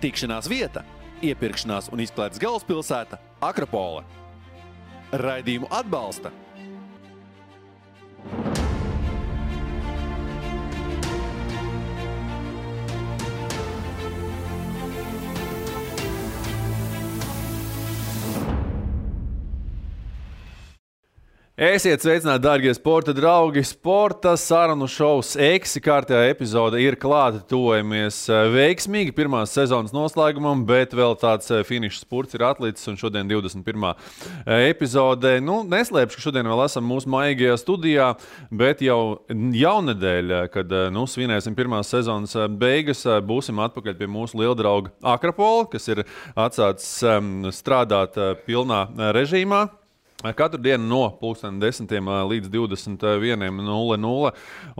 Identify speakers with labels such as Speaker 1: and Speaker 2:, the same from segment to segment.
Speaker 1: Tikšanās vieta, iepirkšanās un izklaides galvaspilsēta Akropole. Raidījumu atbalsta Esiet sveicināti, dārgie sporta draugi! Sporta sarunu šovs Eksi kārtējā epizode ir klāta. Tuvojamies veiksmīgi pirmās sezonas noslēgumam, bet vēl tāds finišs spurts ir atlicis un šodien 21. epizode. Neslēpšu, ka šodien vēl esam mūsu maigajā studijā, bet jau jaunedēļ, kad svinēsim pirmās sezonas beigas, būsim atpakaļ pie mūsu lieldrauga Akropola, kas ir atsācis strādāt pilnā režīmā. Katru dienu no 10 līdz 21:00.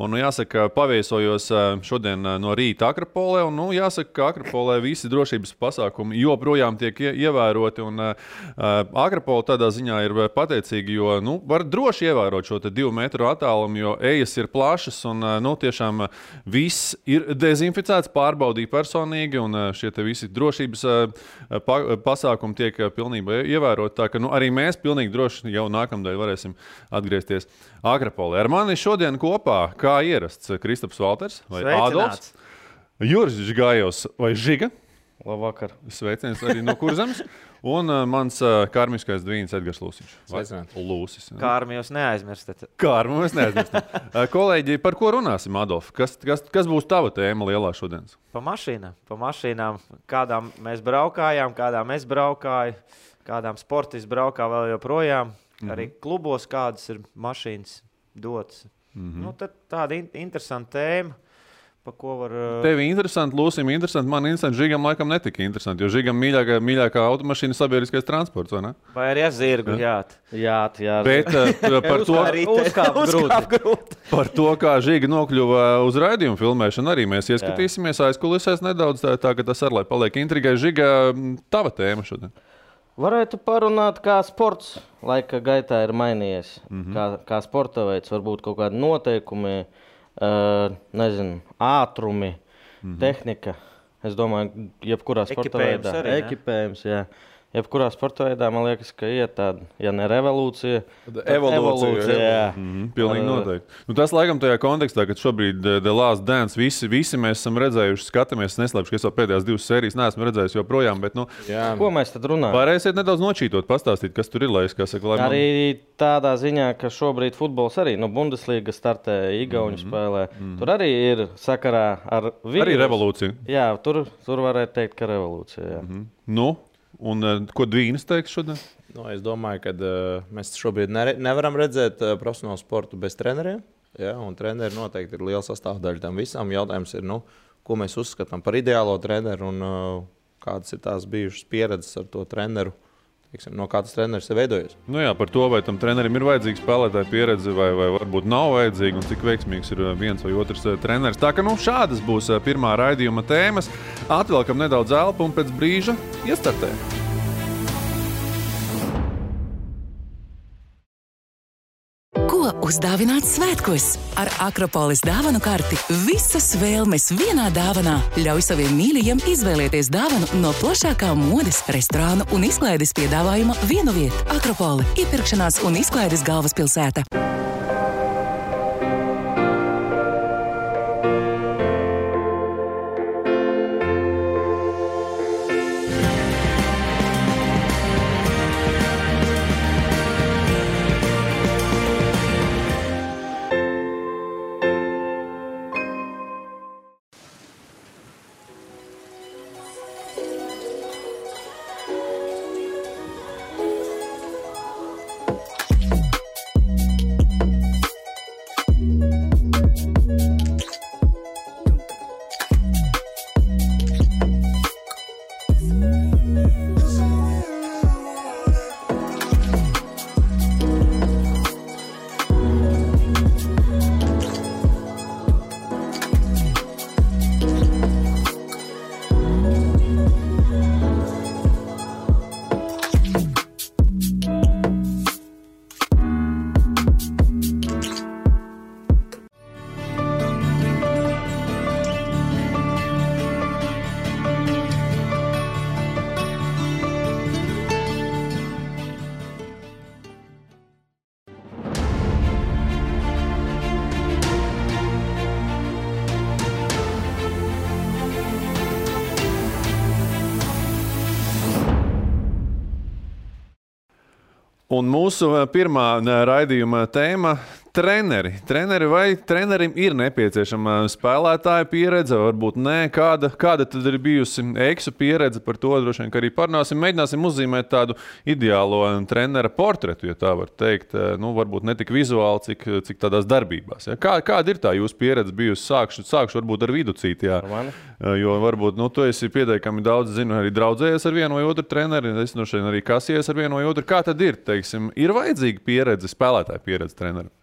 Speaker 1: Un, jāsaka, paviesojos šodien no rīta Akropolē. Un, jāsaka, ka Akropolē visi drošības pasākumi joprojām tiek ievēroti. Un Akropola tādā ziņā ir pateicīga, jo var droši ievērot šo 2 metru attālumu, jo ejas ir plašas un tiešām viss ir dezinficēts, pārbaudīti personīgi. Un šie visi drošības pasākumi tiek pilnībā ievēroti. Tā ka arī mēs pilnīgi droši jau nākamdēļ varēsim atgriezties Akropolē. Ar mani šodien kopā, kā ierasts, Kristaps Valters vai Ādolfs, Juris Žigājos vai Žiga.
Speaker 2: Labvakar.
Speaker 1: Sveiciens arī no Kurzemes. Un mans karmiskais dvīns Edgars Lūsiņš. Lūsis.
Speaker 2: Kārmi jūs neaizmirstat.
Speaker 1: Kārmi mēs neaizmirstam. Kolēģi, par ko runāsim, Adolf? Kas būs tava tēma lielā šodienas?
Speaker 2: Pa mašīnām. Kādām mēs braukājām, kādām es braukāju. Kādām sportisti braukā vēl joprojām. Arī klubos kādas ir mašīnas dotas. Tad tāda interesanta tēma, pa ko var...
Speaker 1: Tevi interesanti, Lūsim interesanti, man interesanti, Žigam laikam netika interesanti, jo Žigam mīļākā automašīna sabiedriskais transports, vai ne?
Speaker 2: Vai arī zirgu, jāt.
Speaker 1: Bet par to...
Speaker 2: Uzkāp grūti.
Speaker 1: Par to, kā Žiga nokļuva uz raidījumu filmēšanu, arī mēs ieskatīsimies aizkulisēs nedaudz, tā ka tas arī paliek intrigai. Žiga, tava tēma šodien?
Speaker 3: Varētu parunāt, kā sports laika gaitā ir mainījies. Kā sporta veids, varbūt kaut kādi noteikumi, ātrumi, tehnika. Es domāju, jebkurā sporta veidā. Ekipējums, jā. Jebkurā sporta veidā, man liekas, ka iet tāda, ja ne revolūcija, evolūcija, jā.
Speaker 1: Pilnīgi noteikti. Tas laikam tajā kontekstā, kad šobrīd The Last Dance visi mēs esam redzējuši, skatāmies, neslēpšu, ka es vēl pēdējās 2 sērijas neesmu redzējis joprojām, bet
Speaker 3: Ko mēs tad runājam?
Speaker 1: Varēsiet nedaudz nočītot, pastāstīt, kas tur ir, lai es kā saka, lai
Speaker 3: Arī tādā ziņā, ka šobrīd futbols arī, Bundesliga startē, Igauņu spēlē, tur arī ir sakarā ar vīrus.
Speaker 1: Arī revolūcija.
Speaker 3: Jā, tur varētu teikt, ka revolūcija, jā.
Speaker 1: Un ko Dvīnis teiks šodien?
Speaker 4: Es domāju, ka mēs šobrīd nevaram redzēt profesionālu sportu bez treneriem. Ja, un treneri noteikti ir liela sastāvdaļa tam visam. Jautājums ir, ko mēs uzskatām par ideālo treneru un kādas ir tās bijušas pieredzes ar to treneru. No kā tas treneris ir veidojies.
Speaker 1: Par to, vai tam trenerim ir vajadzīga spēlētāja pieredze, vai varbūt nav vajadzīga, un cik veiksmīgs ir viens vai otrs treneris. Tā ka šādas būs pirmā raidījuma tēmas. Atvelkam nedaudz elpu un pēc brīža iestartējam.
Speaker 5: Uzdāvināt svētkos ar Akropoles dāvanu karti. Visas vēlmes vienā dāvanā. Ļauj saviem mīļajiem izvēlēties dāvanu no plašākā modes, restorānu un izklaides piedāvājuma vienu vietu. Akropole – iepirkšanās un izklaides galvaspilsēta.
Speaker 1: Un mūsu pirmā raidījuma tēma – treneri. Vai trenerim ir nepieciešama spēlētāja pieredze, varbūt nē? Kāda tad ir bijusi Eksu pieredze par to? Droši vien, ka arī parunāsim, mēģināsim uzzīmēt tādu ideālo trenera portretu, ja tā var teikt. Nu, varbūt ne tik vizuāli, cik tādās darbībās. Ja? Kāda ir tā jūsu pieredze bijusi? Sākšu varbūt ar Viducīti, jā. Jo varbūt, tu esi pietiekami daudz, zinu, arī draudzējies ar vienu vai otru treneri, es no šeit arī kasies ar vienu vai otru. Kā tad ir, teiksim, ir vajadzīga pieredze, spēlētāja pieredze trenerim?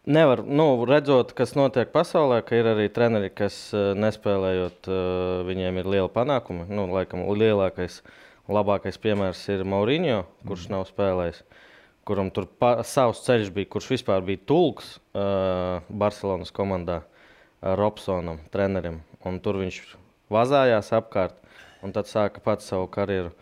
Speaker 3: Nevar, redzot, kas notiek pasaulē, ka ir arī treneri, kas nespēlējot, viņiem ir liela panākumi. Laikam lielākais, labākais piemērs ir Mourinho, kurš nav spēlējis, kuram tur savs ceļš bija, kurš vispār bija tulks Barcelonas komandā Robsonam, trenerim. Un tur viņš vazājās apkārt un tad sāka pats savu karjeru.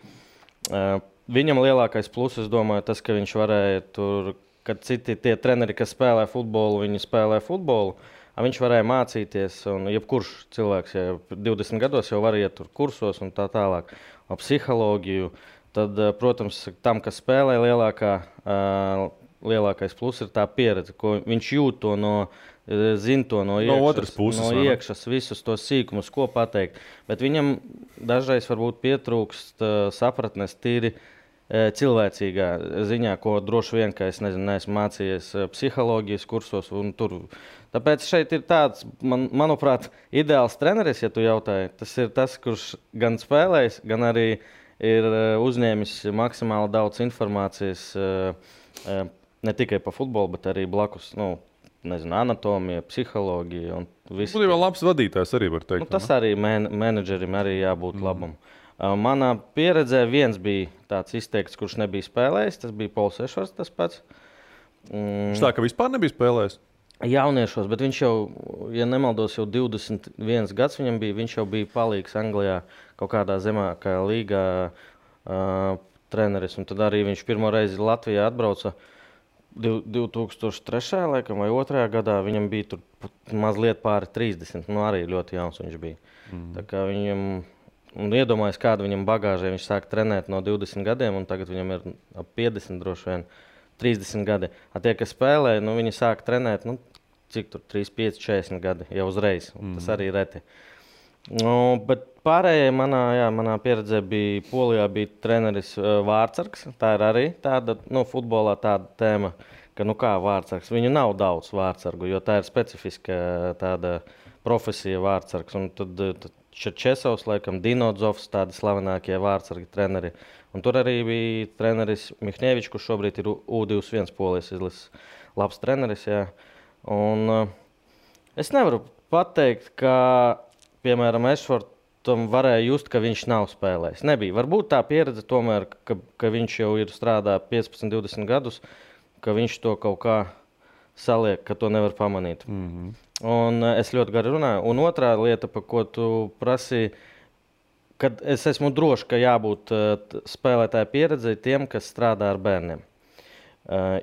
Speaker 3: Viņam lielākais plus, es domāju, tas, ka viņš varēja tur, kad citi tie treneri, kas spēlē futbolu, viņi spēlē futbolu, viņš varēja mācīties, un jebkurš cilvēks, ja 20 gados jau var iet tur kursos un tā tālāk, psiholoģiju, tad, protams, tam, kas spēlē lielākais plus ir tā pieredze, ko viņš jūt to zina to no iekšas, visus tos sīkumus, ko pateikt. Bet viņam dažreiz varbūt pietrūkst sapratnes tīri cilvēcīgā ziņā, ko droši vien, ka es neesmu mācījies psiholoģijas kursos. Tāpēc šeit ir tāds, manuprāt, ideāls treneris, ja tu jautāji. Tas ir tas, kurš gan spēlējis, gan arī ir uzņēmis maksimāli daudz informācijas ne tikai par futbolu, bet arī blakus, anatomija, psiholoģija un viss.
Speaker 1: Būtībā labs vadītājs arī var teikt.
Speaker 3: Tas arī menedžerim arī jābūt labam. Manā pieredzē viens bija tāds izteikts, kurš nebija spēlējis. Tas bija Pols Ešvarts, tas pats.
Speaker 1: Tā, ka vispār nebija spēlējis?
Speaker 3: Jauniešos, bet viņš jau, ja nemaldos, jau 21 gads viņam bija. Viņš jau bija palīgs Anglijā kaut kādā zemākajā līgā treneris. Un tad arī viņš pirmo reizi Latvijā atbrauca 2003. laikam vai 2. gadā. Viņam bija tur mazliet pāri 30. Arī ļoti jauns viņš bija. Tā kā viņam... Un iedomājas, kāda viņam bagāžē. Viņš sāk trenēt no 20 gadiem, un tagad viņam ir ap 50, droši vien 30 gadi. Tie, kas spēlē, viņi sāk trenēt, cik tur 3, 5, 40 gadi jau uzreiz. Tas arī reti. Bet pārējai manā pieredzē bija Polijā bija treneris Vārtsargs. Tā ir arī tāda, futbolā tāda tēma, ka kā Vārtsargs. Viņu nav daudz Vārtsargu, jo tā ir specifiska tāda profesija Vārtsargs. Un tad Čerčesovs, laikam, Dinodzovs, tādi slavenākie Vārtsargi treneri. Un tur arī bija treneris Mihņevičs, kurš šobrīd ir U21 Polijas izlases labs treneris. Jā. Un es nevaru pateikt, ka, piemēram, Ešvartam varēja just, ka viņš nav spēlējis. Nebija. Varbūt tā pieredze tomēr, ka viņš jau ir strādā 15, 20 gadus, ka viņš to kaut kā saliek, ka to nevar pamanīt. Un es ļoti gari runāju. Un otrā lieta, par ko tu prasīji, kad es esmu drošs, ka jābūt spēlētāja pieredzei tiem, kas strādā ar bērniem.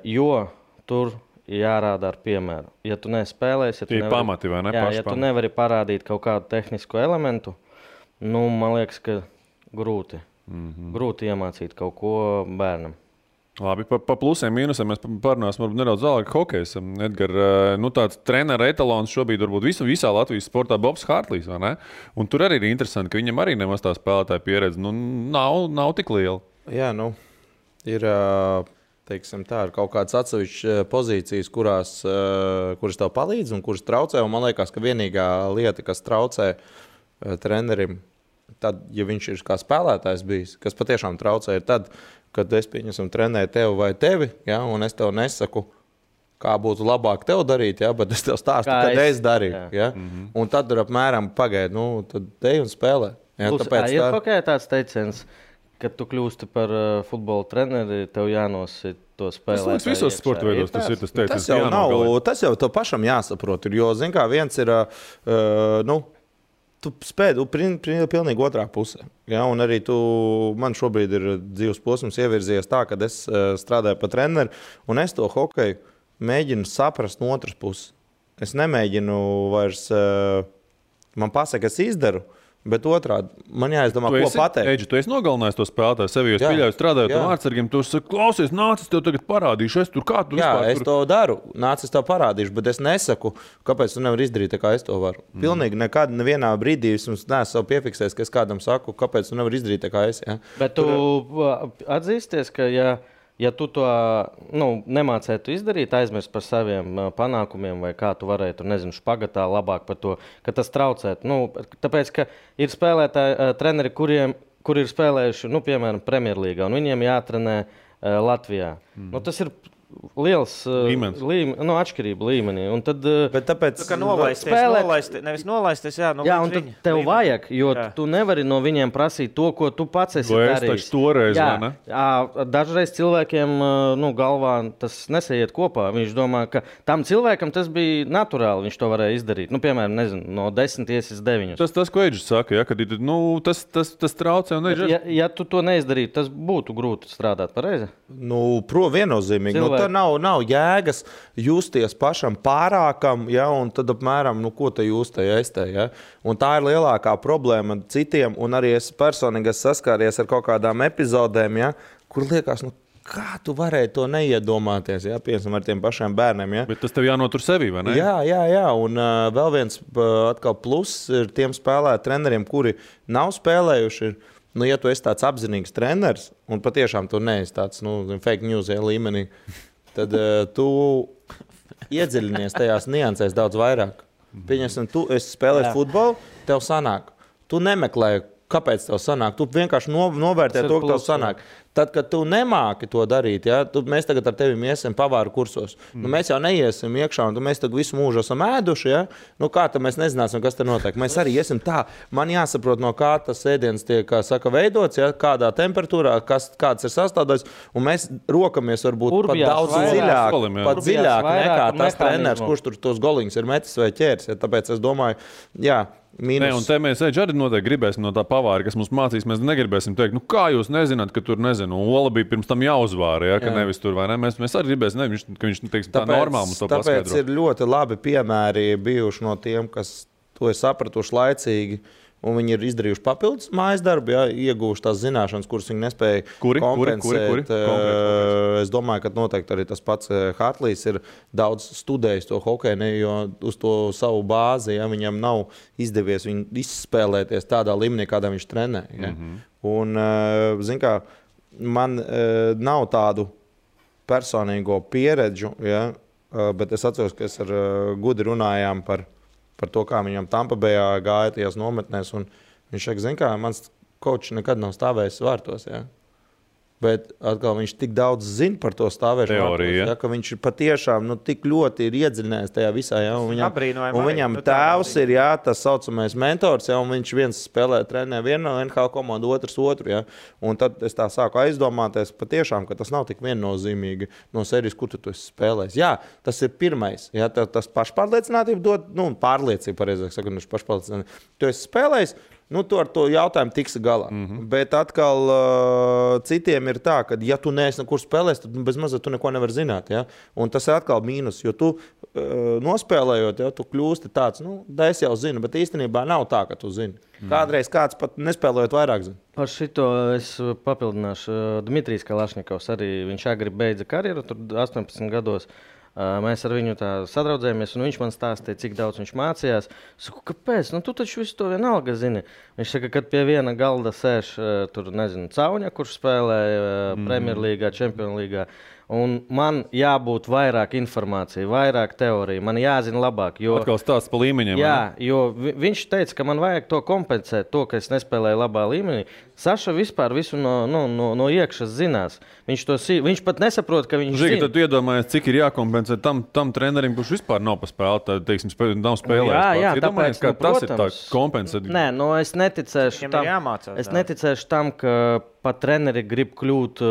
Speaker 3: Jo tur jārāda ar piemēru. Ja tu nespēlēsi, ja tu nevari parādīt kaut kādu tehnisku elementu, man liekas, ka grūti iemācīt kaut ko bērnam.
Speaker 1: Labi, pa plusiem, mīnusiem mēs parunāsim nedaudz vēlāk hokejs. Edgar, tāds trenera etalons šobrīd varbūt visā Latvijas sportā Bobs Hārtlīs, vai ne? Un tur arī ir interesanti, ka viņam arī nemaz tā spēlētāja pieredze nav tik liela.
Speaker 4: Jā, ir, teiksim tā, ir kaut kādas atsevišķas pozīcijas, kuras tev palīdz un kuras traucē. Un man liekas, ka vienīgā lieta, kas traucē trenerim, tad, ja viņš ir kā spēlētājs bijis, kas patiešām traucē, ir tad, kad es trenēju tevi vai tevi, ja, un es tev nesaku, kā būtu labāk tev darīt, ja, bet es tev stāstu, kad es darīju. Ja. Un tad ir apmēram pagaidi, tad ej un spēlē. Ja,
Speaker 3: ir kaut kā tāds teiciens, kad tu kļūsti par futbola treneri, tev jānosit to spēlētāju.
Speaker 1: Tas visos sporta veidos tas ir tas teiciens.
Speaker 4: Tas jau tev pašam jāsaprot, jo, zin kā, viens ir, tu spēj pilnīgi otrā pusē. Ja? Un arī man šobrīd ir dzīves posms ievirzies tā, ka es strādāju par treneri, un es to hokeju mēģinu saprast no otras puses. Es nemēģinu vairs, man pasaka, es izdaru, Bet otrādi, man jāizdomā, ko pateikt.
Speaker 1: Eģi, tu esi nogalinājis to spēlētāju sevi, jo es pieļauju strādājot ar vārdsargiem. Tu saki, klausies, nāc, es tev tagad parādīšu. Es tur kā tu vispār.
Speaker 4: Es to daru, nāc, es tev parādīšu, bet es nesaku, kāpēc tu nevari izdarīt tā, kā es to varu. Pilnīgi nekad, nevienā brīdī es neesmu savu piefiksējis, ka es kādam saku, kāpēc tu nevari izdarīt tā, kā es. Ja?
Speaker 3: Bet tu atzīsties, ka ja tu to nemācētu izdarīt, aizmirst par saviem panākumiem, vai kā tu varētu, nezinu, špagatā labāk par to, ka tas traucētu. Tāpēc, ka ir spēlētāji, treneri, kuri ir spēlējuši, piemēram, Premjerlīgā, un viņiem jātrenē Latvijā. Tas ir liels atšķirība līmenī. Un tad,
Speaker 4: bet tāpēc,
Speaker 2: ka nevis nolaisties,
Speaker 3: un tad tev vajag, jo tu nevari no viņiem prasīt to, ko tu pats esi darījis.
Speaker 1: Toreiz,
Speaker 3: dažreiz cilvēkiem galvā tas nesaiet kopā. Viņš domā, ka tam cilvēkam tas bija naturāli, viņš to varēja izdarīt. Piemēram, nezinu, no 10 iesis 9.
Speaker 1: Tas, ko Eģis saka, kad tas traucē.
Speaker 3: Ja tu to neizdarītu, tas būtu grūti strādāt pareizi?
Speaker 4: Viennozīmīgi. Nav jēgas justies pašam pārākam, un tad apmēram, ko te jūs te ēstē. Ja? Un tā ir lielākā problēma citiem, un arī es personīgi saskāries ar kaut kādām epizodēm, kur liekas, kā tu varēji to neiedomāties, piemēram, ar tiem pašiem bērniem. Ja?
Speaker 1: Bet tas tev jānotur sevī, vai ne?
Speaker 4: Jā. Un vēl viens atkal pluss ir tiem treneriem, kuri nav spēlējuši. Ja tu esi tāds apzinīgs treneris, un patiešām tu neesi tāds fake news līmenī, tad tu iedziļinies tajās niansēs daudz vairāk. Pieņemsim, tu esi spēlējis futbolu, tev sanāk. Tu nemeklē, kāpēc tev sanāk. Tu vienkārši novērtē to, ka tev sanāk. Tad, kad tu nemāki to darīt, mēs tagad ar tevi iesim pavāru kursos. Mēs jau neiesim iekšā, un mēs tagad visu mūžu esam ēduši. Kā tad mēs nezināsim, kas te notiek? Mēs arī iesim tā. Man jāsaprot, no kā tas ēdiens tiek veidots, kādā temperatūrā, kāds ir sastāvdaļas, un mēs rokamies varbūt pat daudz dziļāk nekā tas treneris, kurš tur tos goliņus ir metis vai ķēris. Tāpēc es domāju,
Speaker 1: un te mēs arī noteikti gribēsim no tā pavāra, kas mums mācīs. Mēs negribēsim teikt, kā jūs nezināt, ka tur Ola bija pirms tam jāuzvāra, ka nevis tur vai ne. Mēs arī gribēsim, ka viņš teiksim, tā normāli mums to paskaidro.
Speaker 4: Tāpēc ir ļoti labi piemēri bijuši no tiem, kas to ir sapratuši laicīgi. Un viņi ir izdarījuši papildus mājas darbu, ieguvuši tās zināšanas, kuras viņi nespēja kompensēt. Es domāju, ka noteikti arī tas pats Hartlīs ir daudz studējis to hokeju, jo uz to savu bāzi viņam nav izdevies viņu izspēlēties tādā līmenī, kādā viņš trenē. Un, zin kā, man nav tādu personīgo pieredžu, bet es atceros, ka es ar Gudi runājām par to, kā viņam Tampa Bayā gāja tajās nometnēs. Viņš saka, zin kā, mans kočs nekad nav stāvējis vārtos. Bet atkal viņš tik daudz zina par to stāvēšanu vārtos, ka viņš patiešām tik ļoti ir iedziļinājies tajā visā. Un viņam tēvs ir tas saucamais mentors, un viņš viens spēlē trenē vienu NHL komandu, otrs otru. Un tad es tā sāku aizdomāties patiešām, ka tas nav tik viennozīmīgi no serijas, kur tu esi spēlējis. Jā, tas ir pirmais. Tas pašpārliecinātība dod, pārliecība, pareizāk sakot, pašpārliecinātība. Tu esi spēlējis, tu ar to jautājumu tiksi galā. Bet atkal citiem ir tā, ka ja tu neesi nekur spēlējis, tad bez mazliet tu neko nevar zināt. Un tas ir atkal mīnus, jo tu nospēlējot, tu kļūsti tāds, es jau zinu, bet īstenībā nav tā, ka tu zini. Kādreiz kāds pat nespēlējot vairāk zina.
Speaker 3: Par šito es papildināšu. Dmitrijs Kalašņikovs arī, viņš agri beidza karjeru, tur 18 gados. Mēs ar viņu tā sadraudzējāmies, un viņš man stāstīja, cik daudz viņš mācījās. Es saku, kāpēc? Tu taču visu to vienalga zini. Viņš saka, kad pie viena galda sēž tur, nezinu, Cauņa, kurš spēlēja Premjerlīgā, Čempionlīgā. Un man jābūt vairāk informācija, vairāk teorija, man jāzina labāk.
Speaker 1: Atkal stāsts pa līmeņiem.
Speaker 3: Jā, jo viņš teica, ka man vajag to kompensēt, to, ka es nespēlēju labā līmenī. Saša vispār visu no iekšas zinās. Viņš pat nesaprot, ka viņš zina.
Speaker 1: Tad tu iedomājies, cik ir jākompensē tam trenerim, kurš vispār nav paspēlēt, teiksim, nav spēlējis.
Speaker 3: Jā, tāpēc,
Speaker 1: tas ir tā kompensēt.
Speaker 3: Nē, es neticēšu tam, ka pat treneri grib kļūt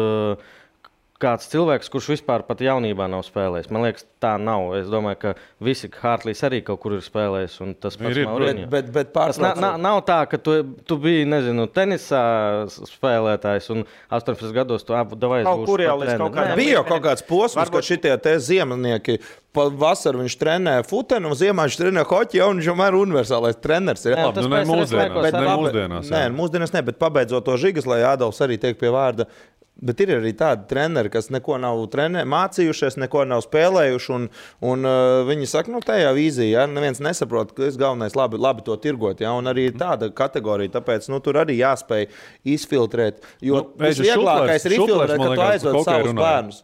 Speaker 3: kāds cilvēks, kurš vispār pat jaunībā nav spēlējis. Man liekas, tā nav. Es domāju, ka visi Hārtlīs arī kaut kur ir spēlējis. Tas pats Mauriņo.
Speaker 4: Bet
Speaker 3: tas nav tā, ka tu biji, nezinu, tenisā spēlētājs un 18 gados tu davai
Speaker 2: kaut kur jau līdz kaut kādam.
Speaker 4: Bija kaut kāds posms, ka šitie te ziemnieki vasaru viņš trenē futenu, un ziemā viņš trenē hoķi, un viņš jau ir universālais treneris. Mūsdienās ne, bet pabeidzot to Žigas, lai Ādolfs arī tiek pie vārda. Bet ir arī tādi treneri, kas neko nav mācījušies, neko nav spēlējuši. Un viņi saka, tajā vīzijā, ja, neviens nesaprot, ka es galvenais labi to tirgot. Ja, un arī tāda kategorija, tāpēc tur arī jāspēj izfiltrēt. Jo visvieglākais ir izfiltrēt, ka tu aizved savus bērnus.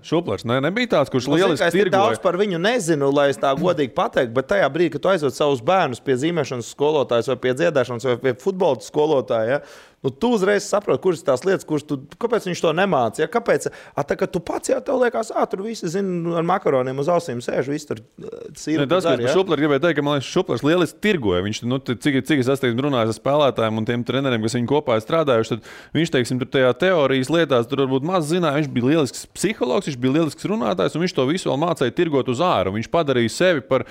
Speaker 1: Šuplers nebija tāds, kurš lieliski tirgoja.
Speaker 4: Es daudz par viņu nezinu, lai es tā godīgi pateiktu, bet tajā brīdī, kad tu aizved savus bērnus pie zīmēšanas skolotājs vai pie dziedāšanas vai pie futbola skolotāja, ja, tu uzreiz saproti, kuras tās lietas, kāpēc viņš to nemāca. Ja? Kāpēc? Tā, ka tu pats jau tev liekas, tur visi zina, ar makaroniem uz ausīm sēž, visi tur sīri.
Speaker 1: Tas, ko es Šuplers gribēju teikt, ka man liekas, Šuplers lieliski tirgoja. Viņš, cik es esmu runājis ar spēlētājiem un tiem treneriem, kas viņu kopā ir strādājuši, tad viņš, teiksim, tur tajā teorijas lietās, tur varbūt maz zināja. Viņš bija lielisks psihologs, viņš bija lielisks runātājs, un viņš to visu vēl mācīja tirgot uz āru. Viņš padarīja sevi par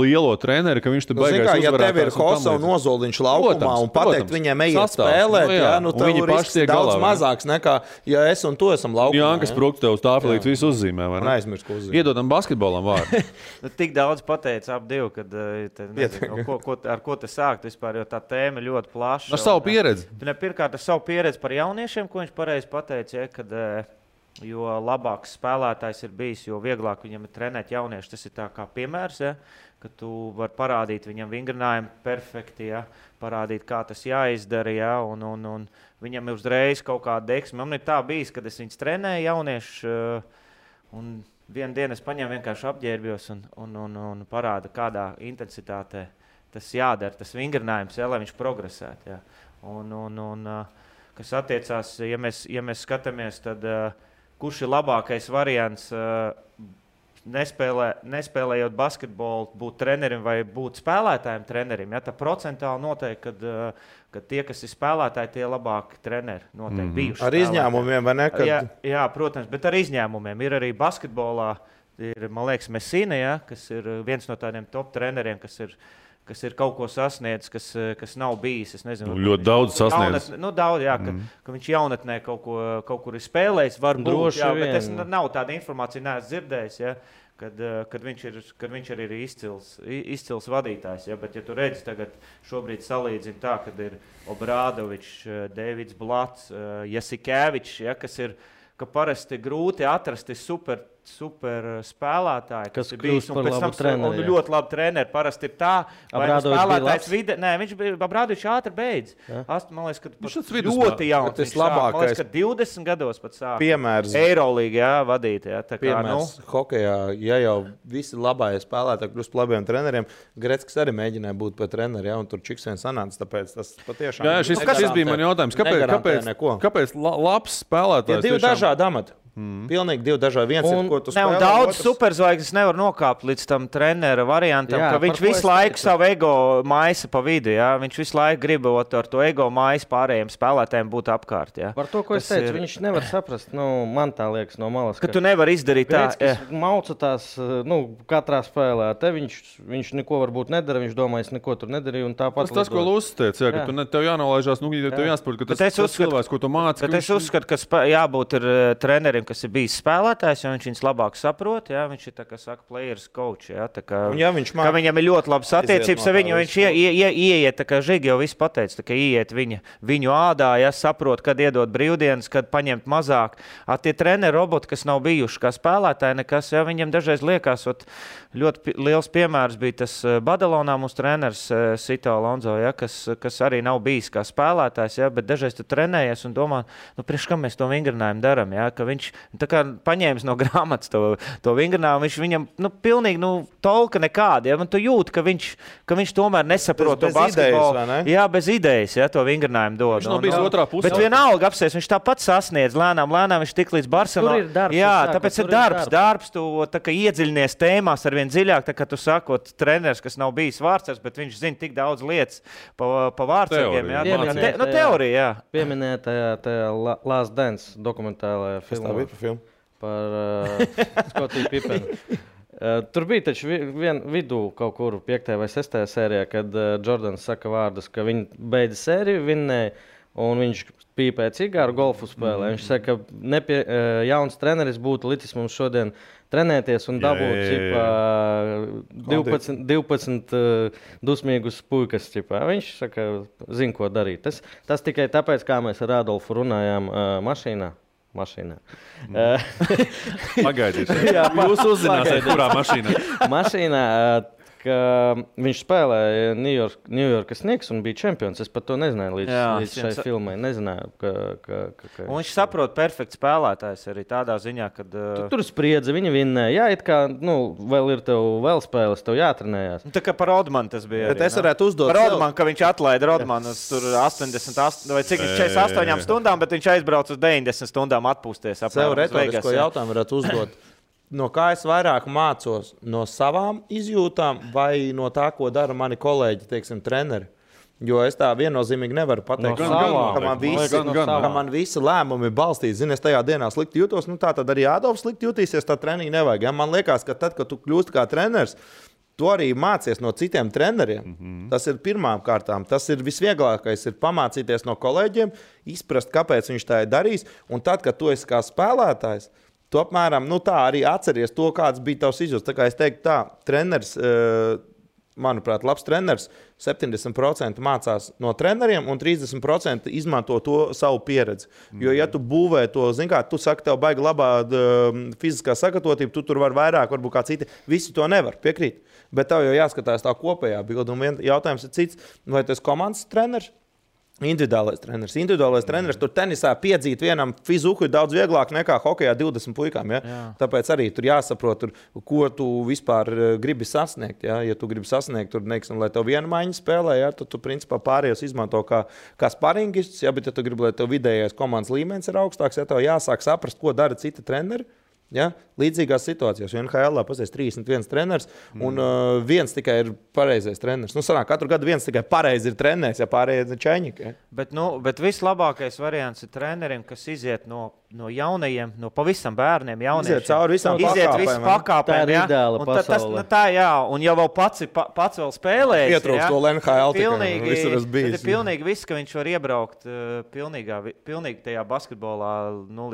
Speaker 1: lielo treneri, ka viņš te beigās uzvarētājs.
Speaker 4: Ja tev ir Hosa un Ozoliņš laukumā un pateikt viņiem ejiet spēlēt, viņi paši tiek daudz mazāks nekā, ja es un tu esam laukumā.
Speaker 1: Jānkas Prukts tev uz tāfelītes visu uzzīmē, vai ne?
Speaker 4: Aizmirst, ko uzzīmē.
Speaker 1: Iedodam basketbolam vārdu.
Speaker 2: Tik daudz pateica ap divu, kad ar ko te sākt vispār, jo tā tēma ļoti plaša.
Speaker 1: Ar savu pieredzi.
Speaker 2: Pirmkārt, ar savu pieredzi par jauniešiem, ko viņš pareizi pateica, kad jo labāks spēlētājs ir bijis, jo vieglāk viņam ir trenēt jaunieši. Tas ir tā kā piemērs, ja, ka tu vari parādīt viņam vingrinājumu perfekti, ja, parādīt, kā tas jāizdara, ja, un viņam ir uzreiz kaut kāda deksme. Man ir tā bijis, kad es viņus trenēju jauniešu, un vienu dienu es paņēmu vienkārši apģērbjos un parādu, kādā intensitātē tas jādara, tas vingrinājums, ja, lai viņš progresētu. Ja. Kas attiecās, ja mēs skatāmies, tad kurš ir labākais variants nespēlējot basketbolu, būt trenerim vai būt spēlētājiem trenerim. Ja, tā procentāli noteikti, ka tie, kas ir spēlētāji, tie labāki treneri noteikti bijuši.
Speaker 4: Ar izņēmumiem, vai ne?
Speaker 2: Jā, protams, bet ar izņēmumiem. Ir arī basketbolā, man liekas, Messina, ja, kas ir viens no tādiem top treneriem, kas ir kaut ko sasniedzis, kas nav bijis. Es nezinu,
Speaker 1: ļoti daudz sasniedzis.
Speaker 2: Daudz, jā, ka viņš jaunatnē kaut kur ir spēlējis, varbūt, jā, bet es nav tāda informācija, neesmu dzirdējis, ja, kad viņš arī ir izcils vadītājs. Ja, bet, ja tu redzi tagad šobrīd salīdzini tā, kad ir Obrādovičs, Deivids Blats, Jasikēvičs, ja, kas ir, ka parasti grūti atrast super spēlētāji, kas ir bijis un pēc tam ļoti labi treneri. Parasti ir tā, vai spēlētājs vide... Nē, viņš bija Abrādovičs ātri beidz. Man liekas, ka ļoti jauns.
Speaker 4: Tas labākais.
Speaker 2: Man liekas, ka 20 gados pat sāk.
Speaker 4: Piemērs.
Speaker 2: Eirolīga, jā, vadīt. Jā, tā kā,
Speaker 4: piemērs hokejā, ja jau visi labākie spēlētāji kļūst par labiem treneriem, Greckis arī mēģināja būt par treneri, ja, un tur čiks vien sanāca, tāpēc tas patiešām...
Speaker 1: Jā, šis bija man jautājums. Kāpēc labs spēlētājs?
Speaker 4: Divi dažādi amati. Pilnīgi divi dažādi. Viens ir, ko tu spēlē.
Speaker 2: Daudz superzvaigznes nevar nokāpt līdz tam trenera variantam, ka viņš visu laiku savu ego maisa pa vidu. Ja? Viņš visu laiku gribot ar to ego maisu pārējiem spēlētājiem būt apkārt. Ja?
Speaker 3: Par to, ko es teicu, viņš nevar saprast. Man tā liekas no malas.
Speaker 2: Ka tu nevar izdarīt tā.
Speaker 3: Mauca tās katrā spēlē. Te viņš neko varbūt nedara, viņš domā, es neko tur nedarīju.
Speaker 1: Tas, ko Lūsis teica, ka tev jānolaižās, tev jāsaprot, ka tas cilvēks, ko tu māci.
Speaker 2: Bet es uzskatu, ka jābūt trenerim, kas ir bijis spēlētājs, jo viņš viņus labāk saprot. Ja? Viņš ir, tā kā saka, players coach. Ja? Tā kā, viņam ir ļoti labas attiecības ar viņu. Viņš ieiet, tā kā Žigi jau viss pateica, tā kā ieiet viņu ādā, ja? Saprot, kad iedot brīvdienas, kad paņemt mazāk. Tie treneri roboti, kas nav bijuši kā spēlētāji, nekas, ja? Viņam dažreiz liekas, ļoti liels piemērs bija tas Badalonā mūsu treneris Sito Alonso, ja? kas arī nav bijis kā spēlētājs, ja? Bet dažreiz tu trenējies un domā, priekš kam mēs to vingrinājumu daram, ja? Ka viņš tā kā paņēmis no grāmatas to vingrinājumu, viņš viņam pilnīgi tolka nekāda. Ja? Tu jūti, ka viņš tomēr nesaprot to basketbolu. Jā, bez idejas, ja, to vingrinājumu dod.
Speaker 1: Viņš nav bijis otrā pusē.
Speaker 2: Bet vienalga apsies, viņš tāpat sasniedz lēnām viņš tik līdz Barcelonā. Jā, tāpēc ir darbs, tu tā kā iedziļinies tēmās arvien dziļāk, tā kā tu sakot, treneris, kas nav bijis vārdsargs, bet viņš zina tik daudz lietas pa vārdsargiem. Teorija, jā.
Speaker 3: Pieminēja tajā Last Dance dokumentālajā filmā.
Speaker 4: bija par filmu?
Speaker 3: Par Skotiju Pipenu. Tur bija taču vidū kaut kur 5. vai 6. sērijā, kad Jordans saka vārdus, ka viņi beidza sēriju, vinnēja, un viņš pīpēja cigāru golfu spēlē. Viņš saka, ka jauns treneris būtu licis mums šodien trenēties un dabūt 12 dusmīgus puikas. Viņš saka, zina, ko darīt. Tas tikai tāpēc, kā mēs ar Adolfu runājām mašīnā.
Speaker 1: Pagaidiet, jūs uzzināsiet, kurā mašīnā.
Speaker 3: Mašīnā, ka viņš spēlēja New Yorkas Knicks un bija čempions. Es pat to nezināju līdz šai filmai. Nezināju, ka...
Speaker 2: Un viņš saprot perfekts spēlētājs arī tādā ziņā, kad...
Speaker 3: Tur spriedze, viņi vinnēja. Jā, it kā, vēl ir tev vēl spēles, tev jātrenējās.
Speaker 2: Tā kā par Rodmanu tas bija.
Speaker 4: Bet arī, es varētu uzdot...
Speaker 2: Par Rodmanu, ka viņš atlaida Rodmanu tur 88 vai cik 48 stundām, bet viņš aizbrauc uz 90 stundām atpūsties.
Speaker 4: Sev retorisko jautājumu varētu uzdot. No kā es vairāk mācos? No savām izjūtām vai no tā, ko dara mani kolēģi, teiksim, treneri? Jo es tā viennozīmīgi nevaru pateikt, ka man visi lēmumi balstīti. Zini, es tajā dienā slikti jūtos, tā tad arī Ādolfs slikti jutīsies, tā treniņa nevajag. Ja? Man liekas, ka tad, kad tu kļūsti kā treneris, tu arī mācies no citiem treneriem. Tas ir pirmām kārtām. Tas ir visvieglākais, ir pamācīties no kolēģiem, izprast, kāpēc viņš tā ir darījis. Un tad, kad tu esi kā spēlētājs, tu apmēram tā arī atceries to, kāds bija tavs izjūts. Tā kā es teiktu tā, treneris, manuprāt, labs treneris 70% mācās no treneriem un 30% izmanto to savu pieredzi. Jo, ja tu būvē to, zini kā, tu saki, tev baigi labā fiziskā sagatavotība, tu tur var vairāk, varbūt kā citi. Visi to nevar, piekrīt. Bet tev jau jāskatās tā kopējā bilde. Un jautājums ir cits, vai tu esi komandas treneris? Individuālais treneris. Tur tenisā piedzīt vienam fizuku ir daudz vieglāk nekā hokejā 20 puikām. Ja? Tāpēc arī tur jāsaprot, ko tu vispār gribi sasniegt. Ja, tu gribi sasniegt, tur, neksim, lai tev viena maiņa spēlē, ja? Tad tu principā pārējos izmanto kā sparingists. Ja? Bet ja tu gribi, lai tev vidējais komandas līmenis ir augstāks, ja tev jāsāk saprast, ko dara citi treneri. Ja? Līdzīgās situācijās, jo NHL pasies 31 treneris un viens tikai ir pareizais treneris. Sanāk, katru gadu viens tikai pareizi ir treneris, ja pārējie ir čeņķi. Ja?
Speaker 2: Bet vislabākais variants ir trenerim, kas iziet no jaunajiem, no pavisam bērniem, jauniešiem.
Speaker 4: Iziet cauri visām
Speaker 2: pakāpēm.
Speaker 3: Tā ir ideāla pasaule.
Speaker 2: Un jau pats vēl spēlējis.
Speaker 4: Ietrūkst to NHL
Speaker 2: pilnīgi. Pilnīgi viss, ka viņš var iebraukt pilnīgi tajā basketbolā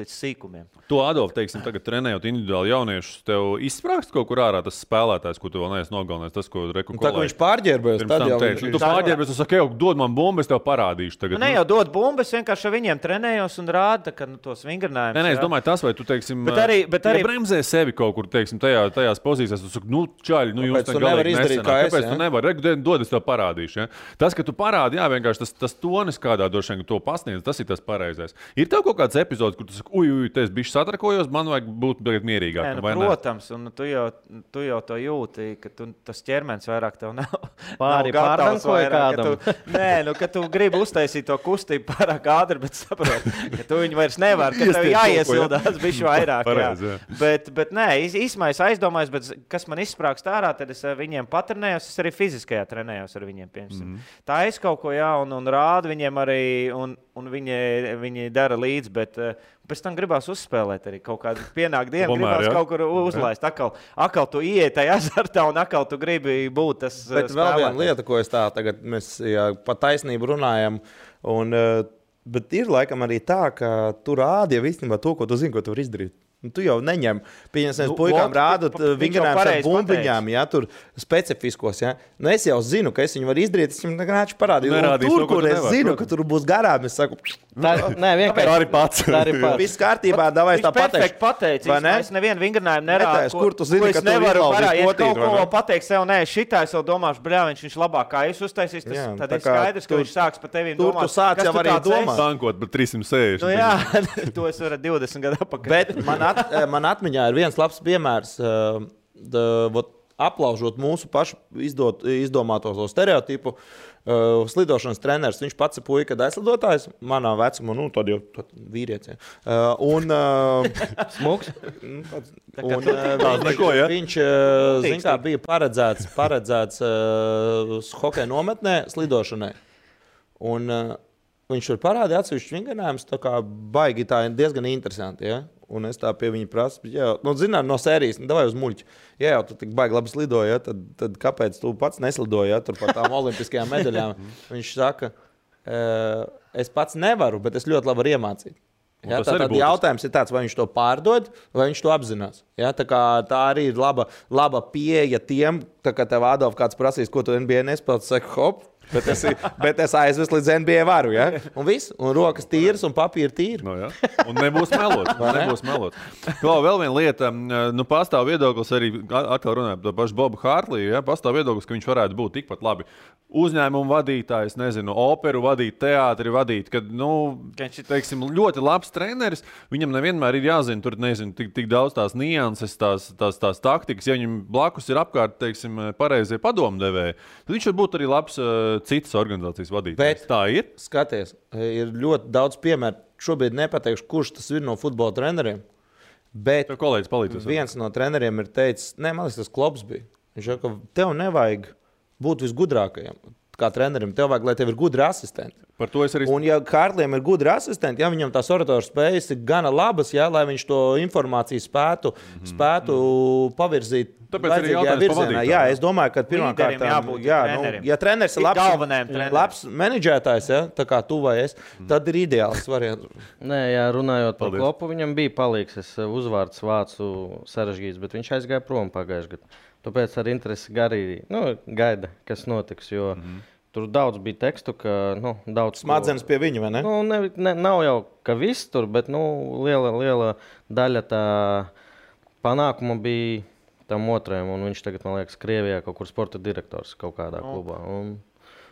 Speaker 2: līdz sīkumiem.
Speaker 1: To, Adolf, teiksim, tagad trenējot individuāli jauniešus, tev izsprāgst kaut kur ārā tas spēlētājs, ko tu vēl neesi nogalinājis, tas, ko reku kolēģi.
Speaker 4: Tā, ka viņš pārģērbojas, tad jau
Speaker 1: tu pārģērbojas, tu saki, dod man bumbu, es tev parādīšu tagad.
Speaker 2: Ne jau dod bumbu, es vienkārši ar viņiem trenējos un rāda, ka tos vingrinājumus.
Speaker 1: Nē, es domāju, tas, vai tu, teiksim, ja bremzē sevi kaut kur, teiksim, tajās pozīcijās, tu saki, čaļi, jūs tā galīgi nesanāk. Kāpēc tu nevari? Dod, es tev parādīšu. Ja? Tas, ka tu parādi, vienkārši tas tonis, kādā droši vien to pasniedz, tas ir tas pareizais. Ir tev kaut kāds epizods, kur tu saki, te es bišķi satrakojos, man vajag būt mierīgākam, vai ne?
Speaker 2: Protams, un tu jau to jūti, ka tas ķermenis vairāk tev nav
Speaker 3: pārdankoja kādam.
Speaker 2: Ka tu gribi uztaisīt to kustību pārāk ātri, bet saproti, ka tu viņu vairs nevar, ka tev jāiesildās bišķi vairāk. Bet nē, īsmā es aizdomājos, bet kas man izsprāgst ārā, tad es viņiem patrenējos, es arī fiziskajā trenējos ar viņiem, piemēram. Tā es kaut ko un rādu viņiem arī, un viņi dara līdzi, bet pēc tam gribās uzspēlēt arī kaut kādu pienāk dienu, gribās kaut kur uzlaist. Akal tu ieiet tajā azartā un akal tu gribi būt tas
Speaker 4: spēlētājs. Bet vēl viena lieta, ko es tagad mēs pa taisnību runājam, bet ir laikam arī tā, ka tu rādi jau īstenībā to, ko tu zini, ko tu vari izdarīt. Tu jau neņem. Pieņemsim, puikām rādot vingrinājumus ar bumbiņām, ja, tur specifiskos. Ja. Es jau zinu, ka es viņu varu izdarīt, es viņam vienkārši parādīju. Tur, kur es zinu, ka tur būs garām, es saku,
Speaker 3: vienkārši
Speaker 4: arī pats. Viss kārtībā, davai tā
Speaker 2: pateikšu. Pateicis, es nevienu vingrinājumu nerādu,
Speaker 4: kur tu zini, ka tu
Speaker 2: izlaudīs potīt. Ja kaut ko pateiks sev, šitā es vēl domāšu, viņš labāk kā es uztaisīs, tad ir skaidrs, ka viņš sāks pa tevīm domāt.
Speaker 4: Tur tu sāc jau arī domāt.
Speaker 1: Tankot, bet 360.
Speaker 2: Jā, to es varu 20 gadu apakaļ.
Speaker 4: Man atmiņā ir viens labs piemērs, aplaužot mūsu pašu izdomāto stereotipu. Slidošanas treneris, viņš pats ir puika aizslidotājs, manā vecumā, tad jau vīrietis.
Speaker 3: Smuks.
Speaker 4: Viņš bija paredzēts hokeja nometnē slidošanai. Un viņš tur parādīja atsevišķu vingrinājumus, tā kā baigi tā diezgan interesanti, ja? Un es tā pie viņa prasu, zinām, no sērijas, davai uz muļķi. Ja jau tu tik baigi labi slidoji, ja? tad kāpēc tu pats neslidoji, ja? Tur par tām olimpiskajām medaļām? Viņš saka, es pats nevaru, bet es ļoti labi varu iemācīt. Ja, tad jautājums ir tāds, vai viņš to pārdod, vai viņš to apzinās. Ja, tā arī ir laba pieeja tiem, tā kā tev Adolf kāds prasīs, ko tu NBA nespēlēji, saka, hop, bet es aizvestu līdz NBA varu. Ja? Un viss, un rokas tīras, un papīra tīra.
Speaker 1: No, ja. Un nebūs melots. Vēl viena lieta, pastāv viedoklis arī, atkal runājot par pašu Bobu Hārtliju, ja? Pastāv viedoklis, ka viņš varētu būt tikpat labi uzņēmumu vadītājs, nezinu, operu vadīt, teātri vadīt, kad, teiksim, ļoti labs treneris, viņam nevienmēr ir jāzina, tur, nezinu, tik daudz tās nianses, tās taktikas, ja viņam blakus ir apkārt, teiksim, pareizie padomdevēji, tad viņš var būt arī labs citas organizācijas vadītājs. Tā ir?
Speaker 4: Skaties, ir ļoti daudz piemēru. Šobrīd nepateikšu, kurš tas ir no futbola treneriem, bet
Speaker 1: kolēģis palīdzēs.
Speaker 4: Viens no treneriem ir teicis, man liekas, tas Klops bija. Viņš saka, ka tev nevajag būt visgudrākajam. Kā trenerim, tev vajag, lai tev ir gudri asistenti.
Speaker 1: Par to es arī...
Speaker 4: Un ja Hārtlijam ir gudri asistenti, ja viņam tās oratoru spējas ir gana labas, ja, lai viņš to informāciju spētu pavirzīt vajadzīgajā virzienā. Jā, es domāju, ka pirmkārt, ja treneris ir labs menedžētājs, ja, tā kā tu vai es, tad ir ideāls variants.
Speaker 3: Nē, jā, runājot par Klopu, viņam bija palīgs. Es uzvārds vācu sarežģīts, bet viņš aizgāja prom pagājušajā gadā. Tāpēc ar interesi gaida, kas notiks, jo tur daudz bija tekstu, ka daudz...
Speaker 4: Smadzenes pie viņa, vai ne?
Speaker 3: Nav jau, ka viss tur, bet liela daļa tā panākuma bija tam otrajam, un viņš tagad, man liekas, Krievijā kaut kur sporta direktors kaut kādā klubā.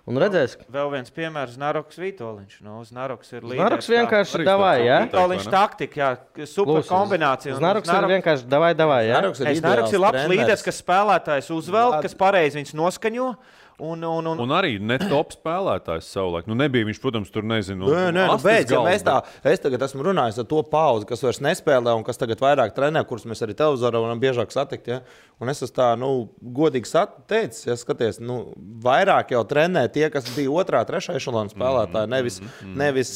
Speaker 3: Un redzēs...
Speaker 2: Vēl viens piemērs, Znaroks Vitoļņš. Znaroks ir līderis.
Speaker 3: Znaroks vienkārši davai, jā?
Speaker 2: Vitoļņš taktika, jā, super kombinācija.
Speaker 3: Znaroks ir vienkārši davai, jā?
Speaker 2: Znaroks ir labs līderis, kas spēlētājs uzvelk, kas pareizi viņus noskaņo. Un
Speaker 1: arī ne top spēlētājs savulaik. Nebija viņš, protams, tur nezinu.
Speaker 4: Es tagad esmu runājis ar to pauzi, kas vairs nespēlē un kas tagad vairāk trenē, kurus mēs arī televizorā varam biežāk satikt. Ja? Un es esmu tā, godīgi teicis, ja skaties, vairāk jau trenē tie, kas bija otrā, trešā ešalona spēlētāji, nevis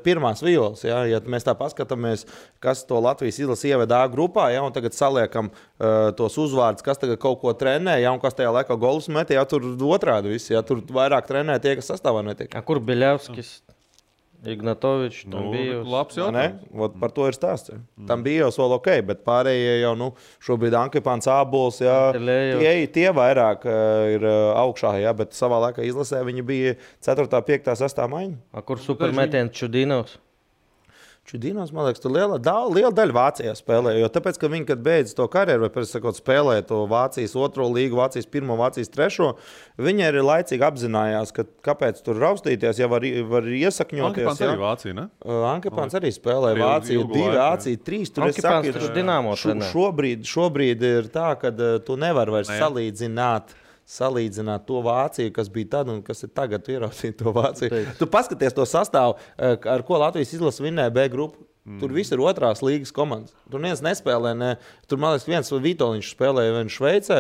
Speaker 4: pirmās violas. Ja? Ja mēs tā paskatāmies, kas to Latvijas izlasi ieveda A grupā, ja? Un tagad saliekam tos uzvārdus, kas tagad kaut ko trenē, ja? Un kas tajā laikā golus metē, ja? Tur otrādi visi, ja tur vairāk trenē tie, kas sastāvā netiek.
Speaker 3: Kur Biļevskis, Ignatovičs, tam bija
Speaker 1: labs jautājums.
Speaker 4: Par to ir stāsts. Tam bija jau vēl ok, bet pārējie jau šobrīd Ankepāns, Ābols, tie vairāk ir augšā, bet savā laikā izlasē viņi bija 4., 5., 6. maiņa.
Speaker 3: Kur supermetiens Čudinovs?
Speaker 4: Čudinovs, man liekas, tur liela daļa Vācijā spēlē, jo tāpēc, ka viņi, kad beidz to karjeru, vai pēc sakot spēlē to Vācijas 2. līgu, Vācijas 1., Vācijas 3., viņi arī laicīgi apzinājās, ka kāpēc tur raustīties, ja var iesakņoties.
Speaker 1: Ankepāns arī Vācija, ne?
Speaker 4: Ankepāns arī spēlē Vācija 2, Vācija 3.
Speaker 3: Ankepāns taču Dinamo trenē.
Speaker 4: Šobrīd ir tā, ka tu nevar vairs salīdzināt to Vāciju, kas bija tad un kas ir tagad, ieraudzīt to Vāciju. Tu paskaties to sastāvu, ar ko Latvijas izlase vinnēja B grupu. Tur viss ir 2. līgas komandas. Tur neviens nespēlē. Tur, man liekas, viens Vitoļņš spēlēja vien Šveicē,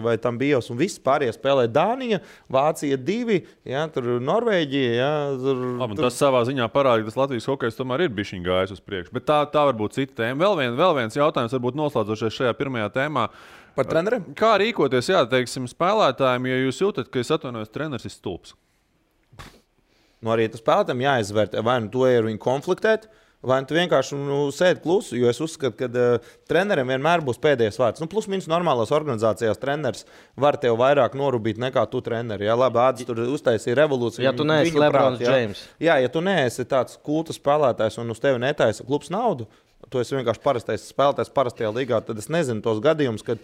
Speaker 4: vai tam bijos, un viss pārējie spēlēja Dānija, Vācija 2, tur Norvēģija.
Speaker 1: Tas savā ziņā parāda, ka tas Latvijas hokejs tomēr ir bišķiņ gājis uz priekšu. Bet tā varbūt cita tēma. Vēl viens jautājums, varbūt noslēdzošais šajā pirmajā tēmā.
Speaker 4: Par treneriem?
Speaker 1: Kā rīkoties, teiksim, spēlētājiem, ja jūs jūtat, ka es atvainojos, treneris ir stulbs?
Speaker 4: Arī tas spēlētājiem jāizvērtē, vai to ir viņi konfliktēt, vai tu vienkārši sēdi klusu, jo es uzskatu, ka treneriem vienmēr būs pēdējais vārds. Plus mīnus normālās organizācijās treneris var tev vairāk norūpīt nekā tu treneri. Ja labi, Ādis tur uztaisīja revolūciju.
Speaker 3: Ja tu neesi Lebrons James.
Speaker 4: Ja tu neesi tāds kulta spēlētājs un uz tevi netaisa klubs naudu, tu esi vienkārši parastais spēlētājs parastajā līgā, tad es nezinu tos gadījumus, kad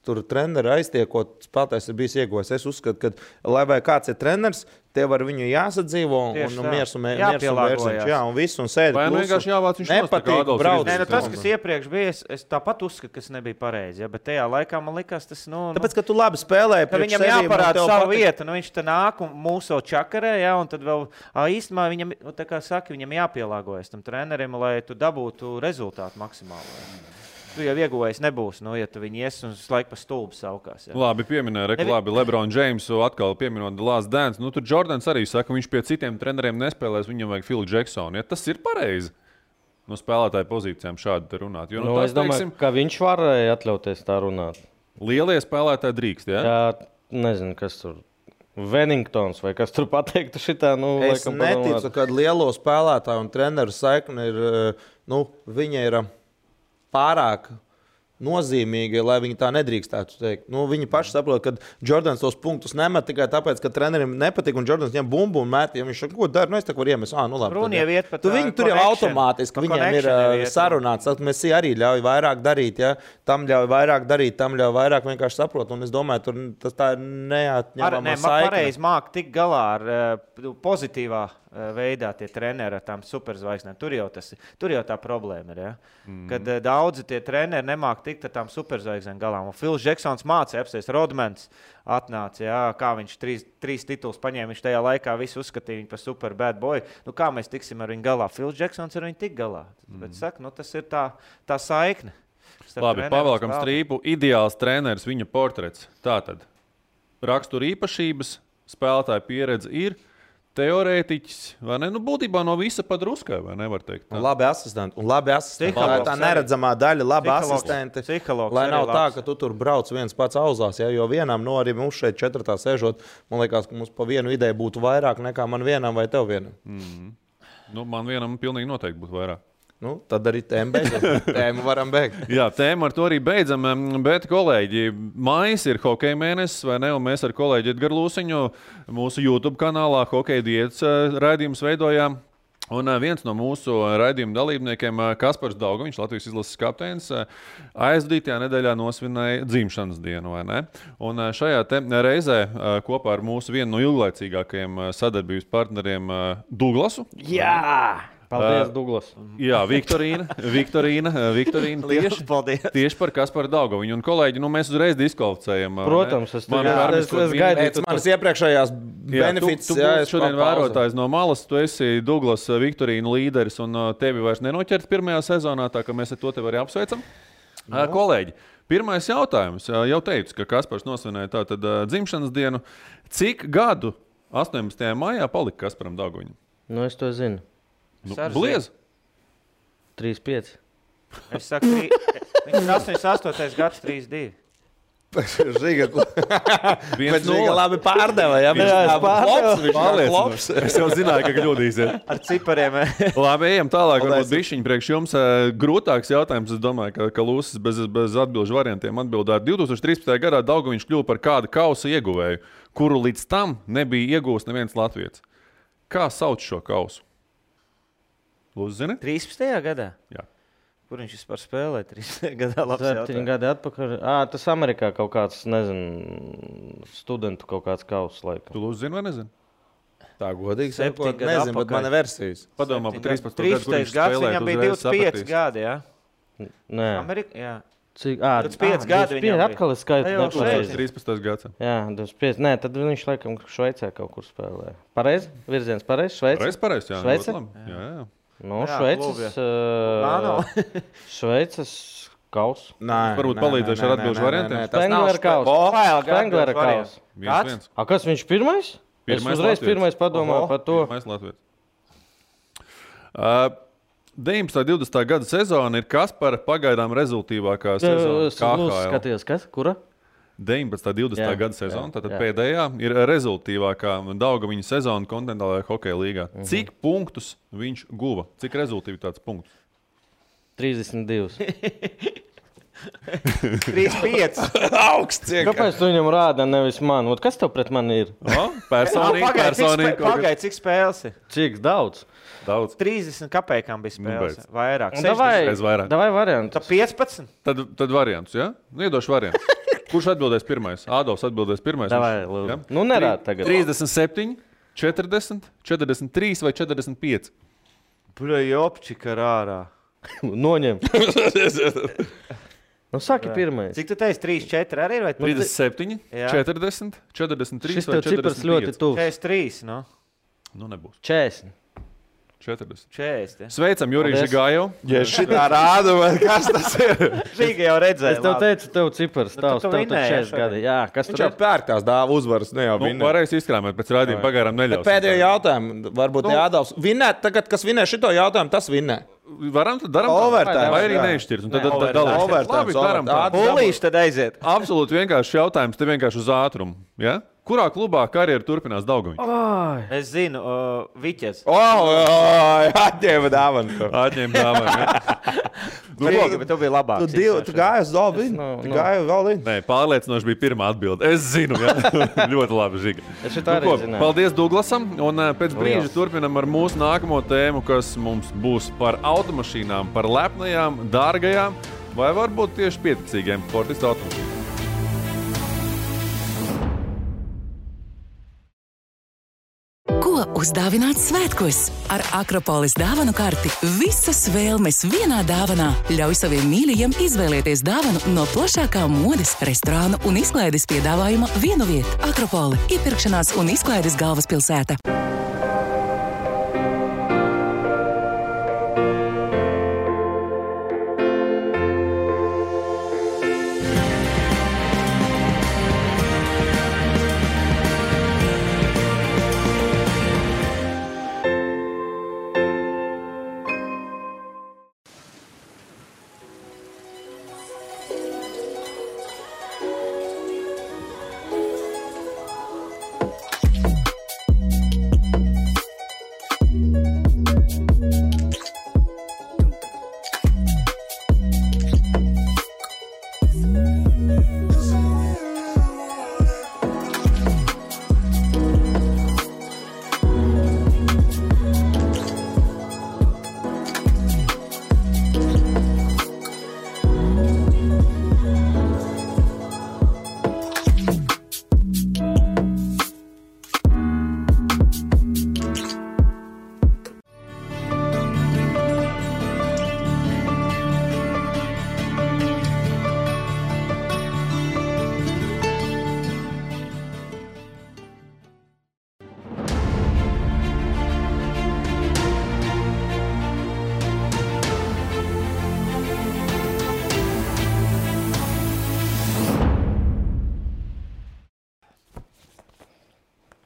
Speaker 4: tur treneri aiztiekot, spēlētājs ir bijis ieguvējis. Es uzskatu, ka, lai vai kāds ir treneris, tev ar viņu jāsadzīvo un miers un vērsiņš. Jā, un viss, un sēdi
Speaker 1: klusu. Vai vienkārši jāvāc viņš
Speaker 4: nepatīk brauc.
Speaker 2: Tas, kas iepriekš bija, es tāpat uzskatu, kas nebija pareizi, bet tajā laikā man likās tas,
Speaker 4: Tāpēc, ka tu labi spēlēji
Speaker 2: priekš
Speaker 4: sevīm.
Speaker 2: Viņam jāparāda savu vietu, viņš te nāk un mūsu čakarē, un tad vēl īstenībā viņam, tā kā saka, viņam jāpielāgojas tam trenerim, lai tu dabūtu rezultātu maksimāli. tu jau ieguvējis nebūs, ja tu viņi ies un laiku pa stulbu saukās. Jā.
Speaker 1: Labi, pieminēja, labi, LeBron Jamesu atkal pieminot The Last Dance. Nu, tur Jordans arī saka, viņš pie citiem treneriem nespēlēs, viņam vajag Phil Jacksonu. Ja tas ir pareizi no spēlētāju pozīcijām šādi runāt. Jo,
Speaker 3: es domāju, ka viņš varēja atļauties tā runāt.
Speaker 1: Lielie spēlētāji drīkst, ja?
Speaker 3: Jā, nezinu, kas tur. Wellingtons vai kas tur pateiktu šitā,
Speaker 4: es neticu, ka lielo spēlētāju un treneru saikni ir, viņa ir pārāk nozīmīgi, lai viņi tā nedrīkstētu teikt. Viņi paši saprot, ka Jordans tos punktus nemet tikai tāpēc, ka trenerim nepatīk un Jordans ņem bumbu un met. Ja viņš saka, ko dara, es tā varu iemest.
Speaker 2: Runa jau iet par
Speaker 4: viņi tur jau automātiski, viņiem ir sarunāts. Mēs arī ļauj vairāk darīt, ja? Tam ļauj vairāk darīt, tam ļauj vairāk vienkārši saprot. Un es domāju, tas tā ir neatņemama saikne. Pareizi
Speaker 2: māk tik galā ar pozitīvā veidā tie treneri ar tām superzvaigznēm. Tur jau tā problēma ir. Ja? Kad daudzi tie treneri nemāk tikt ar tām superzvaigznēm galā. Un Phils Jacksons mācīja apsēst, Rodmans atnāca, ja? Kā viņš trīs titulus paņēma, viņš tajā laikā visu uzskatīja viņu par super bad boy. Kā mēs tiksim ar viņu galā? Phils Jacksons ar viņu tik galā. Bet saka, tas ir tā saikne.
Speaker 1: Labi, pavēlkam strīpu. Ideāls treneris, viņa portrets. Tātad rakstura īpašības, spēlētāja pieredze ir teorētiķis, vai ne? Būtībā no visa padruskai, vai nevar teikt? Tā.
Speaker 4: Un labi asistenti. Tā neredzamā daļa, labi asistenti. Lai nav tā, ka tu tur brauc viens pats auzās, ja? Jo vienam, arī mums šeit 4. sēžot, man liekas, ka mums pa vienu ideju būtu vairāk nekā man vienam vai tev vienam.
Speaker 1: Man vienam pilnīgi noteikti būtu vairāk.
Speaker 4: Tad arī tēmu varam beigt.
Speaker 1: Jā, tēmu ar to arī beidzam, bet kolēģi, maijs ir hokeja mēnesis, vai ne? Un mēs ar kolēģi Edgaru Lūsiņu mūsu YouTube kanālā Hokeja diētas raidījumus veidojām. Un viens no mūsu raidījuma dalībniekiem, Kaspars Dauga, viņš Latvijas izlases kapteinis, aizdītajā nedēļā nosvinēja dzimšanas dienu, vai ne? Un šajā reizē kopā ar mūsu vienu no ilglaicīgākajiem sadarbības partneriem Douglasu.
Speaker 2: Jā!
Speaker 3: Paldies, Douglas.
Speaker 1: Jā, Viktorīna tieši par Kasparu Daugaviņu. Un kolēģi, mēs uzreiz diskvalificējam.
Speaker 3: Protams, es gaidīju.
Speaker 4: Manas iepriekšējās benefits.
Speaker 1: Tu būsi šodien vērotājs no malas, tu esi Douglas Viktorīna līderis un tevi vairs nenoķert pirmajā sezonā, tā ka mēs ar to tevi arī apsveicam. Kolēģi, pirmais jautājums. Jau teicu, ka Kaspars nosvinēja tātad dzimšanas dienu. Cik gadu 18. maijā palika Kasparam Daugaviņam?
Speaker 3: Es to zinu.
Speaker 1: Bliez?
Speaker 3: 3-5.
Speaker 2: Es saku, viņš ir 88. gads, 3-2.
Speaker 4: Žiga labi pārdeva, ja?
Speaker 1: Viņš es jau zināju, ka kļūdīsies.
Speaker 2: Ar cipariem.
Speaker 1: Labi, ejam tālāk. Varbūt bišķiņi priekš jums grūtāks jautājums. Es domāju, ka Lūsis bez atbilžu variantiem atbildētu. 2013. gadā Daugaviņš kļuva par kādu kausa ieguvēju, kuru līdz tam nebija iegūst neviens latvietis. Kā sauc šo kausu? Lūdzu, zini?
Speaker 2: 13. gadā?
Speaker 1: Jā.
Speaker 2: Kur viņš vispār spēlē 13. gadā?
Speaker 3: 7 gadi atpakaļ. Tas Amerikā kaut kāds, nezinu, studentu kaut kāds kauss laikam.
Speaker 1: Tu lūdzu zini vai nezini?
Speaker 4: Tā godīgi sakot, nezinu, bet mana versijas.
Speaker 1: Padomā par 13.
Speaker 2: gads, viņam bija 25 gadi, jā?
Speaker 3: Nē.
Speaker 2: Amerikā, jā.
Speaker 3: Cik?
Speaker 2: 25 gadi viņam bija.
Speaker 3: Atkal es skaitu nepareizi.
Speaker 1: 13. gads.
Speaker 3: Jā, 25. Nē, tad viņš laikam Šveicē kaut kur spēlē. Pareizi? Virziens pareizi? Šveice?
Speaker 1: Pareizi, jā.
Speaker 3: Šveice?
Speaker 1: Jā.
Speaker 3: Šveices kauss.
Speaker 1: Varbūt palīdzēšu ar atbilžu variantiem.
Speaker 3: Spengler kauss.
Speaker 1: 1-1.
Speaker 3: Kas viņš pirmais? Es uzreiz pirmais padomāju par to.
Speaker 1: Pirmais latvietis. 19. 20. gada sezona ir Kaspara pagaidām rezultīvākā sezona KHL.
Speaker 3: Skaties, kas? Kura?
Speaker 1: 19. 20. gada sezona, tātad pēdējā ir rezultīvākā Daugaviņa sezona kontinentālajā hokeja līgā. Cik punktus viņš guva? Cik rezultīvitātes punktus?
Speaker 3: 32.
Speaker 2: 3-5.
Speaker 4: Augsts.
Speaker 3: Kāpēc tu viņam rāda, nevis man? Kas tev pret mani ir?
Speaker 1: Personīgi.
Speaker 2: Pagaid, cik spēles ir?
Speaker 3: Cik daudz?
Speaker 2: 30 kapekām bija spēles. Vairāk.
Speaker 3: Davai variantus.
Speaker 2: Tad 15.
Speaker 1: Tad variantus, jā? Iedošu variantus. Kurš atbildēs pirmais? Ādovs atbildēs pirmais.
Speaker 3: Davai, lūdzu. Nu, nerād tagad.
Speaker 1: 37, 40, 43 vai 45?
Speaker 2: Jopčika rārā.
Speaker 3: Noņem. Saki pirmais.
Speaker 2: Cik tu teici? 3-4 arī?
Speaker 1: 37, 40, 43
Speaker 3: šis
Speaker 1: vai 45?
Speaker 3: Šis tev cipars ļoti tuvs.
Speaker 2: 43,
Speaker 1: Nu nebūs.
Speaker 3: 40.
Speaker 2: 40.
Speaker 1: Sveicam, Jurijs Žigāju.
Speaker 4: Ja šitā rāda, vai kas tas ir?
Speaker 2: Žiga jau redzēja.
Speaker 3: Es tev teicu, tev cipars tavs,
Speaker 2: tu
Speaker 3: tev
Speaker 2: vinēji,
Speaker 3: 40 gadi. Jā, kas
Speaker 4: Viņš
Speaker 3: tur
Speaker 4: jau pērkās dāva uzvaras, ne jau vinnē.
Speaker 1: Varēs izkrāmēt pēc raidījuma pagārām neļaus.
Speaker 4: Pēdējo jautājumu, varbūt Jādavs. Vinnē, tagad, kas vinnē šito jautājumu, tas vinnē.
Speaker 1: Varam, tad daram
Speaker 4: Overtime,
Speaker 1: vai arī
Speaker 4: jā.
Speaker 1: neizšķirs. Un tad
Speaker 4: Overtime.
Speaker 1: Labi, daram tā.
Speaker 2: Pūlīši tad aiziet.
Speaker 1: Absolūti vienkārši jautājums, te vienkārši uz ātrumu. Ja? Kurā klubā karjeru turpinās Daugaviņš?
Speaker 2: Es zinu, Viķes.
Speaker 4: Atņēma dāvanu.
Speaker 1: Atņem dāvanu. Ja?
Speaker 2: Bet tu biji labāks.
Speaker 4: Tu gāji uz Dolbinu? Tu gāji uz Dolbinu?
Speaker 1: Nē, pārliecinoši bija pirmā atbilde. Es zinu, ja? Ļoti labi, Žiga.
Speaker 3: Es šitā arī zināju.
Speaker 1: Paldies Douglasam, un pēc brīža turpinam ar mūsu nākamo tēmu, kas mums būs par automašīnām, par lepnajām, dārgajām, vai varbūt tieši pieticīgiem sportistu automašīnām.
Speaker 5: Ko uzdāvināt svētkos? Ar Akropolis dāvanu karti visas vēlmes vienā dāvanā. Ļauj saviem mīļajiem izvēlēties dāvanu no plašākā modes, restorānu un izklaides piedāvājuma vienu vietu. Akropoli – iepirkšanās un izklaides galvaspilsēta.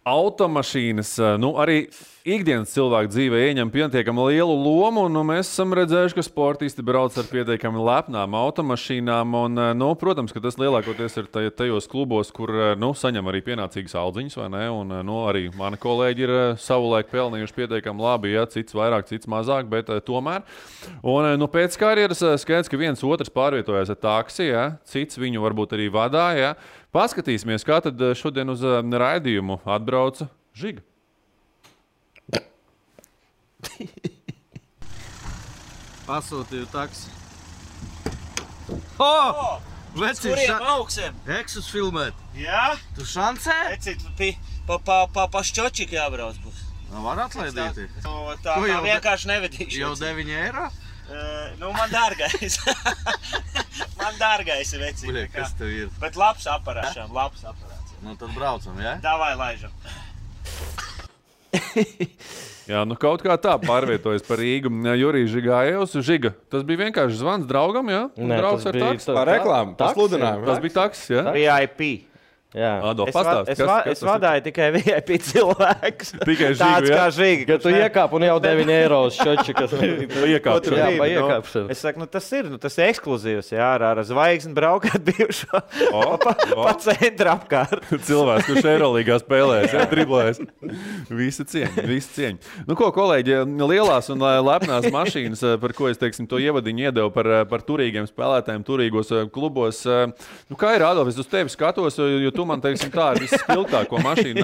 Speaker 1: Automašīnas, arī ikdienas cilvēku dzīvē ieņem pietiekami lielu lomu, un mēs esam redzējuši, ka sportisti brauc ar pietiekami lepnām automašīnām, un, protams, ka tas lielākoties ir tajos klubos, kur, saņem arī pienācīgas aldziņas, vai ne, un, arī mani kolēģi ir savulaik pelnījuši pietiekami labi, ja, cits vairāk, cits mazāk, bet tomēr. Un, pēc karjeras skaidrs, ka viens otrs pārvietojās ar taksi, ja, cits viņu varbūt arī vadā, ja. Paskatīsimies, kā tad šodien uz raidījumu atbrauca Žiga.
Speaker 6: Pasūtīju taksi.
Speaker 7: Kuriem augsiem?
Speaker 6: Eksus filmēt.
Speaker 7: Jā?
Speaker 6: Tu šancē?
Speaker 7: Ecīt, pa šķočiku jābrauc būs.
Speaker 6: Var atlaidīti.
Speaker 7: Tā vienkārši nevedīšu.
Speaker 6: Jau 9 eiro?
Speaker 7: Man dārgais. Man dārgais ir vecīt.
Speaker 6: Buļie, kas tev ir?
Speaker 7: Bet labs aparāts.
Speaker 6: Nu tad braucam, ja?
Speaker 7: Davai laižam.
Speaker 1: Jā, kaut kā tā pārvietojas par Rīgu. Jurijs Žigājevs. Žiga, tas bija vienkārši zvans draugam, jā?
Speaker 3: Nē,
Speaker 1: draugs
Speaker 3: tas
Speaker 1: ar
Speaker 3: bija
Speaker 1: taksi.
Speaker 4: Par reklāmu, par sludinājumu.
Speaker 1: Tas bija taksis, jā?
Speaker 2: VIP.
Speaker 3: Jā.
Speaker 1: Adolf, pastāsti,
Speaker 2: Es vadāju tikai VIP cilvēkus.
Speaker 1: Tikai Žigu,
Speaker 2: Tāds
Speaker 1: jā?
Speaker 2: kā Žiga.
Speaker 3: Kad tu iekāp un jau 9 eiro uz šočikas.
Speaker 1: Iekāpšana.
Speaker 3: Jā, pa iekāpšanu.
Speaker 2: Es saku, tas ir ekskluzīvs, jā, ar zvaigzni braukāt bijušo pa centru apkārt.
Speaker 1: Cilvēks, kurš Eirolīgā spēlēs, ja, driblēs. Visi cieņi. Ko, kolēģi, lielās un lepnās mašīnas, par ko es, to ievadiņu iedevu par turīgiem spēlētājiem, turīgos klubos. Kā ir, Adolf, es uz tevi skatos, jo tu man, tā ir visspilgtāko mašīnu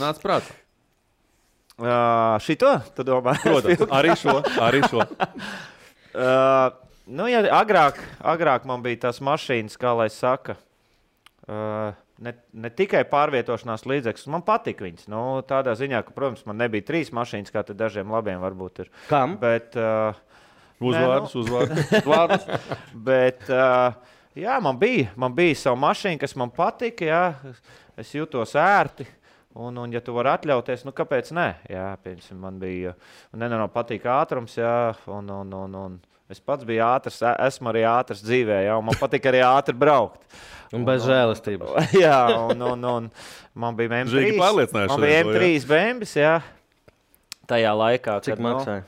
Speaker 1: nāc prātā?
Speaker 2: Šito, tu domā?
Speaker 1: Protams, arī šo.
Speaker 2: Ja agrāk man bija tās mašīnas, kā lai saka, ne tikai pārvietošanās līdzekļus, man patika viņas. Tādā ziņā, ka, protams, man nebija 3 mašīnas, kā te dažiem labiem varbūt ir.
Speaker 3: Kam?
Speaker 2: Bet,
Speaker 1: Uzvārdus.
Speaker 2: Bet, jā, man bija savu mašīnu, kas man patika, jā. Es jūtos ērti. Un ja tu vari atļauties, nu kāpēc ne? Jā, piemēram, man bija nenormāli patīk ātrums, jā, un es pats biju ātrs, esmu arī ātrs dzīvē, jā, un man patīk arī ātri braukt.
Speaker 3: Un bez žēlistības.
Speaker 2: Jā, un man bija
Speaker 1: Žīgi pārliecinājuši.
Speaker 2: Man bija M3 bembis, jā, tajā laikā.
Speaker 3: Cik maksāja?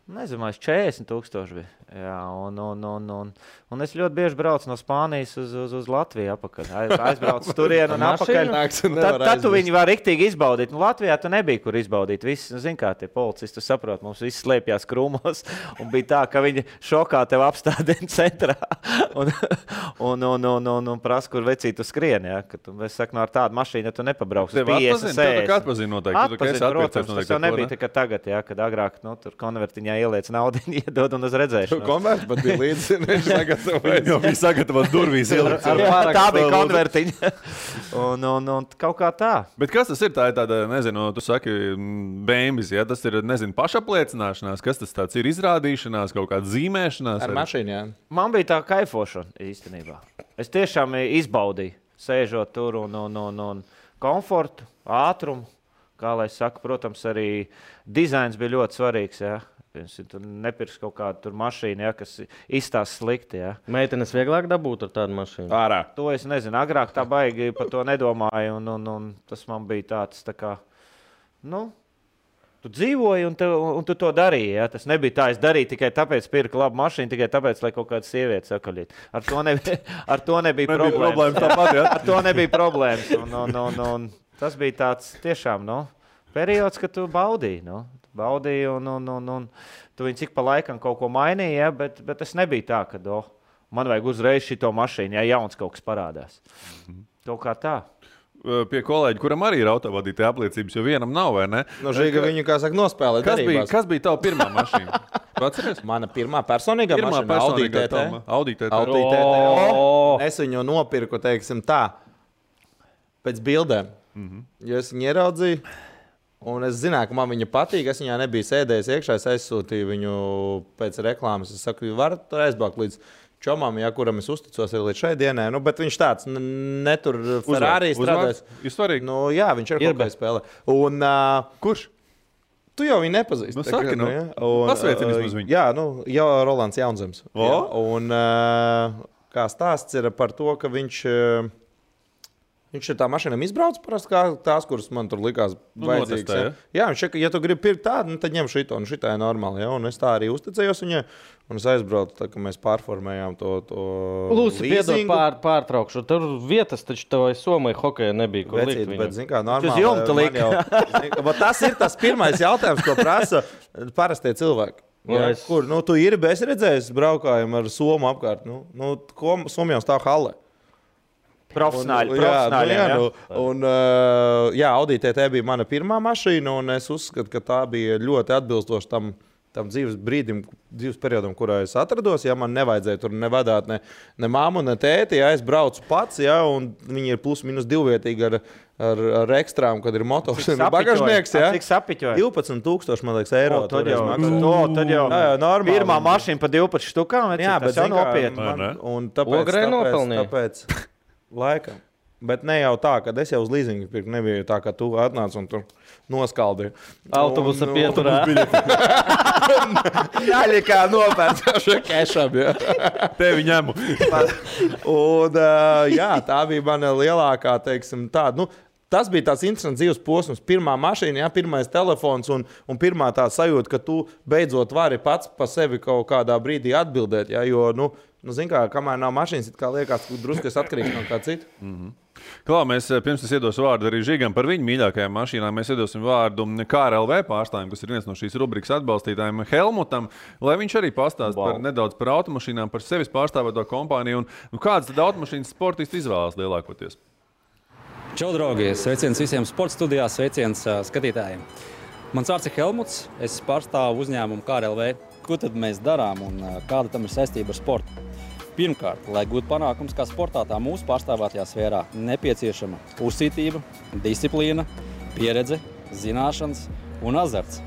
Speaker 2: Nezinu, 40,000 bija. Jā, un es ļoti bieži braucu no Spānijas uz Latviju apakaļ. Aizbraucu turienu un apakaļ. Tad tu viņu var riktīgi izbaudīt. Nu, Latvijā tu nebija, kur izbaudīt. Visi, nu, zin kā, tie policisti, tu saprot, mums visi slēpjās krūmos. Un bija tā, ka viņi šokā tev apstādina centrā. Un prasa, kur vecīt tu skrien. Ja? Es saku, no ar tādu mašīnu, ja tu nepabrauks uz 50, 60.
Speaker 1: Tev atpazin noteikti.
Speaker 2: Atpazin, protams, tas jau nebija tikai tagad, ja? Kad agrāk tur konvertiņā ieliec naudu iedod un uz redzēšanu.
Speaker 4: Konverts pat bija līdzi, viņš sagatavojas.
Speaker 1: Jau bija sagatavot durvīs.
Speaker 2: Tā bija konvertiņa. un kaut kā tā.
Speaker 1: Bet kas tas ir? Tā ir tāda, nezinu, tu saki, bēmbis, ja? Tas ir, nezinu, pašapliecināšanās, kas tas tāds ir, izrādīšanās, kaut kāda zīmēšanās?
Speaker 4: Ar mašīnu, jā.
Speaker 2: Man bija tā kaifošana īstenībā. Es tiešām izbaudīju, sēžot tur un komfortu, ātrumu. Kā lai saka, protams, arī dizains bija ļoti svarīgs, jā. Tu nepirks kaut kādu mašīnu, ja, kas izstās slikti. Ja.
Speaker 3: Meitenes vieglāk dabūt ar tādu mašīnu?
Speaker 1: Ārā.
Speaker 2: To es nezinu. Agrāk tā baigi par to nedomāju. Un tas man bija tāds, tā kā, nu, tu dzīvoji un tu to darīji. Ja. Tas nebija tā, es darīju tikai tāpēc, pirku labu mašīnu, tikai tāpēc, lai kaut kāda sieviete sakaļīt. Ar to nebija problēmas.
Speaker 1: Tāpat, ja?
Speaker 2: Ar to nebija problēmas. Un tas bija tāds tiešām, periods, kad tu baudīji. Baudīji, un tu viņi cik pa laikam kaut ko mainīji, ja, bet tas nebija tā, ka man vajag uzreiz šito mašīnu, ja jauns kaut kas parādās. Kaut kā tā.
Speaker 1: Pie kolēģi, kuram arī ir autovadītāja apliecības, jo vienam nav, vai ne?
Speaker 4: No Žiga viņu, kā saka, nospēlē darībās.
Speaker 1: Kas bija tava pirmā mašīna? Atceries?
Speaker 4: Mana pirmā personīgā mašīna, Audi TT. Es viņu nopirku, teiksim tā, pēc bildēm. Jo es viņu ieraudzīju. Un es zināju, ka man viņa patīk. Es viņā nebiju sēdējis iekšā. Es aizsūtīju viņu pēc reklāmas. Es saku, varat aizbraukt līdz čomam, ja, kuram es uzticos līdz šai dienai. Nu, bet viņš tāds netur Ferrari strādājis.
Speaker 1: Nu,
Speaker 4: jā, viņš ir kaut kā spēlē. Un,
Speaker 1: kurš?
Speaker 4: Tu jau viņu nepazīsti.
Speaker 1: Nu, saki, nu.
Speaker 4: Ja?
Speaker 1: Pasveicini vismaz viņu.
Speaker 4: Jā, jau Rolands Jaunzems. Ja? Un kā stāsts ir par to, ka viņš ir tā mašīnām izbraucis parasti kā tās, kuras man tur likās vajadzīgas. Jā, viņš saka, ja tu gribi pirkt tādu, tad ņem šito, un šitā ir normāli. Ja? Un es tā arī uzticējos viņai, un es aizbraucu, tā, ka mēs pārformējām to
Speaker 3: Lūdzu, piedod pārtraukšu. Tur vietas taču tev Somai hokeja nebija, kur likt viņam.
Speaker 4: Bet, zin kā, normāli. Tas ir tas pirmais jautājums, ko prasa parastie cilvēki. Ja? Kur, tu ir, es redzēju, braukājumu ar Somu apkārt. Somijā stāv hale.
Speaker 2: Profesionāļi.
Speaker 4: Audi TT bija mana pirmā mašīna, un es uzskatu, ka tā bija ļoti atbilstoša tam dzīves periodam, kurā es atrados. Ja man nevajadzēja tur nevadāt ne māmu, ne tēti, ja es braucu pats, ja, un viņi ir plus minus divvietīgi ar ekstrām, kad ir motors un bagažnieks. Ja.
Speaker 2: Cik sapiķoja?
Speaker 4: 12,000, man liekas, eiro.
Speaker 2: Tad jau
Speaker 4: normāli.
Speaker 2: Pirmā mašīna pa 12 štukām,
Speaker 4: jā, bet
Speaker 2: tas jau nopietni.
Speaker 4: Un tāpēc laikam. Bet ne jau tā, ka es jau uz līzingu pirku. Nebija tā, ka tu atnāc un tur noskaldīji.
Speaker 3: Autobusa pieturā.
Speaker 4: Jāļi kā nopērts kešam. Ja.
Speaker 1: Tevi ņemu.
Speaker 4: Un tā bija mana lielākā, teiksim, tāda. Tas bija tāds interesants dzīves posms. Pirmā mašīna, ja, pirmais telefons un pirmā tā sajūta, ka tu beidzot vari pats pa sevi kaut kādā brīdī atbildēt. Ja, jo, zin kā, kamēr nav mašīnas, it kā liekas, ka drusku es atkarīgs no kā citu.
Speaker 1: Klā, mēs pirms es iedošu vārdu arī Žigam par viņu mīļākajām mašīnām. Mēs iedosim vārdu KRLV pārstāvjiem, kas ir viens no šīs rubrikas atbalstītājiem, Helmutam, lai viņš arī pastāsta nedaudz par automašīnām, par sevis pārstāvēto kompāniju un kādas tad automašīnas sportisti izvēlas lielākoties.
Speaker 8: Čau, draugi! Sveiciens visiem sporta studijā, sveiciens skatītājiem. Mans vārds ir Helmuts, es pārstāvu uzņēmumu KRLV. Ko tad mēs darām un kāda tam ir saistība ar sportu? Pirmkārt, lai gūtu panākums kā sportā, tā mūsu pārstāvētajā sfērā nepieciešama uzcītība, disciplīna, pieredze, zināšanas un azarts.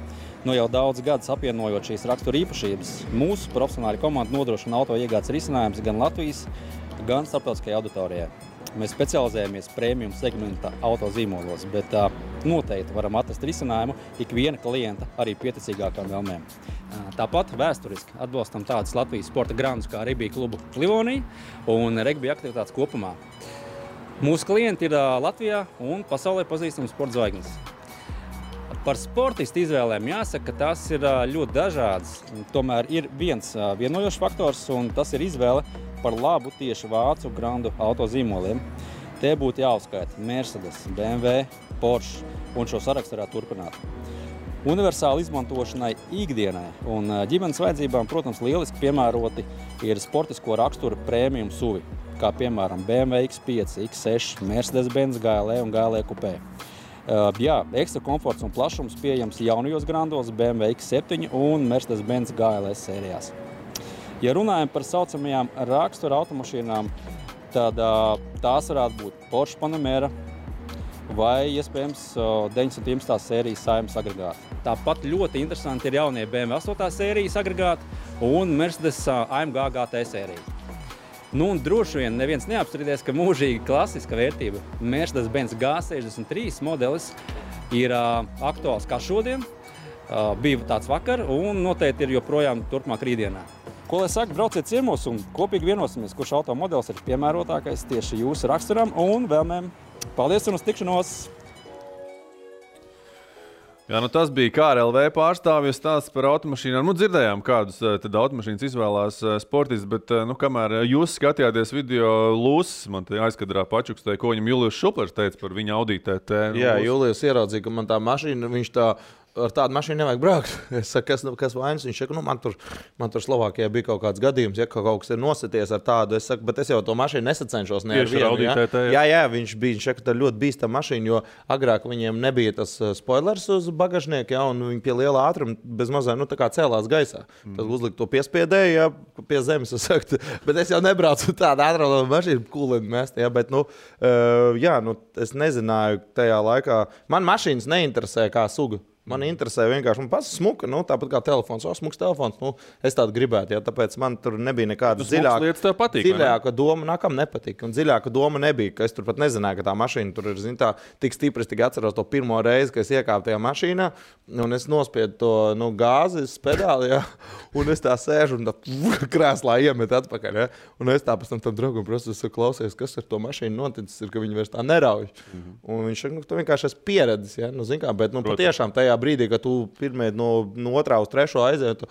Speaker 8: Jau daudz gadus apvienojot šīs rakstura īpašības, mūsu profesionāļu komanda nodrošina auto iegādes risinājumus gan Latvijas, gan starptautiskajai auditorijai. Mēs specializējamies premium segmenta autozīmolos, bet noteikti varam atrast risinājumu ikviena klienta arī pieticīgākām vēlmēm. Tāpat vēsturiski atbalstam tādus Latvijas sporta grandus kā Ribija klubu Livonija un regbija aktivitātes kopumā. Mūsu klienti ir Latvijā un pasaulē pazīstams sporta zvaigznes. Par sportistu izvēlēm jāsaka, ka tas ir ļoti dažāds. Tomēr ir viens vienojošs faktors, un tas ir izvēle par labu tieši vācu grandu autozīmoliem. Te būtu jāuzskaita Mercedes, BMW, Porsche un šo sarakstu varētu turpināt. Universāli izmantošanai ikdienai un ģimenes vajadzībām, protams, lieliski piemēroti ir sportisko raksturu premium SUV, kā piemēram BMW X5, X6, Mercedes-Benz GLE un GLE Coupé. Jā, ekstra komforts un plašums pieejams jaunajos grandos BMW X7 un Mercedes-Benz GLS sērijās. Ja runājam par saucamajām rakstura automašīnām, tad tās varētu būt Porsche Panamera vai, iespējams, 911. sērijas Saimas agregāti. Tāpat ļoti interesanti ir jaunie BMW 8. sērijas agregāti un Mercedes AMG GT sērija. Nu, un droši vien neviens neapstrīdēs, ka mūžīgi klasiska vērtība Mercedes-Benz G63 modelis ir aktuāls kā šodien, bija tāds vakar un noteikti ir joprojām turpmāk rītdienā. Ko lai saka, brauciet ciemos un kopīgi vienosimies, kurš automodelis ir piemērotākais tieši jūsu raksturam un vēlmēm. Paldies un uz tikšanos!
Speaker 1: Jā, nu tas bija KRLV pārstāvjas stāsts par automašīnām. Nu, dzirdējām, kādus tad automašīnas izvēlās sportisti, bet, nu, kamēr jūs skatījāties video, Lūsis man te aizkadrā pačukstēja, ko viņam Julijus Šuplers teica par viņa Audi TT.
Speaker 4: Jā, Julijus ieraudzīja, ka man tā mašīna, viņš tā ar tādu mašīnu nevajag braukt. Es saku, kas vainas? Viņš saka, nu, man tur Slovākijā bija kaut kāds gadījums, ja kaut kas ir nosities ar tādu. Es saku, bet es jau to mašīnu nesacenšos ne ar vienu. Jā, viņš saka, tā ļoti bīstama mašīna, jo agrāk viņiem nebija tas spoilers uz bagažnieku, ja, un viņi pie liela ātruma bez mazā, nu, tā kā cēlās gaisā. Tad uzlikt to piespiedēju, ja, pie zemes, es saku, bet es jau nebraucu tādu ātrā mašīnu kūleni mest, ja, bet, nu, jā, nu, es nezināju tajā laikā. Man mašīnas neinteresē kā suga. Man interesē vienkārši, man pats smuka, nu, tāpat kā telefons, smuks telefons, nu, es tādu gribētu, ja, tāpēc man tur nebija nekāda dziļāka doma, nākam nepatika, un dziļāka doma nebija, ka es tur pat nezināju, ka tā mašīna tur ir, zin, tā, tik stipri, es tik atceros to pirmo reizi, ka es iekāpu tajā mašīnā, un es nospiedu to, nu, gāzes pedāli, ja, un es tā sēžu un tā krēslā iemet atpakaļ, ja, un es tā pēc tam draugam prasu, es klausies, kas ar to mašīnu noticis, ir, ka viņi vairs tā nerauj, un viņš saka, nu, tu vienkārši esi pieredzis, ja, nu, zin kā, bet, nu, patiešām tajā brīdī, kad tu pirmie no otrā uz trešo aiziet,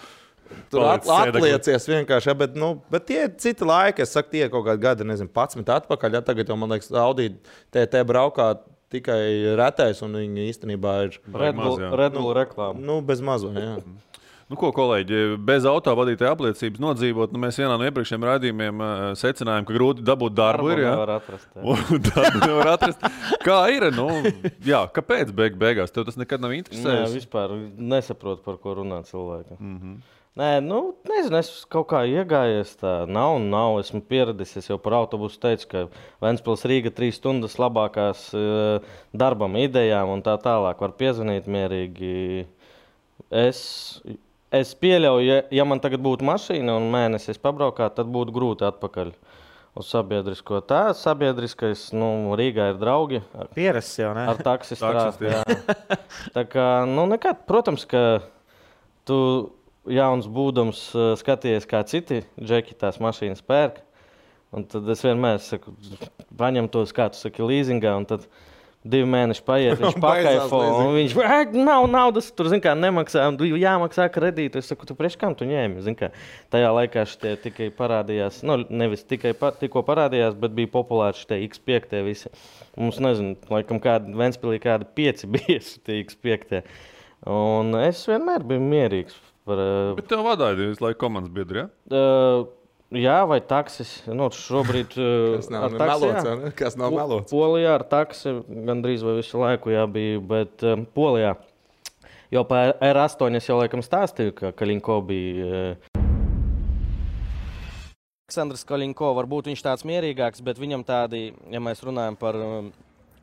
Speaker 4: tu atliecies vienkārši, ja, bet tie citi laiki, es saku, tie kaut kādi gadi, nezinu, 11 atpakaļ, ja, tagad jau, man liekas, Audi TT braukā tikai retais, un viņi īstenībā ir
Speaker 3: Red Bull reklāma.
Speaker 4: Nu, bez mazo, jā.
Speaker 1: Nu, ko, kolēģi, bez autovadītāja apliecības nodzīvot, nu, mēs vienā no iepriekšējiem raidījumiem secinājām, ka grūti dabūt darbu ir, jā.
Speaker 3: Nevar atrast, jā.
Speaker 1: Darbu nevar atrast. Kā ir, nu, jā, kāpēc beigās? Tev tas nekad nav interesējis?
Speaker 3: Jā, vispār nesaprotu, par ko runā cilvēki. Nē, nu, nezinu, es kaut kā iegājies tā, nav, esmu pieradis, es jau par autobusu teicu, ka Ventspils Rīga 3 stundas labākās darbam, idejām un tā tālāk var piezvanīt mierīgi. Es pieļauju, ja man tagad būtu mašīna un mēnesis pabraukāt, tad būtu grūti atpakaļ uz sabiedrisko. Tā sabiedriskais, nu, Rīgā ir draugi.
Speaker 2: Pierasts jau, ne?
Speaker 3: Ar taksi strāst, jā. Tā kā, nu, nekad, protams, ka tu jauns būdams skaties, kā citi džeki tās mašīnas pērk. Un tad es vienmēr saku, paņem tos, kā tu saki, līzingā, un tad 2 mēneši paiet, viņš pakaifo, un viņš nav naudas, tur, zin kā, nemaksā, un jāmaksā kredītu. Es saku, tu priekš kam tu ņēmi, zin kā. Tajā laikā šitie tikai parādījās, nu, nevis tikai tikko parādījās, bet bija populāri šitie X5 visi. Mums, nezinu, laikam Ventspilī kādi 5 bija šitie X5. Un es vienmēr biju mierīgs.
Speaker 1: Bet tev vadāja visu laiku komandas biedri, ja?
Speaker 3: Jā, vai taksis. Nu, šobrīd
Speaker 4: kas nav melots, ne? Kas nav melots?
Speaker 3: Polijā ar taksi gandrīz vai visu laiku jābija, bet Polijā. Jo par R8 es jau laikam stāstīju, ka Kaļinko bija. Aleksandrs Kaļinko, varbūt viņš tāds mierīgāks, bet viņam tādi, ja mēs runājam par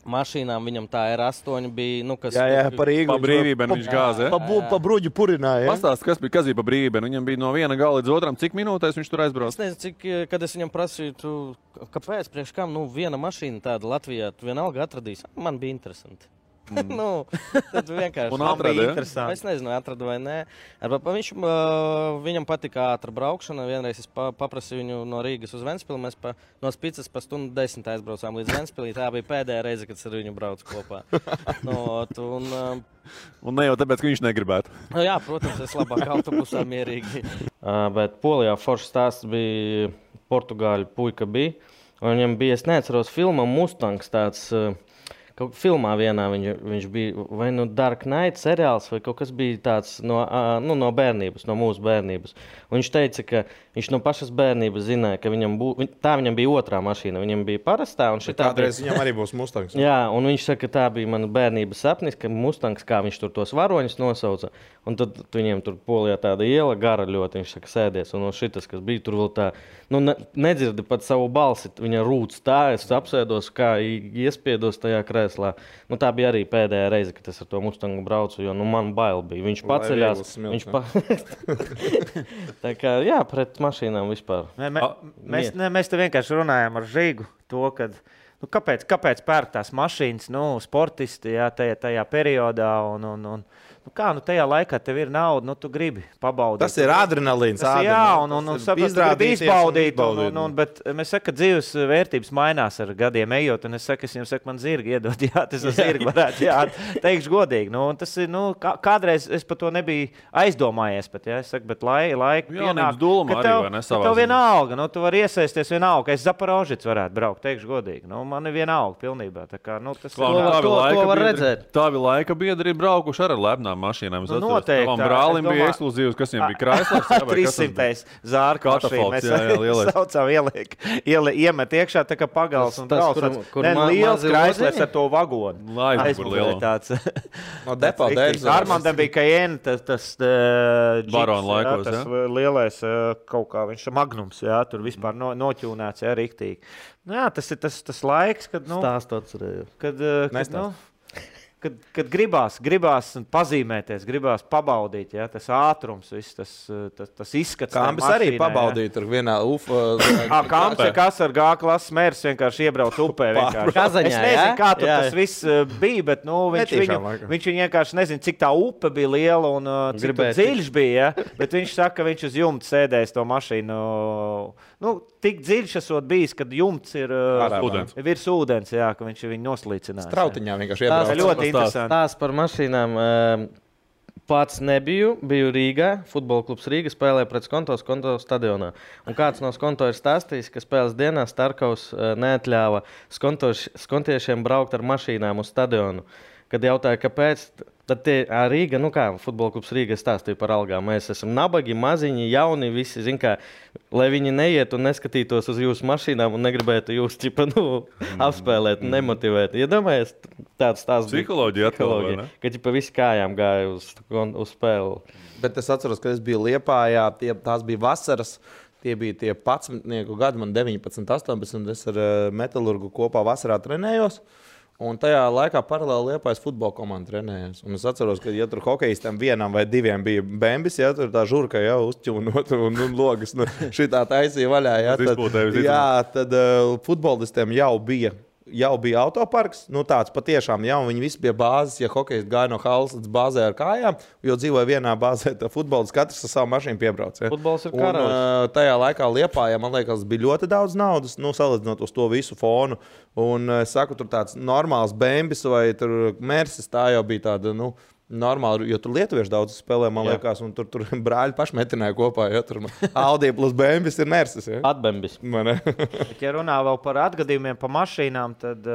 Speaker 3: mašīnām viņam tā R8 bija, nu, kas...
Speaker 4: Jā, par Rīgu.
Speaker 1: Pa brīvībēm viņš gāza, ja?
Speaker 4: Pa bruģu purināja.
Speaker 1: Pastāst, kas bija pa brīvībēm. Viņam bija no viena gala līdz otram. Cik minūtēs viņš tur aizbrauc?
Speaker 3: Es nezinu, kad es viņam prasīju, kāpēc, priekš kam, viena mašīna tāda Latvijā, tu vienalga atradīs. Man bija interesanti. Nu, tad vienkārši
Speaker 1: Un atrada, ja?
Speaker 3: Es nezinu, atradu vai nē. Viņam patika ātra braukšana. Vienreiz es paprasīju viņu no Rīgas uz Ventspili. Mēs no Spicas pa 1:10 aizbraucām līdz Ventspilī. Tā bija pēdējā reize, kad es ar viņu braucu kopā.
Speaker 1: Un ne jau tāpēc, ka viņš negribētu.
Speaker 3: Jā, protams, es labāk autobusā mierīgi. Bet Polijā foršs stāsts bija Portugāļu puika bija. Un viņam bija, es neatceros, filma Mustangs tāds... Kaut filmā vienā viņš bija, vai nu Dark Knight seriāls, vai kaut kas bija tāds no bērnības, no mūsu bērnības. Un viņš teica, ka viņš no pašas bērnības zināja, ka viņam bija otrā mašīna, viņam bija parastā.
Speaker 4: Kādreiz viņam arī būs Mustangs.
Speaker 3: Jā, un viņš saka, ka tā bija mana bērnības sapnis, ka Mustangs, kā viņš tur tos varoņus nosauca. Un tad viņiem tur Polijā tāda iela gara ļoti, viņš saka, sēdies. Un šitas, kas bija tur vēl tā, nedzirdi pat savu balsi, viņa rūc tā, es apsēdos, kā iespiedos tajā krēslā. Tā bija arī pēdējā reize, kad es ar to Mustangu braucu, jo man bail bija. Viņš paceļās. Tā kā, jā, pret mašīnām vispār.
Speaker 2: Mēs te vienkārši runājām ar Žigu to, kad... Kāpēc pērk tās mašīnas, sportisti, jā, tajā periodā un tajā laikā tev ir nauda, tu gribi pabaudīt.
Speaker 4: Tas ir adrenalīns.
Speaker 2: Jā, un gribi izbaudīt, bet mēs saka, ka dzīves vērtības mainās ar gadiem ejot, un es saku, man zirgi iedod, jā, tas zirgi varētu, jā, teikšu godīgi. Tas ir, kādreiz es par to nebiju aizdomājies, es saku, bet laika pienāk, ka tev vienalga, tu vari iesaisties vienalga, ka es Zaporožits varētu braukt, teikšu godīgi. Man ir vienalga pilnībā. Tā kā, tas
Speaker 3: to var redzēt.
Speaker 1: Tāvi laika biedri ir braukuši ar lepnām mašīnām.
Speaker 2: Noteikti.
Speaker 1: Tavam brālim bija ekskluzīvs, kas viņam bija Chryslers.
Speaker 2: 300. Zārka mašīna. Mēs saucām iemet iekšā tā kā pagals un brauc. Liels Chryslers ar to vagonu.
Speaker 1: Aizbūr
Speaker 2: tāds.
Speaker 4: No depo dēļ.
Speaker 2: Armandam bija Cayenne, tas
Speaker 1: Barona laikos,
Speaker 2: tas lielais kaut kā, viņš Magnums, jā, tur vispār noķūnēts, jā, riktīgi. Jā, tas ir tas laiks, kad,
Speaker 3: Stāsts
Speaker 2: kad gribās pazīmēties, gribās pabaudīt, jā, tas ātrums, viss tas izskats.
Speaker 4: Kāmbis arī pabaudīja tur vienā
Speaker 2: Kāmbis, kas ar G klases mērs vienkārši iebrauc upē.
Speaker 3: Kazaņā,
Speaker 2: es nezinu, kā tur tas viss bija, bet viņš vienkārši nezinu, cik tā upe bija liela un cik dziļš bija, ja? Bet viņš saka, ka viņš uz jumta sēdēs to mašīnu. Tik dziļš esot bijis, kad jumts ir virs ūdens, jā, ka viņš viņu noslīcinās.
Speaker 4: Strautiņā vienkārši iebrauc.
Speaker 2: Tas ļoti interesanti.
Speaker 3: Tās par mašīnām pats biju Rīgā, futbola klubs Rīga spēlēja pret Skonto stadionā. Un kāds no Skonto ir stāstījis, ka spēles dienā Starkaus neatļāva skontiešiem braukt ar mašīnām uz stadionu. Kad jautāja, kāpēc, tad Rīga, futbola klubs Rīga stāstīja par algām. Mēs esam nabagi, maziņi, jauni, visi, lai viņi neiet un neskatītos uz jūsu mašīnām un negribētu jūs apspēlēt, nemotivēt. Iedomājies, tāds stāsts bija.
Speaker 1: Psiholoģija atkal, vai ne?
Speaker 3: Ka visi kājām gāja uz spēli.
Speaker 4: Bet es atceros, ka es biju Liepājā, tās bija vasaras. Tie bija tie 11 gadi, man 19, 18, es ar Metalurgu kopā vasarā trenējos. Un tajā laikā paralēli Liepājas futbola komanda trenējās. Un es atceros, ka, ja tur hokejistiem vienam vai diviem bija bembis, ja tur tā žurka jau uzķūnot un logas šitā taisīja vaļā, tad futbolistiem jau bija autoparks, tāds patiešām, ja, un viņi visi bija bāzes, ja hokejisti gāja no halas līdz bāzē ar kājām, jo dzīvoja vienā bāzē, tā futbolists katrs ar savu mašīnu piebrauc. Ja.
Speaker 3: Futbols ir karalis.
Speaker 4: Tajā laikā Liepājā, man liekas, bija ļoti daudz naudas, salīdzinot uz to visu fonu, un es saku, tur tāds normāls bembis vai tur Mersis, tā jau bija tāda, normāli, jo tur lietuvieši daudz spēlē, man liekas, un tur brāļi paši metināja kopā, ja tur Audi plus Bembis ir Mersis. Ja?
Speaker 3: Atbembis.
Speaker 2: Bet, ja runā vēl par atgadījumiem pa mašīnām, tad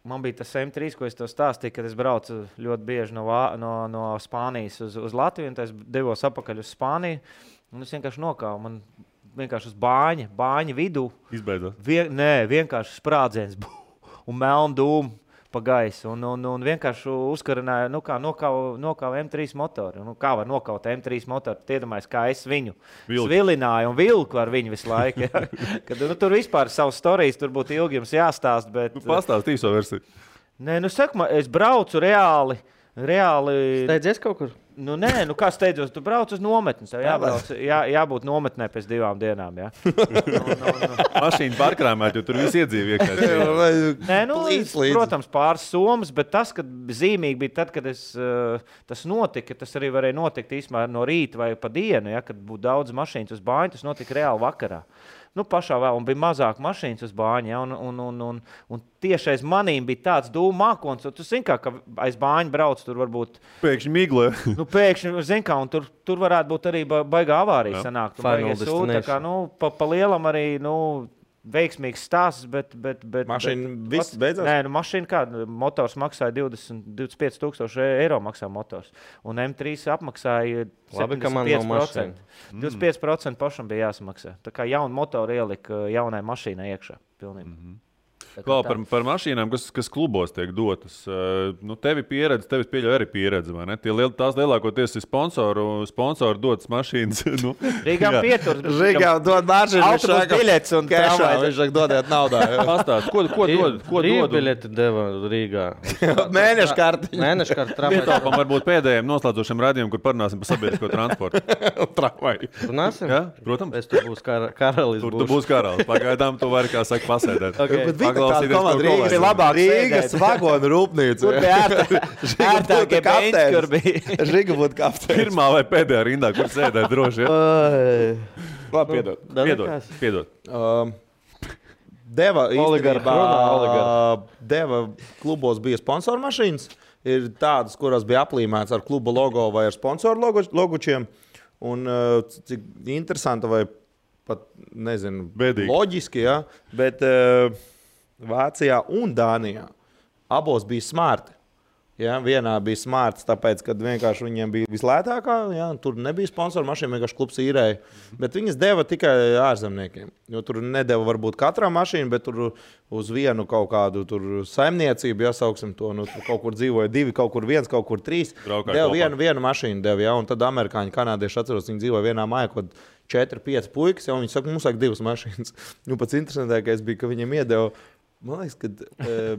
Speaker 2: man bija tas M3, ko es to stāstīju, kad es braucu ļoti bieži no Spānijas uz Latviju, un es devos apakaļ uz Spāniju, un es vienkārši nokāvu. Man vienkārši uz bāņa vidū.
Speaker 1: Izbeidzot.
Speaker 2: Vienkārši sprādziens un melnu dūmu. pa gaisu un vienkārši uzkarināja, nokāva M3 motoru. Kā var nokaut M3 motoru? Iedomājies, kā es viņu svilināju un vilku ar viņu visu laiku. Ja? Kad, tur vispār savas storijas, tur būtu ilgi jums jāstāst. Bet,
Speaker 1: pastāst īso versiju.
Speaker 2: Nē, saku, es braucu reāli.
Speaker 3: Steidzies kaut kur?
Speaker 2: Nē, kā steidzos, tu brauc uz nometni. Tev jābūt nometnē pēc 2 dienām. Ja?
Speaker 1: Mašīna pārkrāmēt, jo tur viss iedzīvi iekšā.
Speaker 2: Nē, protams, pāris somas, bet tas, kad zīmīgi bija tad, kad tas notika, tas arī varēja notikt īstenībā no rīta vai pa dienu, ja, kad būtu daudz mašīnas uz bāņu, tas notika reāli vakarā. Pašā vēl, un bija mazāk mašīnas uz bāņa, ja, un tieši aiz manīm bija tāds dūmu mākons, un tu zini, ka aiz bāņa brauc, tur varbūt...
Speaker 1: Pēkšņi miglē.
Speaker 2: Pēkšņi, zini kā, un tur varētu būt arī baigā avārija sanākt. Tā kā, pa lielam arī, veiksmīgs stāsts, bet
Speaker 4: mašīna viss beidzās?
Speaker 2: Nē, mašīna kā, motors maksāja 25 000 eiro maksā motors, un M3 apmaksāja 75%. 25% pašam bija jāsamaksā. Tā kā jaunu motoru ielika jaunai mašīnai iekšā. Pilnībā.
Speaker 1: Kā par mašīnām, kas klubos tiek dotas. Tevi pieredze, tevis pieļauj arī pieredze, vai ne? Tās lielākoties ir sponsoru dotas mašīnas.
Speaker 2: Rīgām pietur.
Speaker 4: Rīgām dod mašīnu.
Speaker 2: Autobus biļets un
Speaker 4: kešā. Viņš saka, dodiet naudā.
Speaker 1: Pastāst, ko dod?
Speaker 3: Brīvbiļeti deva Rīgā.
Speaker 4: Mēnešu karti.
Speaker 3: Mēnešu karti tramvajā.
Speaker 1: Pietāpam varbūt pēdējiem noslēdzošiem radījumiem, kur parunāsim par sabiedrisko transportu.
Speaker 4: Tramvaju.
Speaker 3: Runāsim?
Speaker 1: Jā, protams.
Speaker 3: Es tur būs karalis.
Speaker 1: Tur tu būs karalis. Pagaidām tu vari, kā saka, pasēdēt.
Speaker 4: Rīgas vagonu rūpnīca.
Speaker 2: Kur bija ērtākie beņķi, kur bija?
Speaker 4: Žiga būtu kapteinis.
Speaker 1: Pirmā vai pēdējā rindā, kur sēdēt droši. Ja?
Speaker 4: Labi,
Speaker 1: piedod.
Speaker 4: Deva klubos bija sponsoru mašīnas. Ir tādas, kurās bija aplīmēts ar kluba logo vai ar sponsoru logučiem. Un cik interesanti vai pat, nezinu,
Speaker 1: bēdīgi.
Speaker 4: Loģiski, ja? Bet Vācijā un Dānijā abos bija smarti. Ja? Vienā bija smarts, tāpēc, ka vienkārši viņiem bija vislētākā, ja? Tur nebija sponsoru mašīna, vienkārši klubs īrēja. Bet viņas deva tikai ārzemniekiem. Jo tur nedeva varbūt katrā mašīna, bet tur uz vienu kaut kādu saimniecību, jāsauksim to, tur kaut kur dzīvoja 2, kaut kur 1, kaut kur 3. Deva vienu mašīnu, ja? Un tad amerikāņi, kanādieši atceros, viņi dzīvoja vienā mājā, kaut 4-5 puikas, ja? Un viņi saka, mums vajag 2 mašīnas. Pats interesantākais bija, ka viņiem iedeva. Man liekas, ka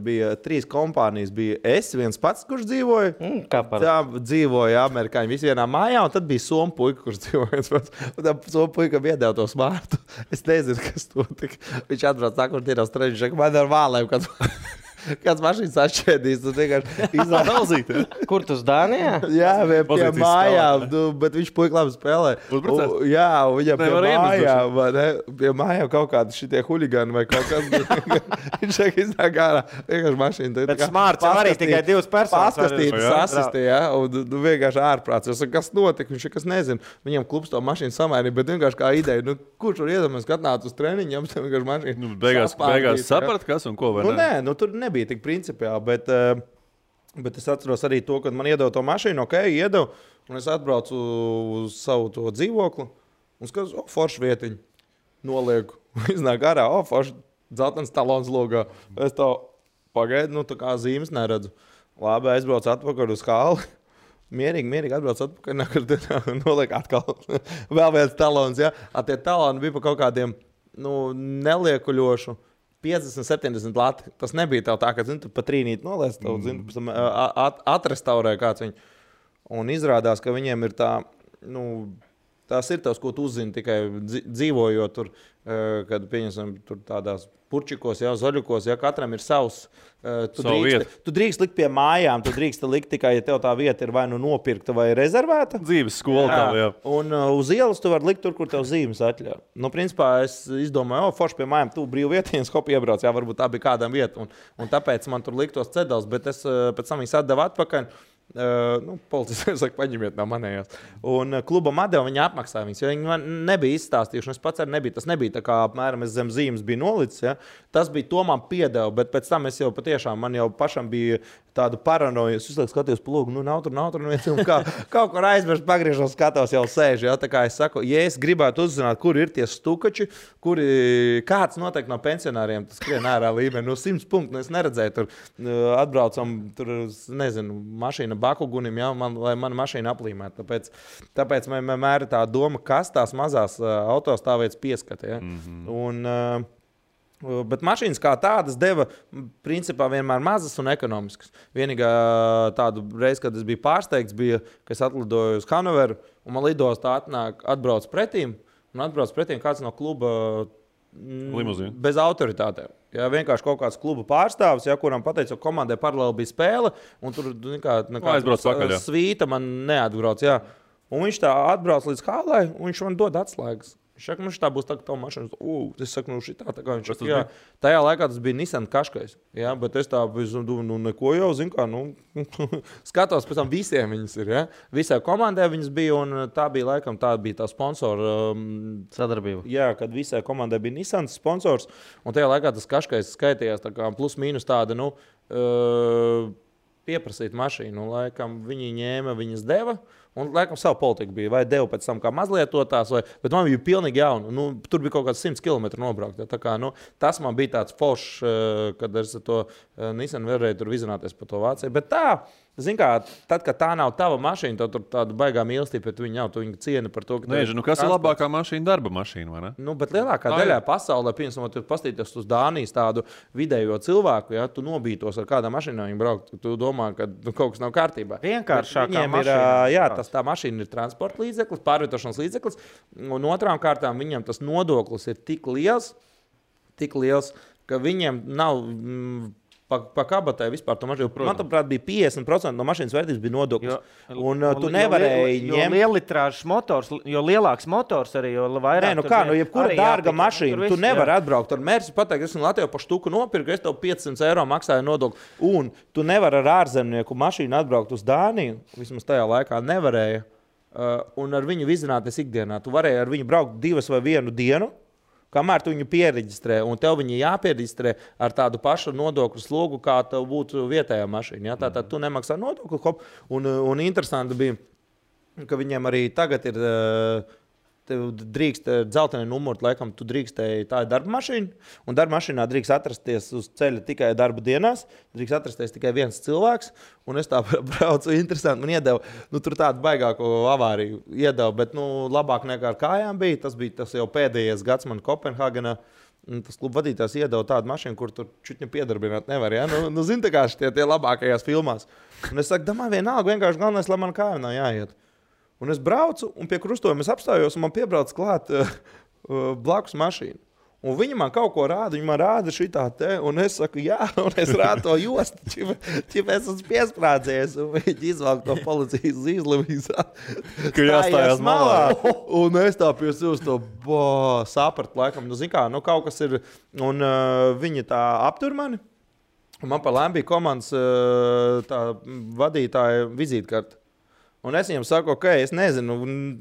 Speaker 4: bija 3 kompānijas. Bija es viens pats, kurš dzīvoja. Tā dzīvoja amerikāņi visi vienā mājā, un tad bija somu puika, kurš dzīvoja viens pats. Un tā somu puika iedeva to smārtu. Es nezinu, kas to tik. Viņš atbrauc tā, kur tienos treņš, ka man ar vālēm, kāds mašīnas atšķēdīs. Tu vienkārši
Speaker 1: izlāzīt.
Speaker 3: Kur tu uz Dānijā?
Speaker 4: Jā, pie mājām, bet viņš puika labi spēlē. Jā, viņam pie mājām kaut kādi šitie huligani vai kaut kas. Viņš saka, iznāk ārā, vienkārši mašīna.
Speaker 2: Bet smārts arī tikai 2 personas.
Speaker 4: Paskastītas asistē, ja, un vienkārši ārprāts. Es saku, kas notika, viņš kas nezinu. Viņam klubs to mašīnu samainīja, bet vienkārši kā ideja, kurš var iedomāties, ka atnāc uz treniņu, jums tam vienkārši mašīna.
Speaker 1: Beigās saprat, kas un ko vai ne?
Speaker 4: Nē, tur nebija tik principiāli, bet es atceros arī to, kad man iedeva to mašīnu, iedeva, un es atbraucu uz savu to dzīvokli, un skatos, forši vietiņu, nolieku, iznāk ārā, forši dzeltens talons logā. Es tā pagaidu, tā kā zīmes neredzu. Labi, aizbraucu atpakaļ uz hali, mierīgi atbraucu atpakaļ, noliek atkal vēl viens talons, ja. Tie taloni bija pa kaut kādiem, neliekuļošu, 50-70 lati. Tas nebija tev tā, ka tu pa trīnīt noliec, atrestaurē kāds viņu. Un izrādās, ka viņiem ir tā, tās ir tavs, ko tu uzzini tikai dzīvojot tur, kad pieņemsim tur tādās purčikos, zaļukos, katram ir savs. Tu drīkst likt pie mājām, tu drīkst likt tikai, ja tev tā vieta ir vai nopirkta vai rezervēta.
Speaker 1: Dzīves skola tā, jā.
Speaker 4: Un uz ielas tu vari likt tur, kur tev zīmes atļauj. Principā es izdomāju, forši pie mājām, tu brīvu vietiņas, hop iebrauc, varbūt tā bija kādam vieta. Un tāpēc man tur liktos cedals, bet es pēc tam viņas atdevu atpakaļ. Policija saka, paņemiet no manējās. Un klubam atdeva, viņi apmaksāja viņus, jo viņi man nebija izstāstījuši. Es pats arī nebija. Tas nebija tā kā apmēram es zem zīmes biju nolicis. Ja? Tas bija to man piedeva, bet pēc tam es jau patiešām, man jau pašam bija tādu paranoju. Es uzliek skatījos pa logu, nav tur, kaut kur aizmirst, pagriežos, skatos, jau sēž. Ja? Tā kā es saku, ja es gribētu uzzināt, kur ir tie stukači, kāds noteikti no pensionāriem tas skrien ārā līmenī, 100 punktu, es neredzēju, tur atbraucam, tur, nezinu, mašīna Bakugunim, ja, lai mana mašīna aplīmētu. Tāpēc man vienmēr ir tā doma, kas tās mazās autostāvvietas pieskata. Ja? Bet mašīnas kā tādas deva principā vienmēr mazas un ekonomiskas. Vienīgā tādu reizi, kad es biju pārsteigts, bija, ka es atlidoju uz Hanoveru un man lidostā atbrauc pretīm kāds no kluba
Speaker 1: Limuzīna.
Speaker 4: Bez autoritātēm. Ja, vienkārši kaut kāds kluba pārstāvis, ja, kuram pateica, ka komandai paralēli bija spēle, un tur nekāda svīta man neatbrauc. Ja. Un viņš tā atbrauc līdz hālai, un viņš man dod atslēgas. Viņš saka, nu šitā būs tā, ka tavu mašīnu, es saku, nu šitā, tā kā viņš saka, jā. Tajā laikā tas bija Nissan Qashqais, jā, bet es tā biju, nu neko jau, zinu kā, nu, skatos, pēc tam visiem viņas ir, jā. Visai komandai viņas bija, un tā bija tā sponsora
Speaker 3: sadarbība.
Speaker 4: Jā, kad visai komandai bija Nissan sponsors, un tajā laikā tas Qashqais skaitījās tā kā plus mīnus tāda, nu, pieprasīt mašīnu, laikam viņi ņēma, viņas deva. Un, laikam, savu politiku bija. Vai devu pēc tam kā mazlietotās, bet man bija pilnīgi jauna. Nu, tur bija kaut kāds 100 km nobraukt. Ja, tā kā, nu, tas man bija tāds foršs, kad es to Nissan varēju tur vizināties pa to Vāciju. Bet tā, zin kā, tad, kad tā nav tava mašīna, tad tur tāda baigā mīlestība pret viņu nav. Tu viņu cieni par to, ka...
Speaker 1: Nē, kas ir labākā mašīna? Darba mašīna, vai ne?
Speaker 4: Nu, bet lielākā daļā pasaulē, piemēram, tu pastīties uz Dānijas tādu vidējo cilvēku, ja, tu nobītos ar kādā mašīnā viņu braukt, tu domā, ka kaut kas nav kārtībā.
Speaker 2: Vienkāršākā
Speaker 4: mašīna. Tā mašīna ir transporta līdzeklis, pārvietošanas līdzeklis, un otrām kārtām viņam tas nodoklis ir tik liels, ka viņiem nav pa kabatai vispār to mašīnu. Man, prāt, bija 50% no mašīnas vērtības bija nodoklis. Tu nevarēji ņemt...
Speaker 2: Jo lielitrāžs motors, jo lielāks motors arī, jo vairāk...
Speaker 4: Nē, nu kā, jebkura dārga mašīna, tu nevari atbraukt ar Mersi, pateikt, es Latvijā pa štuku nopirku, es tev 500 eiro maksāju nodokli. Un tu nevari ar ārzemnieku mašīnu atbraukt uz Dāniju, vismaz tajā laikā nevarēja, un ar viņu vizināties ikdienā. Tu varēji ar viņu braukt 2 vai 1 dienu, kamēr tu viņu piereģistrē, un tev viņi jāpiereģistrē ar tādu pašu nodokļu slogu, kā tev būtu vietējā mašīna. Ja? Tātad tu nemaksā nodokli, un interesanti bija, ka viņiem arī tagad ir, tev drīkst dzelteni numuri, laikam tu drīkstēji, tā ir darba mašīna, un darba mašīnā drīkst atrasties uz ceļa tikai darba dienās, drīkst atrasties tikai viens cilvēks, un es tā braucu, interesanti, man iedeva, nu tur tādu baigāko avāriju iedeva, bet nu labāk nekā ar kājām bija, tas jau pēdējais gads man Kopenhāgenā, tas kluba vadītājs iedeva tādu mašīnu, kur tur čutņu piedarbināt nevar, ja? Nu zin tā kā šitie tie labākajās filmās. Un es saku, domāju, vienalga, vienkārši galvenais, lai man kājām nav jāiet. Un es braucu, un pie krustojuma es apstājos, un man piebrauc klāt blakus mašīnu. Un viņi man kaut ko rāda, viņi man rāda šitā te, un es saku, jā, un es rādu to jostu, ķip es esmu piesprādzies, un viņi izvalk to policijas zīzli,
Speaker 1: ka jāstājās malā.
Speaker 4: Un es tā pie sevis to sapratu, laikam, nu zin kā, nu kaut kas ir, un viņi tā aptur mani, un man pa lēm bija komandas tā vadītāja vizītkarta. Un es viņam saku, ok, es nezinu,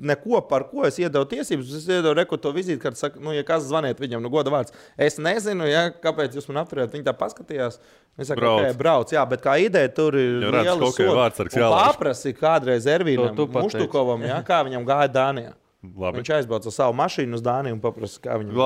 Speaker 4: neko par ko es iedevu tiesības. Es iedevu reku to vizītkarti, saku, nu, ja kas zvaniet viņam, nu, goda vārds. Es nezinu, ja, kāpēc jūs man apturējat. Viņi tā paskatījās. Es saku, ok, brauc, jā, bet kā ideja tur ir liela soda. Un paprasi kādreiz Ervīnam Muštukovam, ja, kā viņam gāja Dānijā.
Speaker 1: Labi.
Speaker 4: Viņš aizbrauca savu mašīnu uz Dāniju un paprasa, kā viņam...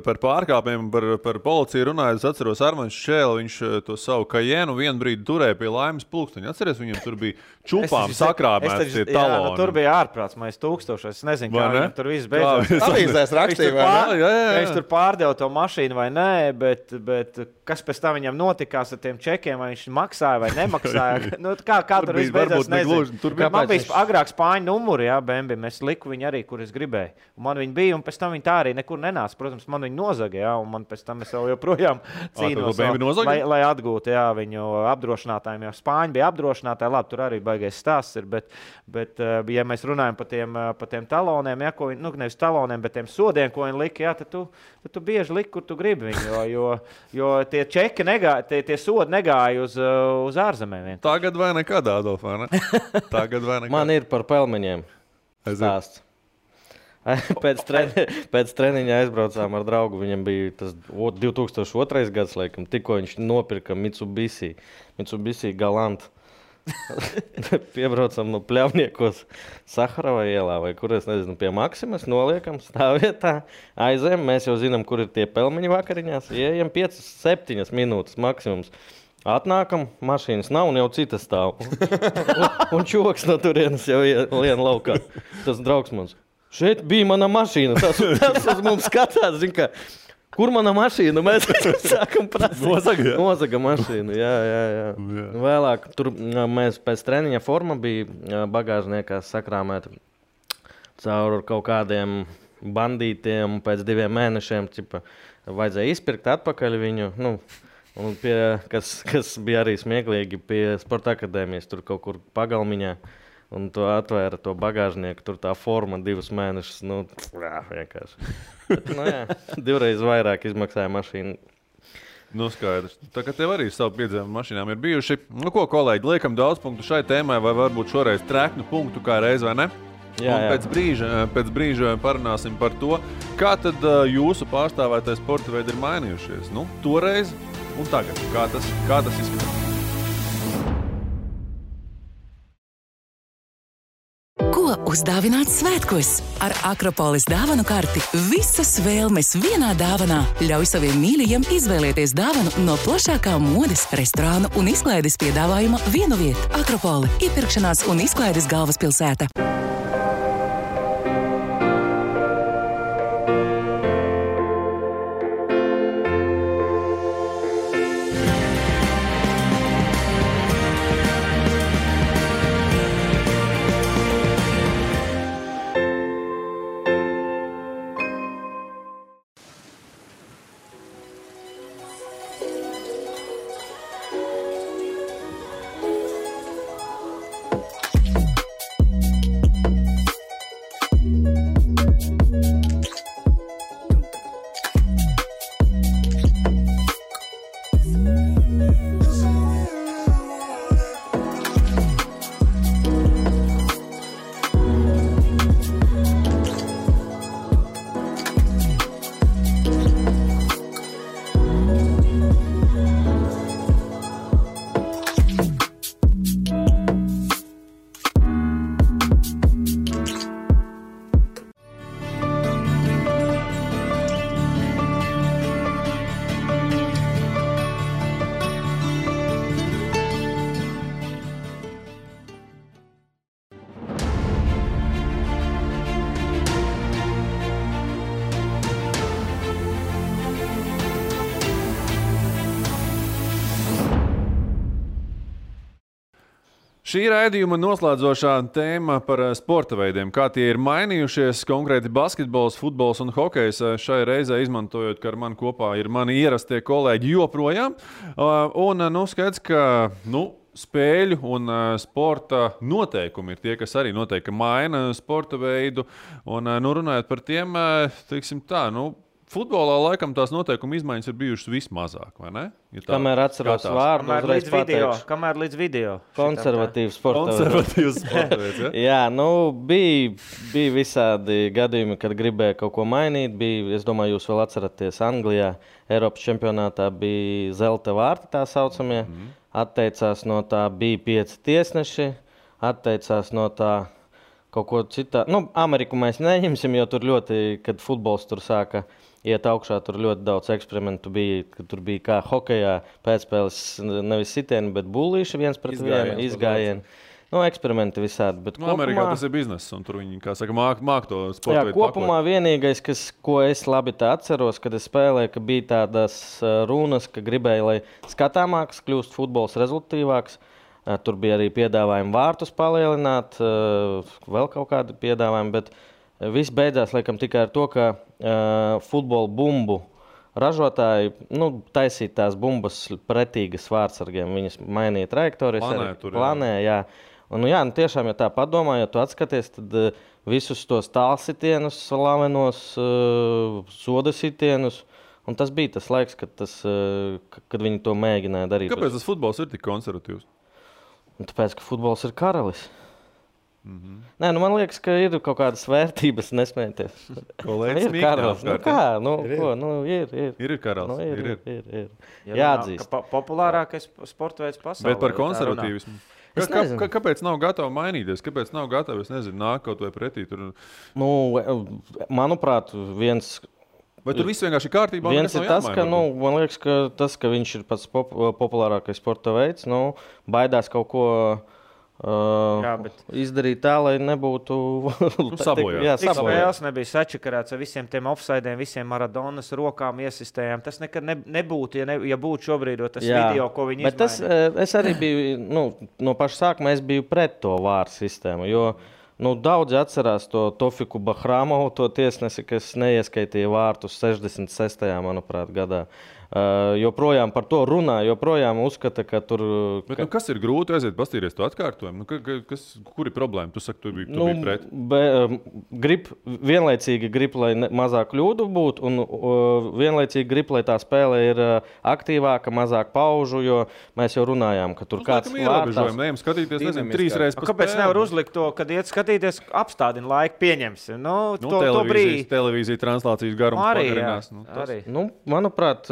Speaker 1: Par pārkāpiem, par policiju runājot, es atceros Armaņš Šķēli, viņš to savu Kajenu vienu brīdi turēja pie Laimes pulksteņa. Atceries, viņam tur bija čupām sakrāmēts tie taloni.
Speaker 2: Jā, nu, tur bija ārprāts, mēs 1000, es nezinu, kā viņam tur viss beidzās.
Speaker 4: Avīzēs rakstīja, vai ne?
Speaker 2: Viņš tur pārdeva to mašīnu vai nē, bet kas pēc tam viņam notikās ar tiem čekiem, vai viņš maksāja vai nemaksāja. Nu, kā tur viss beidzās, nezinu. Man bija agrāk Spāņu numuri, jā, Bembi, es liku viņu arī, kur es gribēju. Un man viņi bija, un pēc tam viņi tā arī nekur nenāca. Protams, man viņi nozaga, jā, un man pēc tam es vēl joprojām cīnos, lai atgūtu, jā, viņu apdrošinātājiem. Jo Spāņi bija apdrošinātāji, labi, tur arī baigi baigais stāsts ir, bet ja mēs runājam par tiem taloniem, ja, ko viņi, nevis taloniem, bet tiem sodiem, ko viņi lika, ja, tad tu bieži liki, kur tu gribi viņu, jo tie čeki negāja, tie sodi negāja uz ārzemēm.
Speaker 1: Tagad vai nekad, Adolf, vai ne? Tagad vai nekad.
Speaker 3: Man ir par pelmeņiem stāsts. Pēc treniņa aizbraucām ar draugu. Viņam bija tas 2002. gads, laikam, tikko viņš nopirka Mitsubishi Galant. Piebraucam no Pļavniekos Saharova ielā, vai kur es nezinu, pie Maksimas, noliekam stāvvietā, aizējam, mēs jau zinām, kur ir tie pelmeņi vakariņās, ieejam 5-7 minūtes maksimums. Atnākam, mašīnas nav un jau citas stāv. un čoks no turienes jau lien laukā. Tas draugs mums. Šeit bija mana mašīna. Tas uz mums skatās, zin, ka, kur mana mašīna? Mēs sākam prasīt. Nozaga mašīnu, jā. Vēlāk, tur mēs pēc treniņa forma bija bagāžniekā sakrāmēta caur kaut kādiem bandītiem. Pēc 2 mēnešiem vajadzēja izpirkt atpakaļ viņu. Un kas bija arī smieklīgi pie Sporta akadēmijas, tur kaut kur pagalmiņā. Un to atvēra to bagāžnieku, tur tā forma 2 mēnešus, vienkārši. Bet, jā, 2 reizes vairāk izmaksāja mašīnu.
Speaker 1: Skaidrs. Tā kā tev arī savu piedzīvumu mašīnām ir bijuši. Ko, kolēģi, liekam daudz punktu šai tēmai, vai varbūt šoreiz treknu punktu kā reiz, vai ne?
Speaker 3: Jā.
Speaker 1: Pēc brīža parunāsim par to, kā tad jūsu pārstāvētais sporta veidi ir mainījušies. Toreiz un tagad. Kā tas izskatās?
Speaker 5: Ko uzdāvināt svētkos? Ar Akropolis dāvanu karti visas vēlmes vienā dāvanā. Ļauj saviem mīļajiem izvēlēties dāvanu no plašākā modes, restorānu un izklaides piedāvājuma vienu vietu. Akropoli – iepirkšanās un izklaides galvaspilsēta.
Speaker 1: Šī raidījuma noslēdzošā tēma par sporta veidiem, kā tie ir mainījušies, konkrēti basketbols, futbols un hokejs. Šai reizē izmantojot, ka ar mani kopā ir mani ierastie kolēģi joprojām. Skaidrs, ka spēļu un sporta noteikumi ir tie, kas arī noteikti maina sporta veidu. Un runājot par tiem, teiksim tā, futbolā laikam tās noteikuma izmaiņas ir bijušas vismazāk, vai ne? Ja
Speaker 3: kamēr atceros vārdu, uzreiz pateikšu.
Speaker 2: Kamēr līdz video.
Speaker 3: Konservatīvs sporta
Speaker 1: veids, ja?
Speaker 3: Jā, bija visādi gadījumi, kad gribēja kaut ko mainīt. Es domāju, jūs vēl atceraties Anglijā, Eiropas čempionātā bija zelta vārti tā saucamie. Atteicās no tā, bija 5 tiesneši, atteicās no tā kaut ko citā. Ameriku mēs neņemsim, jo tur ļoti, kad futbols tur sāka iet augšā, tur ļoti daudz eksperimentu bija, kad tur bija kā hokejā pēcspēles nevis sitieni, bet bullīši viens pret vienu, izgājieni. Eksperimenti visādi. Bet
Speaker 1: Amerikā tas ir bizness, un tur viņi, kā saka, māk to sporta veidu
Speaker 3: kopumā pakot. Vienīgais, ko es labi tā atceros, kad es spēlēju, ka bija tādas runas, ka gribēju, lai skatāmāks kļūst futbols rezultatīvāks. Tur bija arī piedāvājumi vārtus palielināt, vēl kaut kādi piedāvājumi, bet viss beidzās laikam tikai ar to, ka futbola bumbu ražotāji taisīja tās bumbas pretīgas vārtsargiem. Viņas mainīja trajektorijas, planē, jā. Un, jā, tiešām, ja tā padomā, ja tu atskaties, tad visus tos tālsitienus, slavenos soda sitienus, un tas bija tas laiks, kad viņi to mēģināja darīt.
Speaker 1: Kāpēc tas futbols ir tik konservatīvs?
Speaker 3: Tāpēc, ka futbols ir karalis. Nē, man liekas, ka ir kaut kādas vērtības, nesmēties.
Speaker 1: Kolēģis
Speaker 3: ir karalis.
Speaker 1: Ir karalis.
Speaker 3: Ir. Jāatzīst.
Speaker 2: Populārākais sporta veids pasaulē.
Speaker 1: Bet par konservatīvismu. Kāpēc nav gatavi mainīties? Kāpēc nav gatavi, nāk kaut vai pretī?
Speaker 3: Manuprāt, viens...
Speaker 1: Vai tur viss vienkārši ir kārtībā?
Speaker 3: Viens ir tas, ka, man liekas, ka viņš ir pats populārākais sporta veids, baidās kaut ko izdarīt tā, lai nebūtu
Speaker 1: sabojāts.
Speaker 2: Cik spēles nebija sačakarēts ar visiem tiem offsidiem, visiem Maradonas rokām iesistējām. Tas nekad nebūtu, ja būtu šobrīd tas video, ko viņi izmainīja.
Speaker 3: Es arī biju, no paša sākuma es biju pret to vāru sistēmu, jo daudzi atcerās to Tofiku Bahramovu, to tiesnesi, kas neieskaitīja vārtus 66. manuprāt, gadā. Joprojām par to runā, joprojām uzskata, ka tur...
Speaker 1: Bet, kas ir grūti aiziet pastīries to atkārtojumu? Kur ir problēma? Tu saki, tu biji pret.
Speaker 3: Vienlaicīgi grib, lai mazāk kļūdu būtu, un vienlaicīgi grib, lai tā spēle ir aktīvāka, mazāk paužu, jo mēs jau runājām, ka tur kāds
Speaker 1: vārtās... Ejam skatīties, 3 reizes pa spēli.
Speaker 2: Kāpēc nevar uzlikt to, kad iet skatīties, apstādina laiku, pieņemsim?
Speaker 1: Televīzija translācijas garums pagarinās.
Speaker 3: Manuprāt,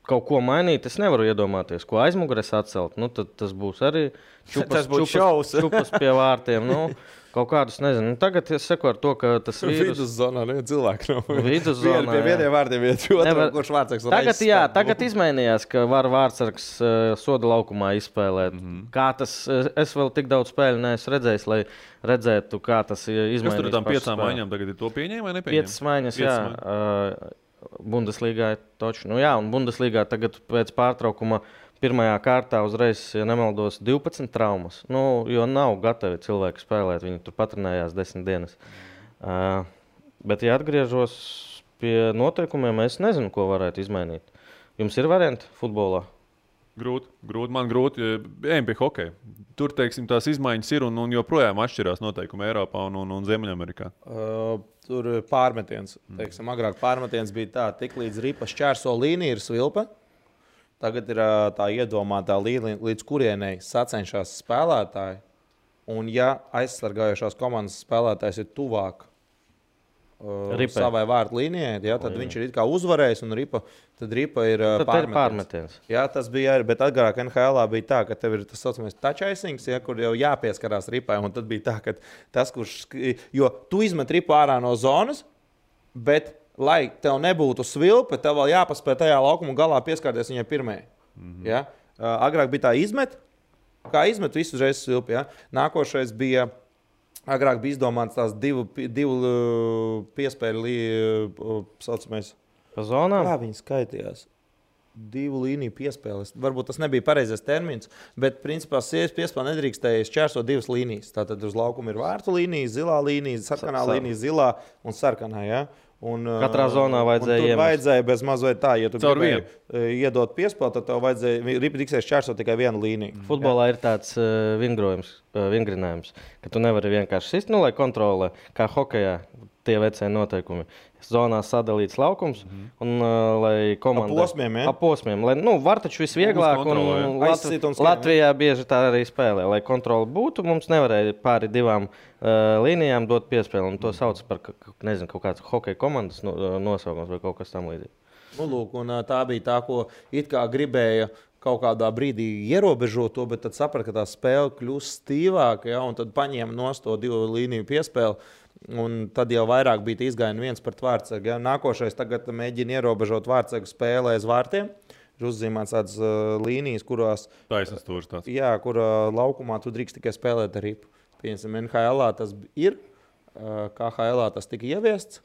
Speaker 3: kaut ko mainīt, es nevaru iedomāties, ko aizmugures atcelt. Tad tas būs arī čupas pie vārtiem. Kaut kādus, nezinu. Tagad es seku ar to, ka tas vīrus...
Speaker 4: Viduszonā cilvēki nav.
Speaker 3: Viduszonā,
Speaker 4: pie vieniem vārdiem iet otru, kurš vārdsargs
Speaker 3: reizes. Tagad izmainījās, ka var vārdsargs soda laukumā izspēlēt. Kā tas, es vēl tik daudz spēļu neesmu redzējis, lai redzētu, kā tas izmainījās.
Speaker 1: Kas tur ar tām 5 maiņām tagad ir to pieņēma vai nepieņēma?
Speaker 3: 5 maiņas, jā. Bundeslīgā taču. Un Bundeslīgā tagad pēc pārtraukuma pirmajā kārtā uzreiz, ja nemaldos, 12 traumas. Jo nav gatavi cilvēki spēlēt, viņi tur patrenējās 10 dienas. Bet, ja atgriežos pie noteikumiem, es nezinu, ko varētu izmainīt. Jums ir varianti futbolā?
Speaker 1: Grūti. Man grūti. Ejam pie hokeja. Tur, teiksim, tās izmaiņas ir un joprojām atšķirās noteikumi Eiropā un Ziemeļamerikā.
Speaker 4: Tur pārmetiens. Teiksim, agrāk pārmetiens bija tā, tik līdz ripa šķērso līnija ir svilpe. Tagad ir tā iedomātā līnija, līdz kurienei sacenšās spēlētāji. Un ja aizsargājušās komandas spēlētājs ir tuvāk savai vārtu līnijai, tad viņš ir it kā uzvarējis un ripa ir
Speaker 3: pārmetiens.
Speaker 4: Jā, tas bija arī, bet agrāk NHL bija tā, ka tev ir tas saucamais touch icings, kur jau jāpieskarās ripai, un tad bija tā, ka tas, jo tu izmet ripu ārā no zonas, bet, lai tev nebūtu svilpe, tev vēl jāpaspēj tajā laukuma galā pieskārties viņai pirmajai. Ja? Agrāk bija tā kā izmet visu uzreiz svilpi. Ja? Nākošais bija... Agrāk bija izdomāts tās divu piespēļu saucamais.
Speaker 3: Pa zonām?
Speaker 4: Kā viņi skaitījās? 2 līniju piespēles. Varbūt tas nebija pareizais termins, bet principā piespēle nedrīkstēja šķērsot 2 līnijas. Tātad uz laukuma ir vārtu līnija, zilā līnija, sarkanā līnija, zilā un sarkanā. Ja?
Speaker 3: Katrā zonā vajadzēja
Speaker 4: iemest. Tur vajadzēja bez mazliet tā, ja tu gribēji iedot piespēli, tad tev vajadzēja ripidiksēs šķērsot tikai 1 līniju.
Speaker 3: Futbolā ir tāds vingrinājums, ka tu nevari vienkārši sist, lai kontrolē, kā hokejā tie vecie noteikumi. Zonā sadalīts laukums, un lai komanda...
Speaker 4: Posmiem,
Speaker 3: lai, var taču visvieglāk, un Latvijā bieži tā arī spēlē. Lai kontroli būtu, mums nevarēja pāri 2 līnijām dot piespēli, un to sauc par, nezinu, kaut kāds hokeja komandas nosaukums vai kaut kas tam līdzīgi.
Speaker 4: Lūk, un tā bija tā, ko it kā gribēja kaut kādā brīdī ierobežot to, bet tad saprata, ka tā spēle kļūst stīvāka, ja, un tad paņēma nost to 2 līniju piespēli. Un tad jau vairāk bija izgājieni viens pret vārtsargu. Ja? Nākošais tagad mēģina ierobežot vārtsargu spēlē aiz vārtiem. Ir uzzīmēts tādas līnijas, kurās...
Speaker 1: Taisnas stūris tāds.
Speaker 4: Jā, kur laukumā tu drīkst tikai spēlēt ar ripu. Piemēram, NHL tas ir, KHL tas tika ieviests.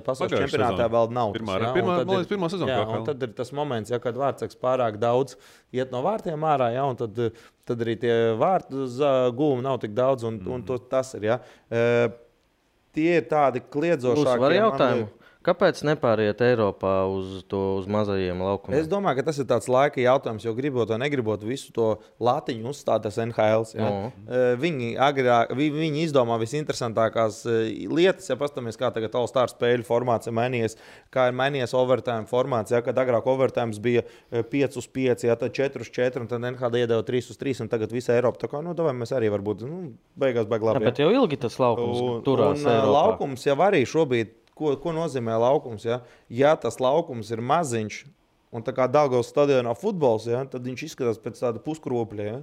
Speaker 4: Pasaules čempionātā vēl nav.
Speaker 1: Pirmā sezona.
Speaker 4: Un tad ir tas moments, ja, kad vārtsargs pārāk daudz iet no vārtiem ārā, ja, un tad arī tie vārtu gūmi nav tik daudz, un tas ir. Ja. Tie ir tādi kliedzošāki.
Speaker 3: Var jautājumu? Kāpēc nepāriet Eiropā uz mazajiem laukumiem?
Speaker 4: Es domāju, ka tas ir tāds laika jautājums, jo gribot vai negribot visu to latiņu uzstāt tas NHL. Ja? Viņi izdomā visinteresantākās lietas, ja pastamies, kā tagad All-Star spēļu formāts ir mainījies, kā ir mainījies overtime formāts, ja? Kad agrāk overtime bija 5-5, ja? Tad 4-4, un tad NHL iedeva 3-3, un tagad visa Eiropa. Tā kā, mēs arī varbūt beigās baigi labi.
Speaker 3: Jā, bet jau ilgi tas laukums turās Eiropā.
Speaker 4: Laukums jau arī šobrīd. Ko nozīmē laukums? Ja tas laukums ir maziņš, un tā kā Daugavas stadionā futbols, tad viņš izskatās pēc tāda puskropļa. Ja?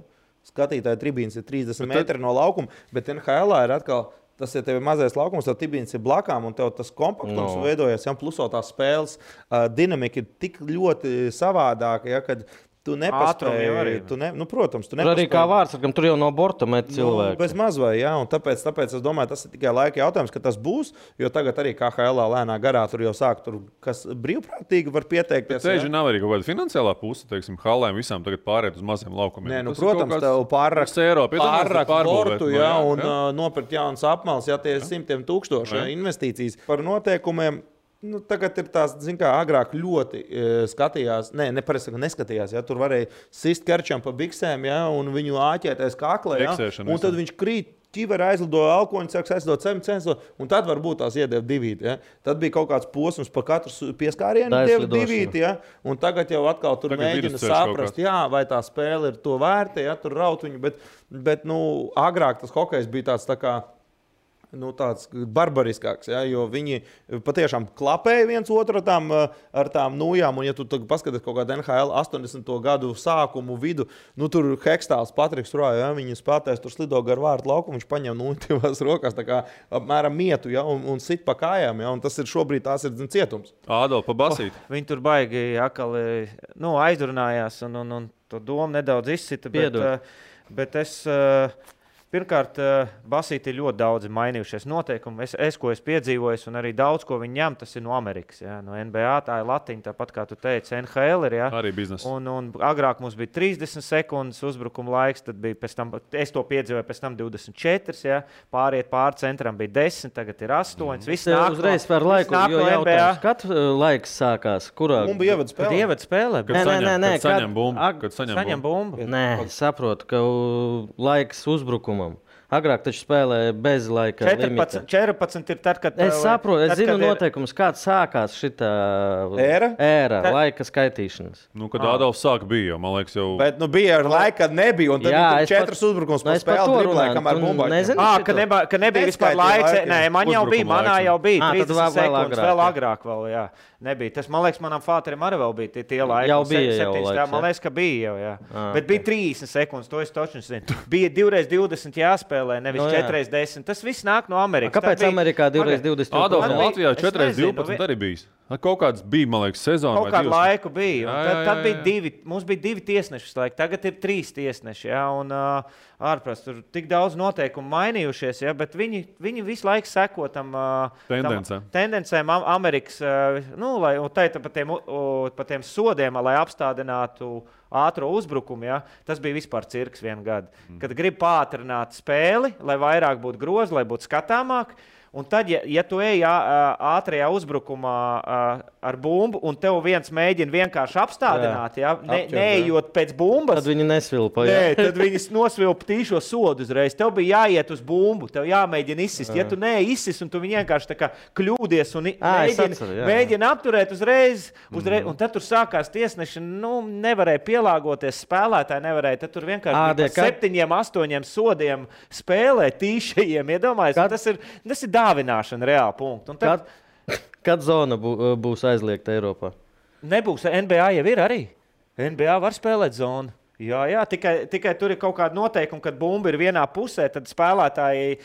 Speaker 4: Skatītāja tribīns ir 30 metri no laukuma, bet NHL ir atkal, tas ir tev mazais laukums, tad tribīns ir blakām, un tev tas kompaktums veidojas, pluso tās spēles dinamika ir tik ļoti savādāka, ja, kad tu nepaspēji. Protams, tu nepaspēji.
Speaker 3: Arī kā vārdsargam, tur jau no borta met cilvēki.
Speaker 4: Bez mazvai, jā, un tāpēc es domāju, tas ir tikai laika jautājums, ka tas būs, jo tagad arī KHL lēnā garā tur jau sāk, kas brīvprātīgi var pieteikties.
Speaker 1: Tieši nav arī kaut kāda finansiālā puse, teiksim, halēm visām tagad pārēt uz maziem laukumiem.
Speaker 4: Nē, protams, tev pārrakt bortu, jā, un nopirkt jaunas apmales, jā, tie ir 100,000 investīcijas par noteikumiem. Tagad ir tās, kā agrāk ļoti skatījās, neskatījās, ja, tur varēja sist kerčam pa biksēm, ja, un viņu āķēties kaklē, ja, un tad viņš krīt, ķiveri aizlido alkoņu, sāks aizlido cemcenso, un tad varbūt tās iedeva divīti, ja. Tad bija kaut kāds posms pa katru pieskārienu deva divīti, ja, un tagad jau atkal tur mēģina saprast, jā, vai tā spēle ir to vērta, ja, tur raut viņu, bet agrāk tas hokejs bija tāds tā kā, tāds barbariskāks, ja, jo viņi patiešām klapēja viens otru ar tām nūjām, un ja tu paskaties kaut kādu NHL 80. gadu sākumu vidu, tur Hekstāls Patriks Roja, ja, viņi spēlētājs tur slido gar vārtu laukumu, viņš paņem nūjās rokās, tā kā apmēram mietu, ja, un sit pa kājām, ja, un tas ir šobrīd tās ir cietums.
Speaker 1: Ādol, pa basīt.
Speaker 2: Viņi tur baigi akali, aizrunājās, un to domu nedaudz izsita, bet es... Pirmkārt, basīti ir ļoti daudz mainījušies noteikumi. Ko es piedzīvoju, un arī daudz, ko viņi ņem, tas ir no Amerikas. Ja? No NBA, tā ir latiņa, tāpat kā tu teici, NHL ir. Ja?
Speaker 1: Arī biznesa.
Speaker 2: Un agrāk mums bija 30 sekundes uzbrukuma laiks, tad bija pēc tam, es to piedzīvoju, pēc tam 24, ja? Pāriet pāri centram bija 10, tagad ir 8. Viss nāk
Speaker 3: uzreiz par laiku, jo jautājums, kad laiks sākās? Kurā?
Speaker 4: Un bija ievada spēlē.
Speaker 1: Kad saņem bumbu.
Speaker 3: Nē, saprotu, ka laiks uzbrukumam. Agrāk taču spēlēja bez laika.
Speaker 2: 14 ir tad, kad...
Speaker 3: Es saprotu, es zinu noteikumus, kāds sākās šitā ēra laika skaitīšanas.
Speaker 1: Kad Ādolfs sāk bija, man liekas, jau...
Speaker 4: Bet bija ar laiku, kad nebija, un tad bija 4 uzbrukums pa spēli driblē, kamēr bumbā.
Speaker 2: Ka nebija vispār laiks. Nē, man jau bija, manā jau bija 30 sekundes, vēl agrāk vēl, jā. Nebija. Tas, man liekas, manam fāterim arī vēl bija tie laiki.
Speaker 3: Jau bija jau laiks.
Speaker 2: Man liekas, ka bija jau, jā. Bet bija 30 sekundes, to es točni zinu. Bija 2x20 jāspēlē, nevis 4x10. Tas viss nāk no Amerikas.
Speaker 3: Kāpēc Amerikā 2x20?
Speaker 1: Ādolf, no Latvijā 4x12 arī bijis. Kaut kāds bija, man liekas, sezona.
Speaker 2: Kaut kādu laiku bija. Tad bija mums bija 2 tiesneši laiki. Tagad ir 3 tiesneši, jā. Un ārprāt, tur tik daudz noteikumu mainījušies, jā, bet viņi visu laiku seko tam tendencēm Amerikas, lai pa tiem sodiem, lai apstādinātu ātro uzbrukumu, ja? Tas bija vispār cirks vienu gadu. Kad grib pātrināt spēli, lai vairāk būtu grozi, lai būtu skatāmāk, un tad, ja tu ej ātrajā uzbrukumā ar bumbu, un tev viens mēģina vienkārši apstādināt, ja? Neejot pēc bumbas,
Speaker 3: tad viņi nesvilpa.
Speaker 2: Nē, tad viņi nosvilpa tīšo sodu uzreiz. Tev bija jāiet uz bumbu, tev jāmēģina izsist. Ja tu neizsis, un tu viņi vienkārši tā kā kļūdies un mēģina apturēt uzreiz, un tad tur sākās tiesneši, nevarēja pielāgoties, spēlētāji nevarēja, tad tur vienkārši 7-8 sodiem spēlē tīšajiem, iedomājies. Tas ir dāvināšana reāli punktu.
Speaker 3: Kad zona būs aizliegta Eiropā?
Speaker 2: Nebūs. NBA jau ir arī. NBA var spēlēt zonu. Jā, tikai tur ir kaut kāda noteikuma, kad bumba ir vienā pusē, tad spēlētāji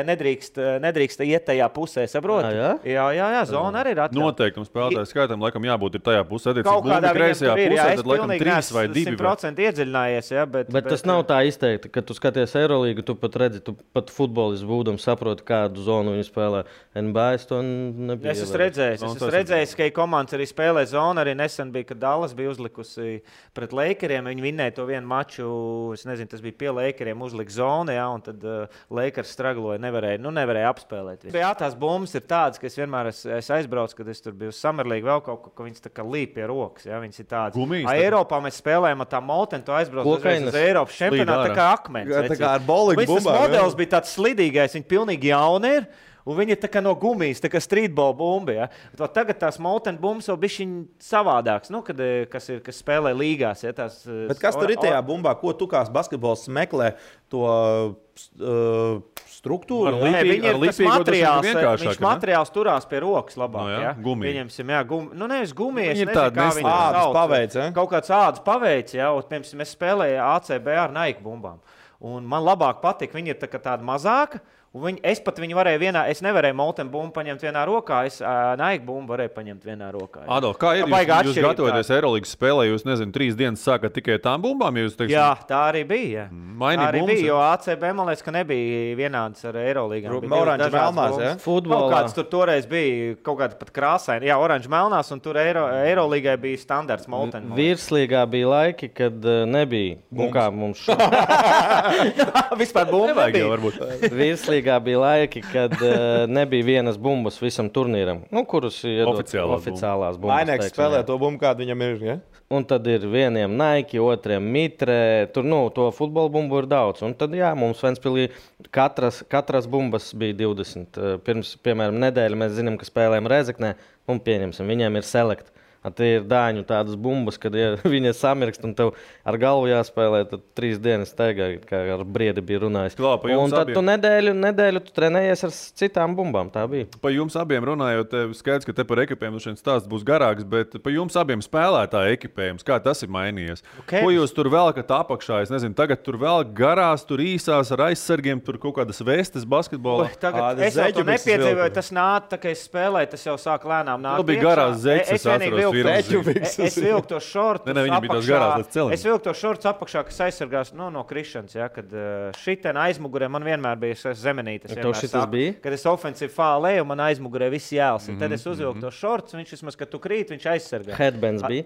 Speaker 2: nedrīkst iet tajā pusē, saproti? Jā, zona arī ir atļauta.
Speaker 1: Noteikumi spēlētāju skaitam laikam jābūt ir tajā pusē, kaut kādā kreisajā pusē, tad laikam 3 vai 2.
Speaker 2: 100% iedziļinājies, jā,
Speaker 3: bet tas nav tā izteikti, kad tu skaties Eirolīgu, tu pat redzi, tu pat futbolists būdam saproti, kādu zonu viņi spēlē. NBA es to nebija.
Speaker 2: Es esmu redzējis, ka komandas arī spēlē zonu, arī nesen bija, kad Dallas bija uzlikusi pret Lakeriem, viņi vinnēja to vienu maču, es nezinu, tas bija pie Lakeriem uzlikt zonu, ja, un tad Lakers stragloja, nevarēja apspēlēt. Jā, tās bumbas ir tādas, ka es vienmēr aizbraucu, kad es tur biju uz Summer League, vēl kaut ko, ka viņas tā kā līp pie rokas, ja, viņas ir tādas.
Speaker 1: Gumijas,
Speaker 2: Eiropā mēs spēlējām ar tā Molten, tu aizbraucu uz Eiropas čempionātu, tā kā akmens.
Speaker 4: Tā kā ar bowling bumbām.
Speaker 2: Tas modelis bija tāds slidīgais, viņi pilnīgi jauni ir. Un viņi ir tā kā no gumijas, tā kā streetball bumbi. Ja? Tagad tās Molten bumbas vēl bišķiņ savādāks, kas spēlē līgās. Ja?
Speaker 4: Bet kas tur ir tajā bumbā? Ko tu kā basketbols meklē to struktūru?
Speaker 2: Viņš materiāls turās pie rokas labāk.
Speaker 1: No, ja?
Speaker 2: Pieņemsim, nevis gumija,
Speaker 1: es nezinu, kā viņi
Speaker 4: ādas paveic. Ja?
Speaker 2: Kaut kāds ādas paveic, ja? Piemēram, es spēlēju ACB ar Nike bumbām. Un man labāk patīk, viņi ir tāda mazāka. Es pat viņu varēju es nevarēju Molten bumbu paņemt vienā rokā, es Nike bumbu varēju paņemt vienā rokā.
Speaker 1: Adolf, kā ir? Jūs gatavoties Eirolīgas spēlē, jūs, 3 dienas sākat tikai tām bumbām?
Speaker 2: Jā, tā arī bija.
Speaker 1: Tā
Speaker 2: arī bija, jo ACB, man liekas, ka nebija vienāds ar Eirolīgām.
Speaker 4: Oranžu melnās, ja?
Speaker 2: Futbolā. Kaut kāds tur toreiz bija, kaut kāda pat krāsaini. Jā, oranžu melnās, un tur Eirolīgai bija standarts Molten.
Speaker 3: Virslīgā bija laiki, kad nebija. Un kā mums
Speaker 2: vispār bumbu nebija.
Speaker 3: Virslīgā bija laiki, kad nebija vienas bumbas visam turnīram, kurus iedod oficiālās bumbas.
Speaker 4: Vainēks spēlē to bumbu, kādu viņam ir, ja?
Speaker 3: Un tad ir vieniem Nike, otriem Mitre, tur, to futbola bumbu ir daudz. Un tad, jā, mums Ventspilī katras bumbas bija 20. Pirms, piemēram, nedēļa mēs zinām, ka spēlējam Rezeknē, un pieņemsim, viņiem ir select. Tie ir dāņu tādas bumbas, kad viņi samirkst un tev ar galvu jāspēlē, tad 3 dienas steigā, kā ar Briedi bija runājis. Un tad tu nedēļu tu trenējies ar citām bumbām, tā bija.
Speaker 1: Pa jums abiem runājot, skaidrs, ka te par ekipējumu šeit stāsts būs garāks, bet pa jums abiem spēlētāju ekipējums, kā tas ir mainījies? Okay. Ko jūs tur velkat apakšā? Es nezinu, tagad tur vēl garās, tur īsās ar aizsargiem, tur kaut kādas vestes basketbolā.
Speaker 2: Tagad es jau to nepiedzīvoju, tas nāk, tā kā es spēlēju, tas jau sāk lēnām nāk.
Speaker 1: Tu bija garās zeķes,
Speaker 2: Es vilku to šortus
Speaker 1: apakšā.
Speaker 2: Es vilku to šortus apakšā, kas aizsargās no krišanas. Ja, kad šitien aizmugurē man vienmēr bija zemenītes. Kad es ofensīvi fālēju, man aizmugurē viss jēls. Tad es uzvilku to šortus, viņš vismaz, kad tu krīt, viņš aizsargā.
Speaker 3: Headbands bija?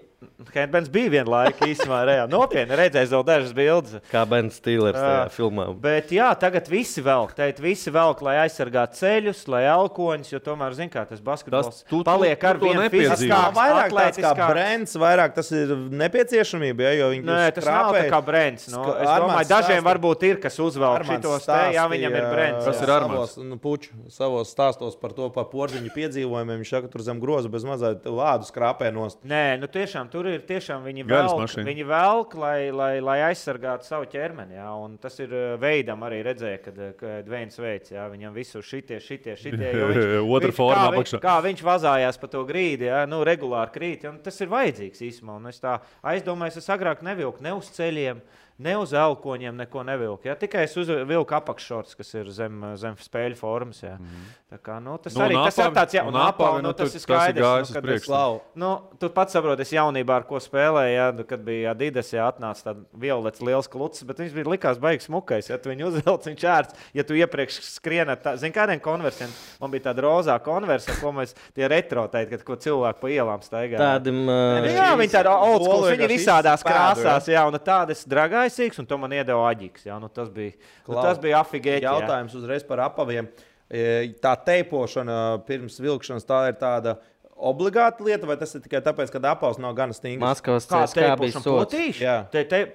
Speaker 2: Headbands bija vienu laiku īsumā reāli. Nopietni, redzēju vēl dažas bildes.
Speaker 3: Kā Ben Stillers tajā filmā.
Speaker 2: Bet jā, tagad visi velk, lai aizsargātu ceļus, lai elkoņus, jo tomēr, zin kā, tas basketbols paliek ar vienu fiziskāks.
Speaker 4: Tāds kā brands, vairāk tas ir nepieciešamība, ja, jo viņi
Speaker 2: Nē, tas nav tā kā brands. Es domāju, dažiem varbūt ir, kas uzvelk šitos te, jā, viņam ir brands.
Speaker 1: Tas ir Armāns.
Speaker 4: Savos stāstos par to, par porziņu piedzīvojumiem, viņš saka, tur zem groza bez mazā vādu skrāpē nost.
Speaker 2: Nē, tiešām, tur ir tiešām viņi velk, lai aizsargātu savu ķermeni, jā, un tas ir veidam arī redzēja, kad Dveins veids, jā, viņam visu šitie,
Speaker 1: otra forma apakšā.
Speaker 2: Kā viņš vazājās pa to grīdi, jā, regulāri krīt. Un tas ir vajadzīgs īstenībā. Es tā aizdomājos, es agrāk nevilku ne uz ceļiem, ne uz elkoņiem, neko nevilku. Ja? Tikai es vilku apakššorts, kas ir zem spēļu formas. Ja? Tā kā, tas arī tas ir tāds, un apāvi, tas ir skaidrs. Tu pats saproti, es jaunībā ar ko spēlēju, ja? Kad bija Adidas, ja atnāca tāds violets liels klucis, bet viņš bija likās baigs smukais. Ja tu viņu uzvelc, viņš ērts, ja tu iepriekš skrienat, zin kādiem konversiem, man bija tāda rozā konversa, ko mēs tie retrotēji, kad ko cilvēku pa ielām staigā. Jā, viņi tāda old school, viņi visādās krāsās, jā, un tādas dragaisīgs, un to man iedeva Aģiks, jā, tas bija afigēķi.
Speaker 4: Jautājums uzreiz par apaviem. Tā teipošana pirms vilkšanas, tā ir tāda obligāta lieta, vai tas ir tikai tāpēc, ka apavs nav gana stingrs?
Speaker 3: Maskavas CSKA bija sots.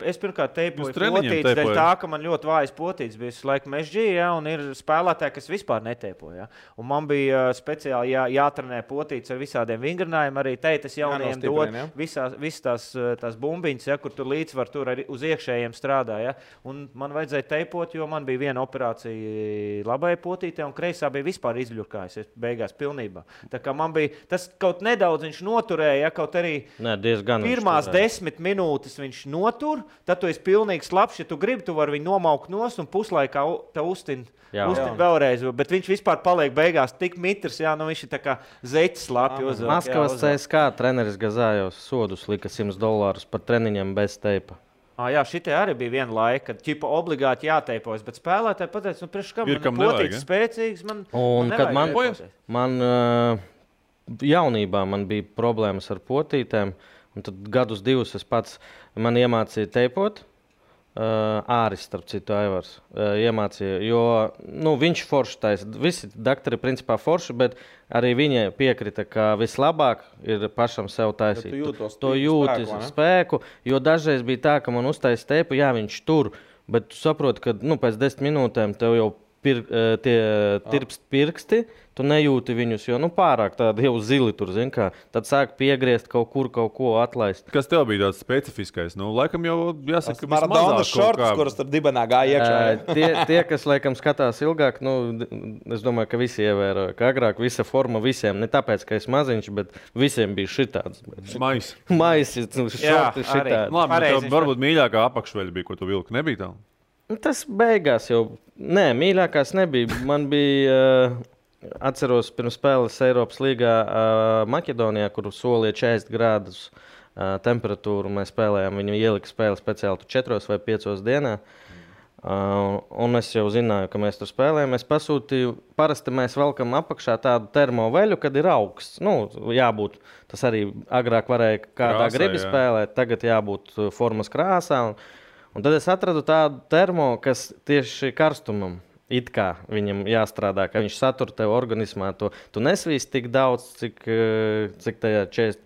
Speaker 2: Es pirmkārt teipoju potītes, dēļ tā, ka man ļoti vājas potītes bija laika mežģī, ja, un ir spēlētāji, kas vispār neteipoja. Ja. Un man bija speciāli jātrenē potītes ar visādiem vingrinājumiem, arī teitas jaunajiem dod visas tās bumbiņas, ja, kur tur līdzvar tur arī uz iekšējiem strādā. Ja. Un man vajadzēja teipot, jo man bija viena operācija labai potītē, un kreisā bija vispār izļurkājusies beigās pilnībā. Tā kā man bija tas kaut nedaudz viņš noturēja, ja, kaut arī pirmās 10 minūtes viņš notur, tad tu esi pilnīgi slapš, ja tu gribi, tu vari viņu nomaukt nost un puslaikā te uztin vēlreiz, bet viņš vispār paliek beigās tik mitrs, jā, viņš ir tā kā zeķis slapji uzvelk.
Speaker 3: Maskavas CSKA treneris Gazājos sodus lika $100 par treniņiem bez teipa.
Speaker 2: Jā, šitie arī bija viena laika, kad ķipa obligāti jāteipojas, bet spēlētāji pateica, priekš kam potītes spēcīgs, man nevajag.
Speaker 3: Man jaunībā man bija problēmas ar potītēm, Un tad gadus divus es pats man iemācīju teipot. Āris, starp citu, Aivars iemācīja, jo viņš forši taisa. Visi doktori principā forši, bet arī viņai piekrita, ka vislabāk ir pašam sev taisīt. To jūti spēku, jo dažreiz bija tā, ka man uztaisa teipu, jā, viņš tur, bet tu saproti, ka pēc 10 minūtēm tev jau tirpst pirksti, tu nejūti viņus, jo pārāk tādi jau zili tur, zin kā. Tad sāk piegriezt kaut ko atlaist.
Speaker 1: Kas tev bija tāds specifiskais? Laikam jau jāsaka, ka
Speaker 4: Maradonas šortus, kuras tur dibenā gāja iekšā.
Speaker 3: Tie, kas laikam skatās ilgāk, es domāju, ka visi ievēroja, ka agrāk visa forma visiem, ne tāpēc, ka es maziņš, bet visiem bija šitāds. Maisi, šorti šitādi.
Speaker 1: Labi, tev varbūt mīļākā apakšveļa bija, ko tu vilki, nebija tā?
Speaker 3: Tas beigās jau, mīļākās nebija. Man bija, atceros, pirms spēles Eiropas līgā Maķedonijā, kur solīja 40 grādus temperatūru. Mēs spēlējām, viņi ielika spēli speciāli 4 vai 5 dienā. Un es jau zināju, ka mēs tur spēlējam. Es pasūtīju, parasti mēs velkam apakšā tādu termoveļu, kad ir augsts. Jābūt, tas arī agrāk varēja kādā gribi spēlēt, tagad jābūt formas krāsā. Un tad es atradu tādu termo, kas tieši karstumam it kā viņam jāstrādā, ka viņš satur tev organismā. Tu nesvīst tik daudz, cik tajā 40.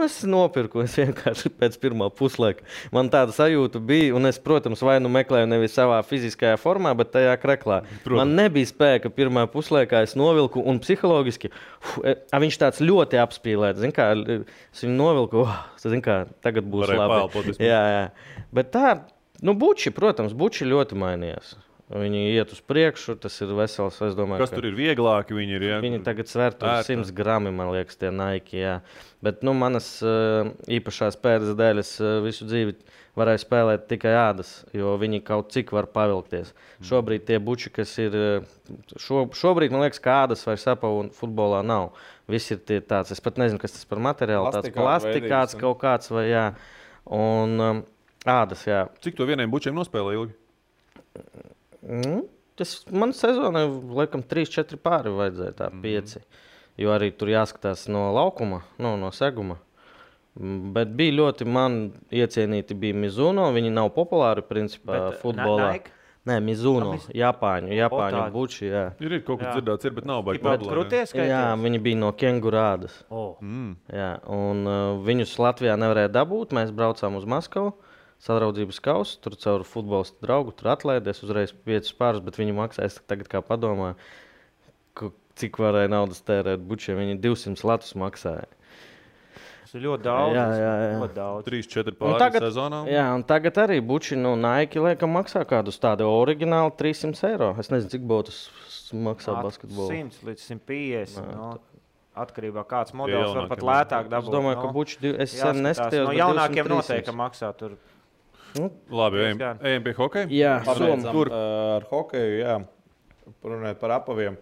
Speaker 3: Es nopirku, es vienkārši pēc pirmā puslaika. Man tāda sajūta bija, un es, protams, vai meklēju nevis savā fiziskajā formā, bet tajā kreklā. Man nebija spēka pirmā puslaikā, es novilku, un psiholoģiski, viņš tāds ļoti apspīlēts. Zin kā, es viņu novilku, zin kā, tagad būs labi. Jā. Bet tā, buči, protams, ļoti mainījās. Viņi iet uz priekšu, tas ir vesels, es domāju.
Speaker 1: Kas tur ir vieglāki? Viņi
Speaker 3: tagad sver 100 grami, man liekas, tie Nike, jā. Bet, manas īpašās pēdas dēļ es visu dzīvi varēju spēlēt tikai ādas, jo viņi kaut cik var pavilkties. Šobrīd tie buči, kas ir, šobrīd, man liekas, ka ādas vai sapavu futbolā nav. Viss ir tie tāds, es pat nezinu, kas tas par materiālu, tāds plastikāts kaut kāds vai jā. Un ādas, jā.
Speaker 1: Cik to vieniem bučiem nospēlē ilgi?
Speaker 3: Man sezonai, laikam, 3-4 pāri vajadzēja, tā 5. Jo arī tur jāskatās no laukuma, no seguma. Bet bija ļoti, man iecienīti bija Mizuno, viņi nav populāri, principā, futbolā. Nē, Mizuno, Japāņu buči, jā.
Speaker 1: Ir kaut kas dzirdēts, bet nav baigi
Speaker 2: populāri.
Speaker 3: Jā, viņi bija no kengurādas. Jā, un viņus Latvijā nevarēja dabūt, mēs braucām uz Maskavu. Sadraudzības kausu, tur caur futbolistu draugu, tur atlaidies uzreiz 5 pārus, bet viņi maksā, es tagad kā padomāju, cik varēja naudas tērēt bučiem, viņi 200 latus maksāja.
Speaker 2: Tas ir ļoti daudz.
Speaker 3: Jā.
Speaker 2: Ļoti daudz.
Speaker 1: 3-4 pāri sezonā.
Speaker 3: Jā, un tagad arī buči, Nike, laikam, maksā kādus tādu oriģināli 300 eiro. Es nezinu, cik botus maksā basketbolu.
Speaker 2: 100 līdz 150. Atkarībā kāds modelis var pat lētāk dabūt.
Speaker 3: Es domāju, ka buči, es sen neskatījos,
Speaker 2: no jaunākiem noteikti maksā tur.
Speaker 1: Labi, ejam pie hokeja?
Speaker 3: Jā,
Speaker 4: tur ar hokeju, jā. Runājot par apaviem.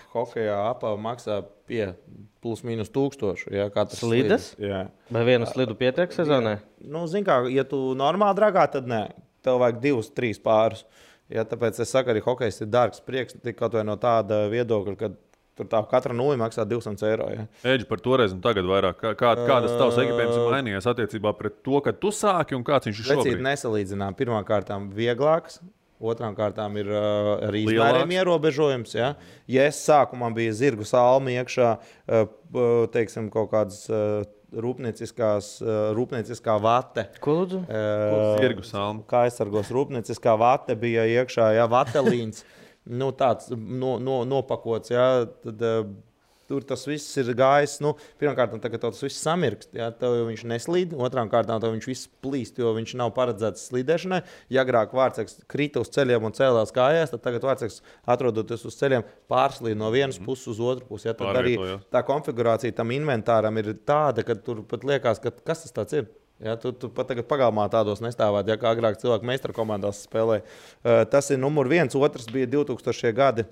Speaker 4: Hokejā apava maksā pie plus mīnus 1000. Jā, katrs
Speaker 3: slides?
Speaker 4: Jā.
Speaker 3: Vai vienu slidu pietiek sezonai?
Speaker 4: Zin kā, ja tu normāli dragā, tad nē. Tev vajag 2-3 pārus. Jā, tāpēc es saku, arī hokejs ir dārgs prieks, kaut vai no tāda viedokļa, kad tur tā katra nulli maksā 200 eiro. Ja.
Speaker 1: Eģi, par toreiz un tagad vairāk. Kādas tavs ekipējums ir mainījies attiecībā pret to, kad tu sāki un kāds viņš ir šobrīd?
Speaker 4: Precīzi nesalīdzinām. Pirmām kārtām vieglāks, otrām kārtām ir arī izmēriem ierobežojums. Ja. Ja es sākumā bija zirgu salmi iekšā, teiksim, kaut kādas rūpnieciskā vate.
Speaker 3: Ko lūdzu?
Speaker 1: Zirgu salmi.
Speaker 4: Kā aizsargos rūpnieciskā vate bija iekšā, ja, vatelīns. Tāds nopakots, jā, tad tur tas viss ir gājis. Pirmkārt, tagad tas viss samirkst, jā, tev viņš neslīd, otrām kārtām tev viņš viss plīst, jo viņš nav paredzēts slīdēšanai. Ja agrāk vārtseks krita uz ceļiem un cēlās kājās, tad tagad vārtseks atrodoties uz ceļiem pārslīd no vienas puses uz otru pusi. Ja, tad arī tā konfigurācija tam inventāram ir tāda, ka tur pat liekas, ka kas tas tāds ir. Ja, tu pat tagad pagalmā tādos nestāvāt, ja kā agrāk cilvēki meistara komandās spēlēja. Tas ir numur 1. Otrs bija 2000. gadi.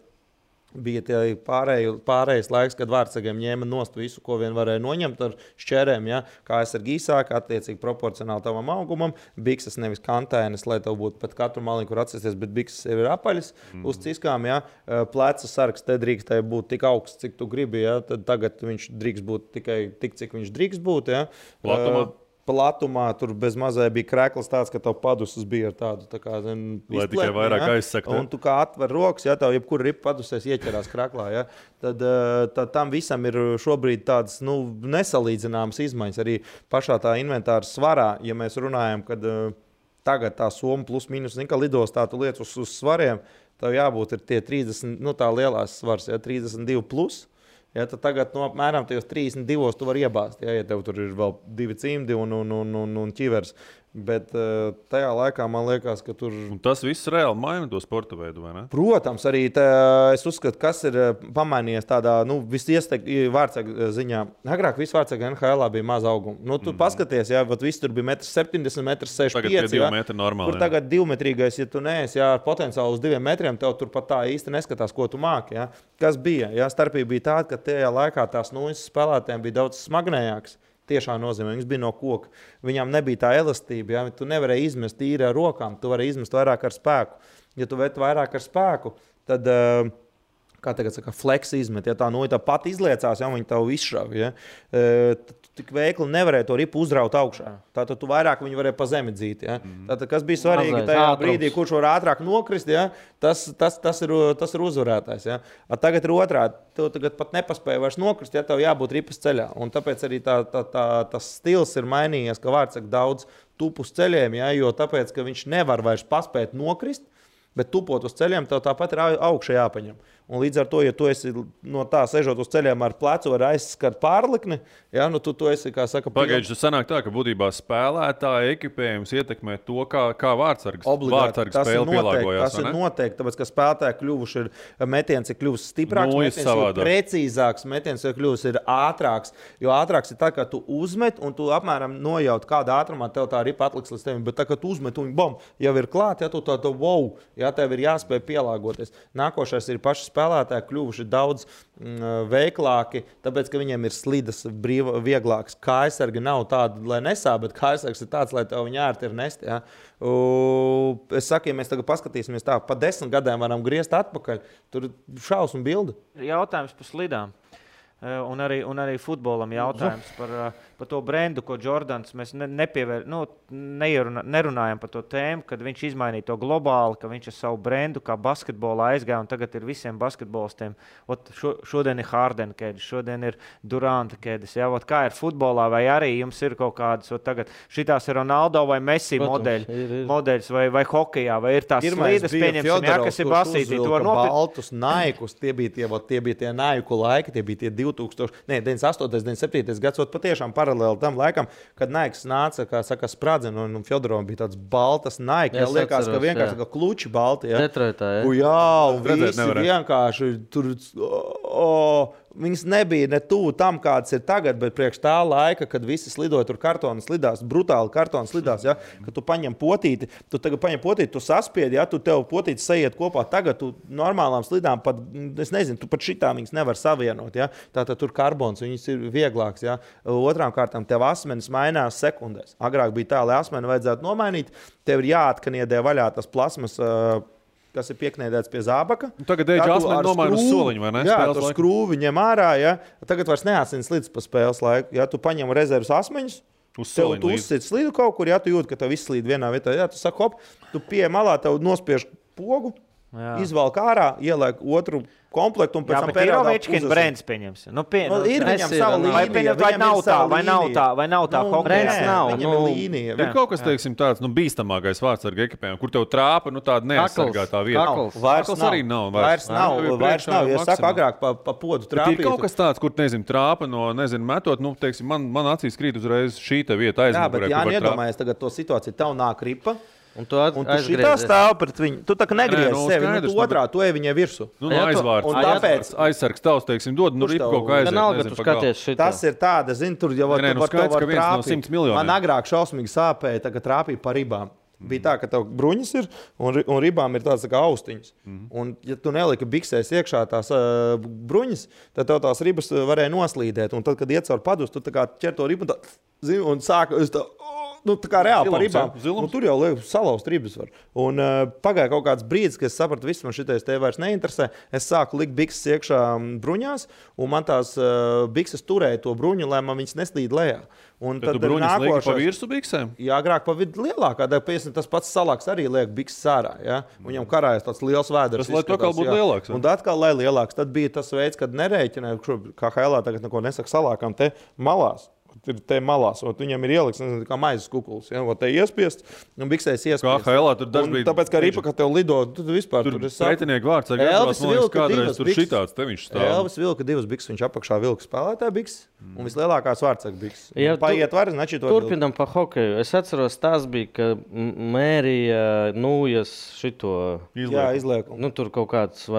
Speaker 4: bija pārējais laiks, kad vārdsargiem ņēma nost visu, ko vien varēja noņemt ar šķērēm. Ja? Kā es ar gīsāku, attiecīgi proporcionāli tavam augumam. Bikses nevis kantēnes, lai tev būtu pat katru maliņu, kur atsēsties, bet bikses ir apaļas uz ciskām. Ja? Pleca sargs te drīkstēja būt tik augsts, cik tu gribi. Ja? Tad tagad viņš drīkst būt tikai tik, cik viņš drīkst būt. Ja? Platumā tur bez mazai bija krēkls tāds, ka tev padusas bija ar tādu tā kā,
Speaker 1: lai tikai vairāk aizsakt.
Speaker 4: Un tu kā atver rokas, ja tev jebkura ripa padusēs ieķerās krēklā, ja, tad tam visam ir šobrīd tādas nesalīdzināmas izmaiņas. Arī pašā tā inventāra svarā, ja mēs runājam, kad tagad tā soma plus mīnus, ka lidostā tu liec uz svariem, tev jābūt ir tie 30, tā lielās svars, ja, 32 plus. Ja, tad tagad apmēram 32 tu vari iebāzt, ja tev tur ir vēl 2 cimdi un ķivers. Bet tajā laikā man liekas, ka tur...
Speaker 1: Un tas viss reāli maina to sporta veidu, vai ne?
Speaker 4: Protams, arī es uzskatu, kas ir pamainījies tādā, vārdsarga ziņā. Agrāk viss vārdsarga NHL bija maz auguma. Tu paskaties, ja, viss tur bija 1,70 m, 1,65 m.
Speaker 1: Tagad 2 metri normāli.
Speaker 4: Kur tagad 2-metrīgais, ja tu neesi, ja, ar potenciālu uz 2 metriem, tev tur pat tā īsti neskatās, ko tu māki. Ja. Kas bija? Ja, starpība bija tāda, ka tajā laikā tās nuises spēlētājiem bija daudz smagnējākas. Tiešām nozīmē, viņas bija no koka. Viņām nebija tā elastība. Ja? Tu nevarēji izmest tīri ar rokām, tu varēji izmest vairāk ar spēku. Ja tu vet vairāk ar spēku, tad, kā tagad saka, flex izmet. Ja tā tā pat izliecās, ja viņi tavu izšauj. Ja? Tik veikli nevarēja to ripu uzraut augšā. Tātad tu vairāk viņu varēja pa zemi dzīt. Ja? Tātad, kas bija svarīgi tajā brīdī, kurš var ātrāk nokrist, ja? tas ir uzvarētājs. Ja? Tagad ir otrādi. Tev tagad pat nepaspēja vairs nokrist, ja tev jābūt ripas ceļā. Un tāpēc arī tas stils ir mainījies, ka vārdsaka daudz tupu uz ceļiem, ja? Jo tāpēc, ka viņš nevar vairs paspēt nokrist, bet tupot uz ceļiem, tev tāpat ir augšā jāpaņem. Un līdz ar to, ja tu esi no tā sežot uz ceļiem ar plecu, var aizskart pārlikni, ja, tu esi, kā saka,
Speaker 1: pagaidži, tas sanāk tā, ka būtībā spēlētāja ekipējums ietekmē to, kā vārdsargs spēle pielāgojās.
Speaker 4: Tas ir noteikti, tāpēc, ka spēlētāji kļuvuši ir metiens, ir kļuvis stiprāks, metiens ir precīzāks, metiens ir kļuvis ir ātrāks, jo ātrāks ir tā, ka tu uzmet un tu apmēram nojaut, kādā ātrumā tev tā ripa atliks līdz tevim, bet tā, ka tu uzmet un bom, jau ir klāt, ja tu tā wow, ja tev ir jāspēj pielāgoties. Nākošais ir paši spēlētāji kļuvuši daudz veiklāki, tāpēc, ka viņiem ir slidas vieglāks. Kājsargi nav tādi, lai nesā, bet kājsargs ir tāds, lai tev viņa ērti ir nest. Ja? Es saku, ja mēs tagad paskatīsimies tā, pa 10 gadiem varam griezt atpakaļ, tur šausmu bildi.
Speaker 2: Jautājums par slidām. Un arī futbolam jautājums par to brendu, ko Jordans mēs nerunājam par to tēmu, kad viņš izmainīja to globāli, ka viņš ar savu brendu kā basketbolā aizgāja, un tagad ir visiem basketbolistiem. Šodien ir Harden kēdes, šodien ir Duranta kēdes. Ja? Kā ir futbolā, vai arī jums ir kaut kādas, tagad šitās ir Ronaldo vai Messi modeļs vai hokejā, vai ir tās slīdes, pieņemsim, kas ir basītī.
Speaker 4: Baltus naikus, tie bija tie naiku laiki, tie bija tie 98. 97. gads, patiešām paralēli tam laikam, kad Naiks nāca, kā saka, spradzena, un Fjodorovam bija tāds baltas Naiki. Jā, liekas, ka vienkārši kā kluči balti. Ja?
Speaker 3: Detroitā, ja?
Speaker 4: Jā, un visi vienkārši tur... Viņas nebija ne tuvu tam, kāds ir tagad, bet priekš tā laika, kad visi slidoja tur kartonu slidās, brutāli kartonu slidās, ja? Kad tu paņem potīti, tu saspiedi, ja? Tu tev potīti sajiet kopā. Tagad tu normālām slidām pat, es nezinu, tu pat šitā viņas nevar savienot, ja? Tātad tur karbons, viņas ir vieglāks, ja? Otrām kārtām tev asmenis mainās sekundēs. Agrāk bija tā, lai asmeni vajadzētu nomainīt, tev ir jāatkaniedē vaļā tas plasmas, kas ir pieknēdēts pie zābaka.
Speaker 1: Tagad asmeni nomaina uz soliņu, vai ne?
Speaker 4: Jā, tu skrūvi ņem ārā, ja? Tagad vairs neasins slidus pa spēles laiku. Ja? Tu paņem rezervas asmeņus, tev tu uzsit slidu kaut kur, ja tu jūt, ka tev viss slīd vienā vietā. Ja? Tu saki, hop, tu pie malā, tev nospiež pogu, izvalk ārā, ieliek otru komplektu un pēc tam
Speaker 2: periodā Ovečkina brands pieņems.
Speaker 4: Ir viņam sava līnija.
Speaker 2: Vai nav tā
Speaker 3: brands nav.
Speaker 4: Viņam ir līnija.
Speaker 1: Ir kaut kas, teiksim, tāds bīstamākais vārdsarga ekipējumam, kur tev trāpa tāda neaizsargātā vieta.
Speaker 4: Vairs
Speaker 1: arī nav.
Speaker 4: Vairs nav. Ja saka, agrāk pa podu trāpīt.
Speaker 1: Ir kaut kas tāds, kur, trāpa no, metot, teiksim, man acīs krīt uzreiz šī te vieta aizmugurē.
Speaker 4: Jā, bet nedomājies tagad to situāciju. Tev nāk ripa. Un tu
Speaker 3: šitā
Speaker 4: stāv pret viņu. Tu tā kā negriezi sevi. Tu otrā, tu ej viņai virsu.
Speaker 1: Aizvārds. Un tāpēc
Speaker 4: aizsargs
Speaker 1: tavs, teiksim, dod, ripu kaut kā aiziet.
Speaker 4: Tas ir tāda, zini, tur jau var tev trāpīt. Man agrāk šausmīgi sāpēja, tagad trāpīja pa ribām. Bija tā, ka tev bruņas ir un ribām ir tāds tā kā austiņas. Un, ja tu neliki biksēs iekšā tās bruņas, tad tev tās ribas varēja noslīdēt. Un tad, kad iet caur padus, tu tā kā ķer to ribu un sāk tā kā reāli par ribām. Tur jau salauzt ribas var. Un pagāja kaut kāds brīdis, kad es sapratu, viss man šitais te vairs neinteresē. Es sāku likt bikses iekšā bruņās, un man tās bikses turēja to bruņu, lai man viņas neslīd lejā. Un
Speaker 1: tad tu bruņas lieki pa virsu biksēm?
Speaker 4: Jā, agrāk pa vidu lielākā. Tas pats salāks arī liek bikses ārā. Ja? Viņam karājas tāds liels vēders.
Speaker 1: Tas, lai to atkal būtu lielāks.
Speaker 4: Un atkal, lai lielāks. Tad bija tas veids, kad nerēķināja, kā Hailā tagad neko nesaka salākām te malās. Ir te malās, un viņam ir ieliks, nezinu, kā maizes kukulis. Ja? Te iespiest, un biksēs iespiest.
Speaker 1: Kā Hailā tur dažbrīd...
Speaker 4: Tāpēc, kā ripa, kad tev lido, tu vispār
Speaker 1: tur pretinieki vārds. Elvis vilka divas bikses.
Speaker 4: Elvis vilka divas bikses, viņš apakšā vilka spēlētāja bikses, un vislielākās vārdsaka bikses. Paiet var, znači to...
Speaker 3: Turpinam pa hokeju. Es atceros, tās bija, ka mērija Nūjas šito...
Speaker 4: izliekumu.
Speaker 3: Nu, tur kaut kāds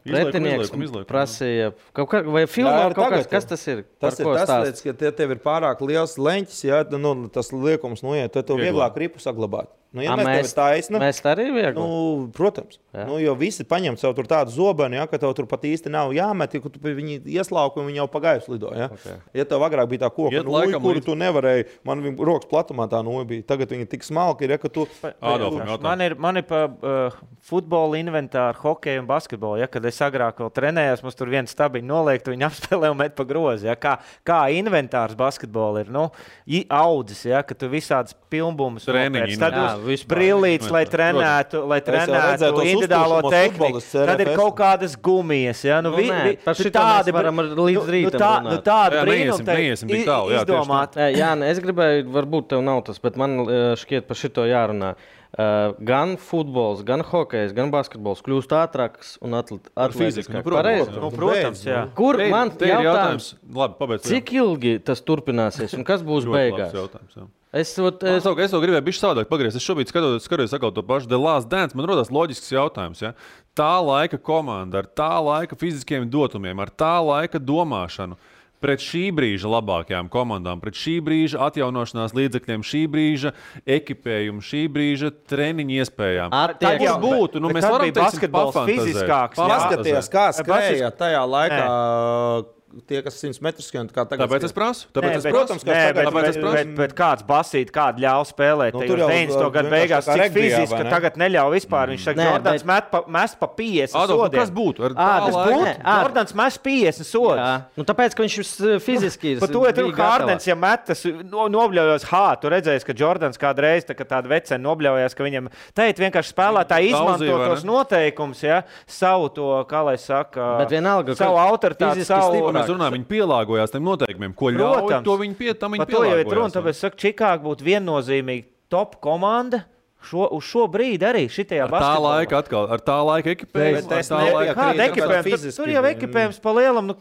Speaker 3: pretinieks prasīja. Vai filmā kaut kāds, kas tas ir?
Speaker 4: Tas ir tas, ka tev ir pārāk liels leņķis, ja tas liekums noiet, tad tev vieglāk ripu saglabāt. Nu, ja mēs
Speaker 3: arī viegli?
Speaker 4: Nu, protams. Nu, jo visi paņem sev tur tādu zobenu, ja, ka tev tur pat īsti nav jāmet, ja tu viņi ieslauki un viņi jau pagaisu lido. Ja, ja tev agrāk bija tā koka nūja, kuru tu nevarēji, man viņa rokas platumā tā nūja bija. Tagad viņa tik smalka ir, ja, ka tu...
Speaker 2: Man ir pa futbola inventāru, hokeju un basketbolu. Ja, kad es agrāk vēl trenējos, mums tur viens stabiņu noliektu, viņi apspēlē un met pa grozi. Ja, kā inventārs basketbola ir audzis, ja, ka tu visādas pilnbumus brillītes, lai trenētu individuālo tehniku. Tad ir kaut kādas gumijas. Ja?
Speaker 3: Par šitā mēs varam līdz rītam runāt.
Speaker 2: Tāda brīnum izdomāt.
Speaker 3: Jā, es gribēju, varbūt tev nav tas, bet man šķiet par šito jārunā. Gan futbols, gan hokejs, gan basketbols kļūst ātrāks un atletiskāk.
Speaker 2: Protams, jā.
Speaker 3: Kur man jautājums?
Speaker 1: Labi, pabeidz.
Speaker 3: Cik ilgi tas turpināsies un kas būs beigās?
Speaker 1: Es to gribēju bišķi savādāk pagriezt. Es šobrīd skatos atkal to pašu The Last Dance. Man rodas loģisks jautājums. Ja? Tā laika komanda ar tā laika fiziskiem dotumiem, ar tā laika domāšanu pret šī brīža labākajām komandām, pret šī brīža atjaunošanās līdzekļiem, šī brīža ekipējumu, šī brīža treniņu iespējām.
Speaker 2: Tad jau būtu. Nu, mēs varam basketbols fiziskāks.
Speaker 4: Paskaties, kā skrēja tajā laikā. Tie, kas 100 metrus skrien, kā tagad.
Speaker 1: Tāpēc es prasu.
Speaker 2: Bet kāds basīt, kādu ļauj spēlēt. Nu, tur jau 90. gadu beigās cik fiziski, ka tagad neļauj vispār. Viņš saka, Jordans mest pa 50 sodiem.
Speaker 1: Kas būtu?
Speaker 2: Jordans mest 50 sodus.
Speaker 3: Nu, tāpēc, ka viņš fiziski ir.
Speaker 2: Par to ir Hardens, ja metas nobļaujos, tu redzēsi, ka Jordans kādreiz tāda vecena nobļaujās, ka viņam teikt vienkārši spēlētāji izmanto tos noteikumus, ja, savu to, kā lai saka, savu autoritāti, savu...
Speaker 1: Mēs runājam, viņi pielāgojās tiem noteikumiem, ko ļauj, to viņi pielāgojās.
Speaker 2: To jau ir runa, tāpēc saka, Čikāga būtu viennozīmīgi top komanda uz šo brīdi arī šitajā basketbolā.
Speaker 1: Ar tā laika ekipējumu.
Speaker 2: Kāda ekipējuma? Tur jau ekipējums pa lielam,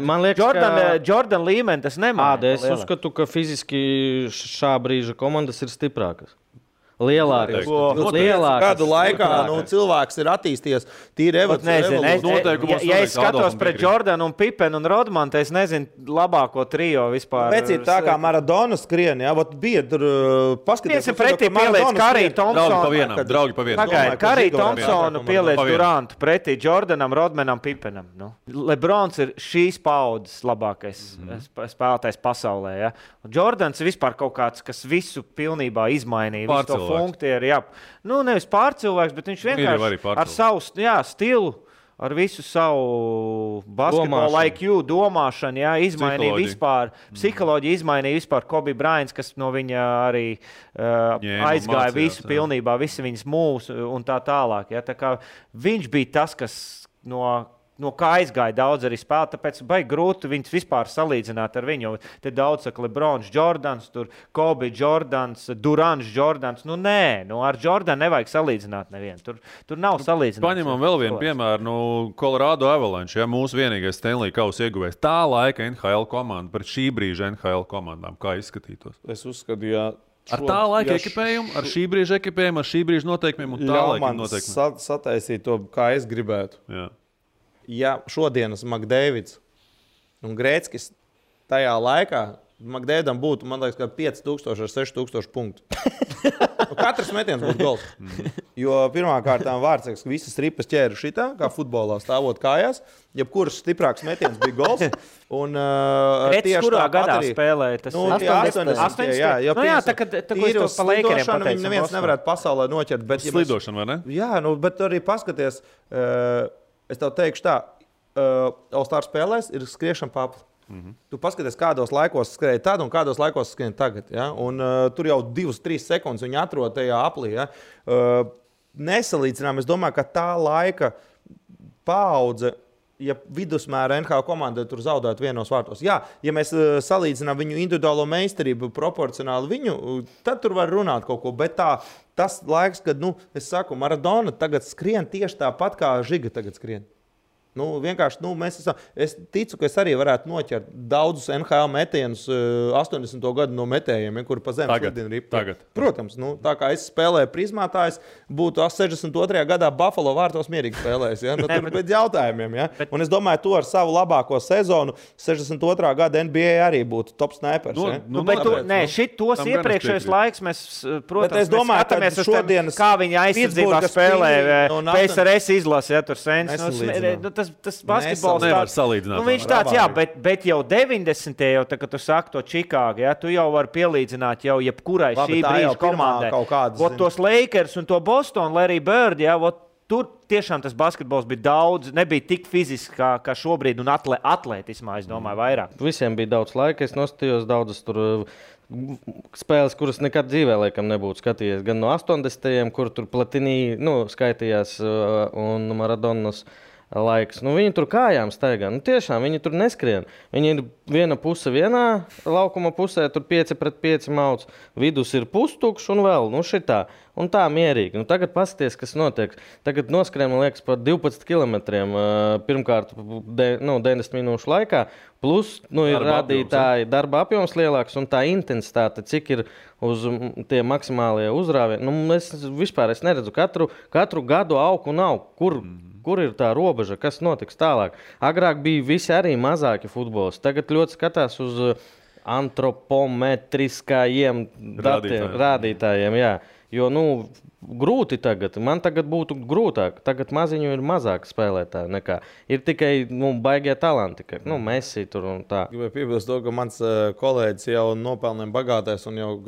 Speaker 3: man liekas,
Speaker 2: Jordan līmeni tas nemāja.
Speaker 3: Es uzskatu, ka fiziski šā brīža komandas ir stiprākas. Lielākas.
Speaker 4: Kādu laikā cilvēks ir attīstījies tīri evolūcijā.
Speaker 2: Ja es skatos pret Jordanu un Pipenu un Rodmanu, es nezinu labāko trio vispār.
Speaker 4: Pēc ir tā kā Maradona skrien, jā, bija tur paskaties.
Speaker 2: Pretī pieliec Karī Thompsonu.
Speaker 1: Draugi pa vienam.
Speaker 2: Pagaid, Karī Thompsonu pieliec Durantu pretī Jordanam, Rodmanam, Pipenam. Lebrons ir šīs paudzes labākais spēlētājs pasaulē. Ja? Jordans ir vispār kaut kāds, kas visu pilnībā izmainīja. Funktieri, jā. Nu, nevis pārcilvēks, bet viņš vienkārši ar savu stilu, ar visu savu basketbolu IQ domāšanu, jā, izmainīja vispār, psiholoģiju izmainīja vispār Kobe Bryants, kas no viņa arī aizgāja visu pilnībā, visi viņas mūsu un tā tālāk. Jā. Tā kā viņš bija tas, kas no kā aizgāja daudz arī spēlēt, tāpēc baigi grūti viņus vispār salīdzināt ar viņu. Te daudz saka Lebrons, Jordans, tur Kobe Jordans, Durants Jordans. Nu nē, ar Jordanu nevajag salīdzināt nevienu. Tur nav salīdzināt.
Speaker 1: Paņemam vēl vienu piemēru, Colorado Avalanche, ja, mūsu vienīgais Stanley Kausa ieguvējs. Tā laika NHL komanda pret šī brīža NHL komandām, kā izskatītos?
Speaker 4: Es uzskatu, jā.
Speaker 1: Ar tā laika ekipējumu, ar šī brīža ekipējumu, ar šī brīža noteikumiem un tā laika noteikumiem.
Speaker 4: Sataisīt to, kā es gribētu.
Speaker 1: Jā.
Speaker 4: Ja šodienas McDavids un Grēckis tajā laikā Magdēdam būtu, man liekas, 5000 ar 6000 punktu. Katrs metiens būtu gols. Jo pirmkārt, Vārtsargs visas ripas ķēra šitā, kā futbolā stāvot kājās. Jebkurš stiprāks metiens bija gols. Un
Speaker 2: tieši
Speaker 4: kurā
Speaker 2: gadā
Speaker 4: arī
Speaker 2: spēlēja tas
Speaker 4: 80. Jā,
Speaker 2: tā kā es to pa Lakeriem pateicu.
Speaker 4: Neviens nevarētu pasaulē noķert. Bet,
Speaker 1: Slidošana, vai ne?
Speaker 4: Jā, bet arī paskaties, es tev teikšu tā, All-Star spēlēs ir skriešana papli. Tu paskaties, kādos laikos skrēja tad un kādos laikos skrēja tagad. Ja? Un, tur jau 2-3 sekundes viņi atrod tajā aplī. Ja? Nesalīdzinām, es domāju, ka tā laika paudze, ja vidusmēra NHL komanda tur zaudētu vienos vārtos. Jā, ja mēs salīdzinām viņu individuālo meistarību proporcionāli viņu, tad tur var runāt kaut ko. Bet tas laiks, kad, es saku, Maradona tagad skrien tieši tāpat, kā Žiga tagad skrien. Vienkārši, es ticu, ka es arī varētu noķert daudzus NHL metienus 80. gadu no metējiem, kuri pa zemi šodien ripa. Protams, tā kā es spēlēju prizmātājs, būtu 62. gadā Buffalo vārtos mierīgi spēlējis. Ja? Tur bez jautājumiem. Ja? Un es domāju, tu ar savu labāko sezonu 62. gada NBA arī būtu top snipers.
Speaker 2: Šitos iepriekšējos laiks mēs, protams,
Speaker 4: es domāju,
Speaker 2: skatāmies uz šodienas, kā viņa aizsardzībā spēlē PSRS izlase, ja tur sens. Tas basketbols
Speaker 1: nevar salīdzināt.
Speaker 2: Viņš tāds, jā, bet jau 90. jau, kad tu saki to Čikāgu, ja, tu jau vari pielīdzināt jau jebkurai šī brīža komandai. Tos Lakers un to Boston, Larry Bird, ja, tur tiešām tas basketbols bija daudz, nebija tik fiziski kā šobrīd un atlētismā, es domāju, vairāk.
Speaker 3: Visiem bija daudz laika, es nostājos daudzas tur spēles, kuras nekad dzīvē laikam nebūtu skatījies. Gan no 80. kur tur Platini skaitījās un Maradonas laiks. Viņi tur kājām staigā. Tiešām viņi tur neskrien. Viņi ir viena puse vienā laukuma pusē, tur 5-5 mauc. Vidus ir pustukšs un vēl šitā. Un tā mierīgi. Tagad paskaties, kas notiek. Tagad noskrien, man liekas, par 12 kilometriem pirmkārt 90 minūšu laikā. Plus ir rādītāji darba apjoms lielāks un tā intensitāte, cik ir uz tie maksimālie uzrāvieni. Es vispār neredzu katru gadu aug un aug. Kur ir tā robeža, kas notiks tālāk? Agrāk bija visi arī mazāki futbolisti. Tagad ļoti skatās uz antropometriskajiem rādītājiem. Jā. Jo grūti tagad. Man tagad būtu grūtāk. Tagad maziņu ir mazāk spēlētāji nekā. Ir tikai baigie talanti. Messi tur un tā.
Speaker 4: Gribēju piebilst to, ka mans kolēģis jau nopelniem bagātais un jau,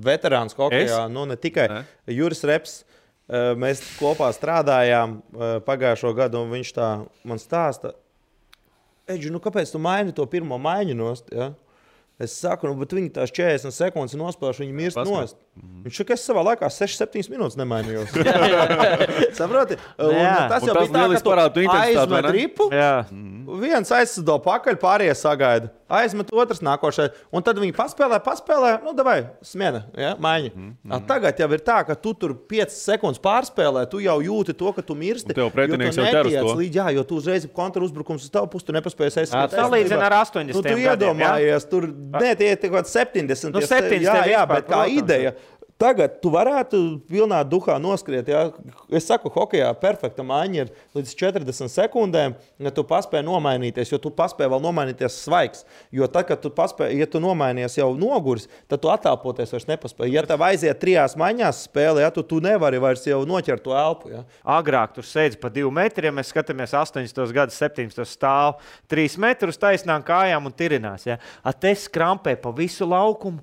Speaker 4: veterāns hokejā. Ne tikai Juris Reps. Mēs kopā strādājām pagājušo gadu, un viņš tā man stāsta, Eģi, kāpēc tu maini to pirmo maiņu nost? Ja? Es saku, bet viņi tās 40 sekundes nospēlēšu, viņi mirst nost. Viņš saka, es savā laikā 6-7 minūtes nemainījos. Saproti? Tas jau bija tā, ka tu aizmet ripu, viens aizsado pakaļ, pārējie sagaida. Aizmet otrs nākošais, un tad viņi paspēlē, davai, smiena, ja, maiņa. Tagad jau ir tā, ka tu tur 5 sekundes pārspēlē, tu jau jūti to, ka tu mirsti,
Speaker 1: jo tu netiec
Speaker 4: līdz, jo tu uzreiz kontrauzbrukums uz tavu pusi, tu nepaspējies aizskat.
Speaker 2: Salīdzina ar 80
Speaker 4: gadiem, tu iedomājies, tur, tie ir 70. Jā, bet kā ideja. Tagad tu varētu pilnā duhā noskriet. Ja? Es saku, hokejā perfekta maiņa ir līdz 40 sekundēm, ja tu paspēji nomainīties, jo tu paspēji vēl nomainīties svaigs. Jo tad, kad tu paspēji, ja tu nomainies jau noguris, tad tu attālpoties vairs nepaspēji. Ja tev aiziet 3 maiņās spēlē, ja, tu nevari vairs jau noķert to elpu. Ja?
Speaker 2: Agrāk tur sēdz pa 2 metriem, mēs skatāmies 80. gadus, 17. stāv 3 metrus taisnām kājām un tirinās. Ja? Te skrampē pa visu laukumu.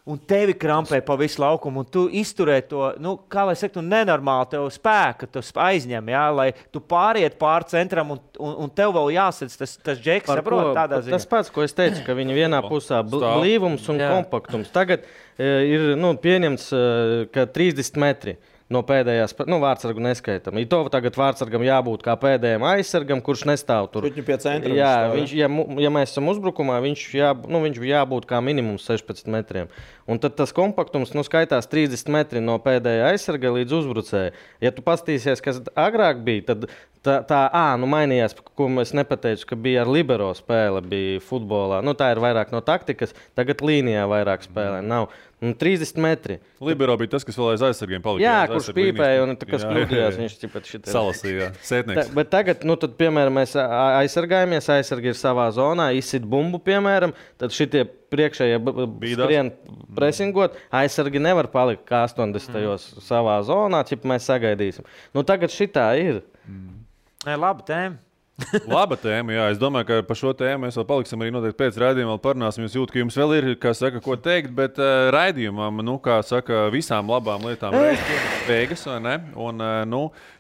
Speaker 2: Un tevi krampē pa visu laukumu, un tu izturē to, kā lai saka, nenormāli tev spēku, tu aizņem, jā, lai tu pāriet pār centram, un tev vēl jāsadz tas džeks, saprot, tādā ziņā.
Speaker 3: Tas pats, ko es teicu, ka viņi vienā pusā blīvums un kompaktums. Tagad ir pieņemts, ka 30 metri. No pēdējās, vārtsargu neskaitam. To tagad vārtsargam jābūt kā pēdējiem aizsargam, kurš nestāv tur.
Speaker 4: Pie centra.
Speaker 3: Jā, ja mēs esam uzbrukumā, viņš jābūt kā minimums 16 metriem. Un tad tas kompaktums skaitās 30 metri no pēdējā aizsarga līdz uzbrucēja. Ja tu pastīsies, kas agrāk bija, tad mainījās, ko es nepateicu, ka bija ar libero spēle, bija futbolā. Tā ir vairāk no taktikas, tagad līnijā vairāk spēlē nav. 30 metri.
Speaker 1: Libero bija tas, kas vēl aiz aizsargiem palika.
Speaker 3: Jā, kurš pīpēja un kas kļūdījās. Viņš tipēt šitā.
Speaker 1: Salasīja, sētnieks.
Speaker 3: Bet tagad, tad, piemēram, mēs aizsargājamies, aizsargi ir savā zonā, izsit bumbu, piemēram, tad šitie priekšējie skrien presingot, aizsargi nevar palikt kā 80. savā zonā, ķip mēs sagaidīsim. Tagad šitā ir.
Speaker 2: Nē, laba tēma.
Speaker 1: Laba tēma, jā. Es domāju, ka par šo tēmu mēs vēl paliksim arī noteikti pēc raidījuma, vēl parunāsim. Jūs jūt, ka jums vēl ir, ko teikt, bet raidījumam, visām labām lietām beigas, vai ne? Un,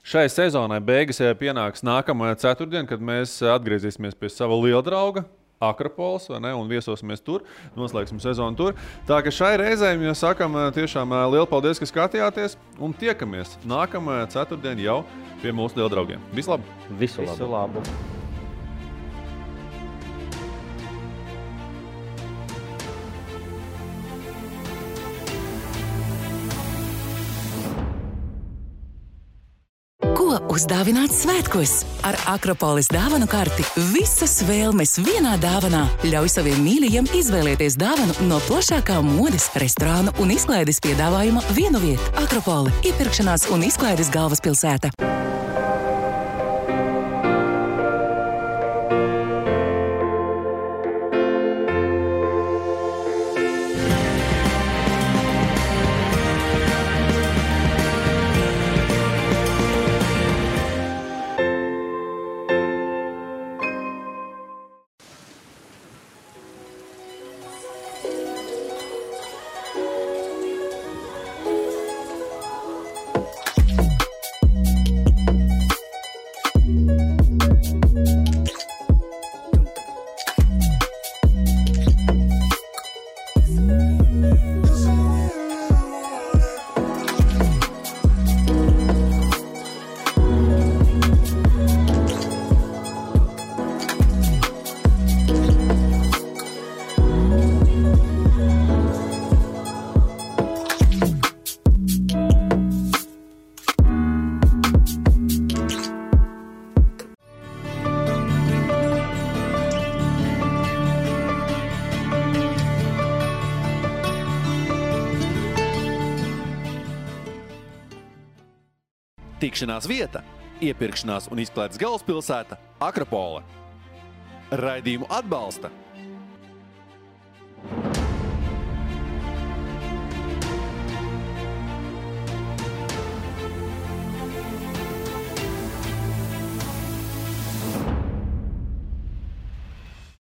Speaker 1: šai sezonai beigas pienāks nākamajā ceturtdien, kad mēs atgriezīsimies pie sava liela drauga. Akropolis, vai ne? Un viesosimies tur, noslēgsim sezonu tur. Tā ka šai reizei mēs sakam tiešām lielu paldies, ka skatījāties un tiekamies nākamajā ceturtdien jau pie mūsu liela draugiem. Visu labu!
Speaker 3: Visu labu!
Speaker 5: Ko uzdāvināt svētkos? Ar Akropolis dāvanu karti visas vēlmes vienā dāvanā. Ļauj saviem mīļajiem izvēlēties dāvanu no plašākā modes, restorānu un izklaides piedāvājuma vienu vietu. Akropoli – iepirkšanās un izklaides galvaspilsēta.
Speaker 9: Tikšanās vieta, iepirkšanās un izklaides galvaspilsēta Akropole. Raidījumu atbalsta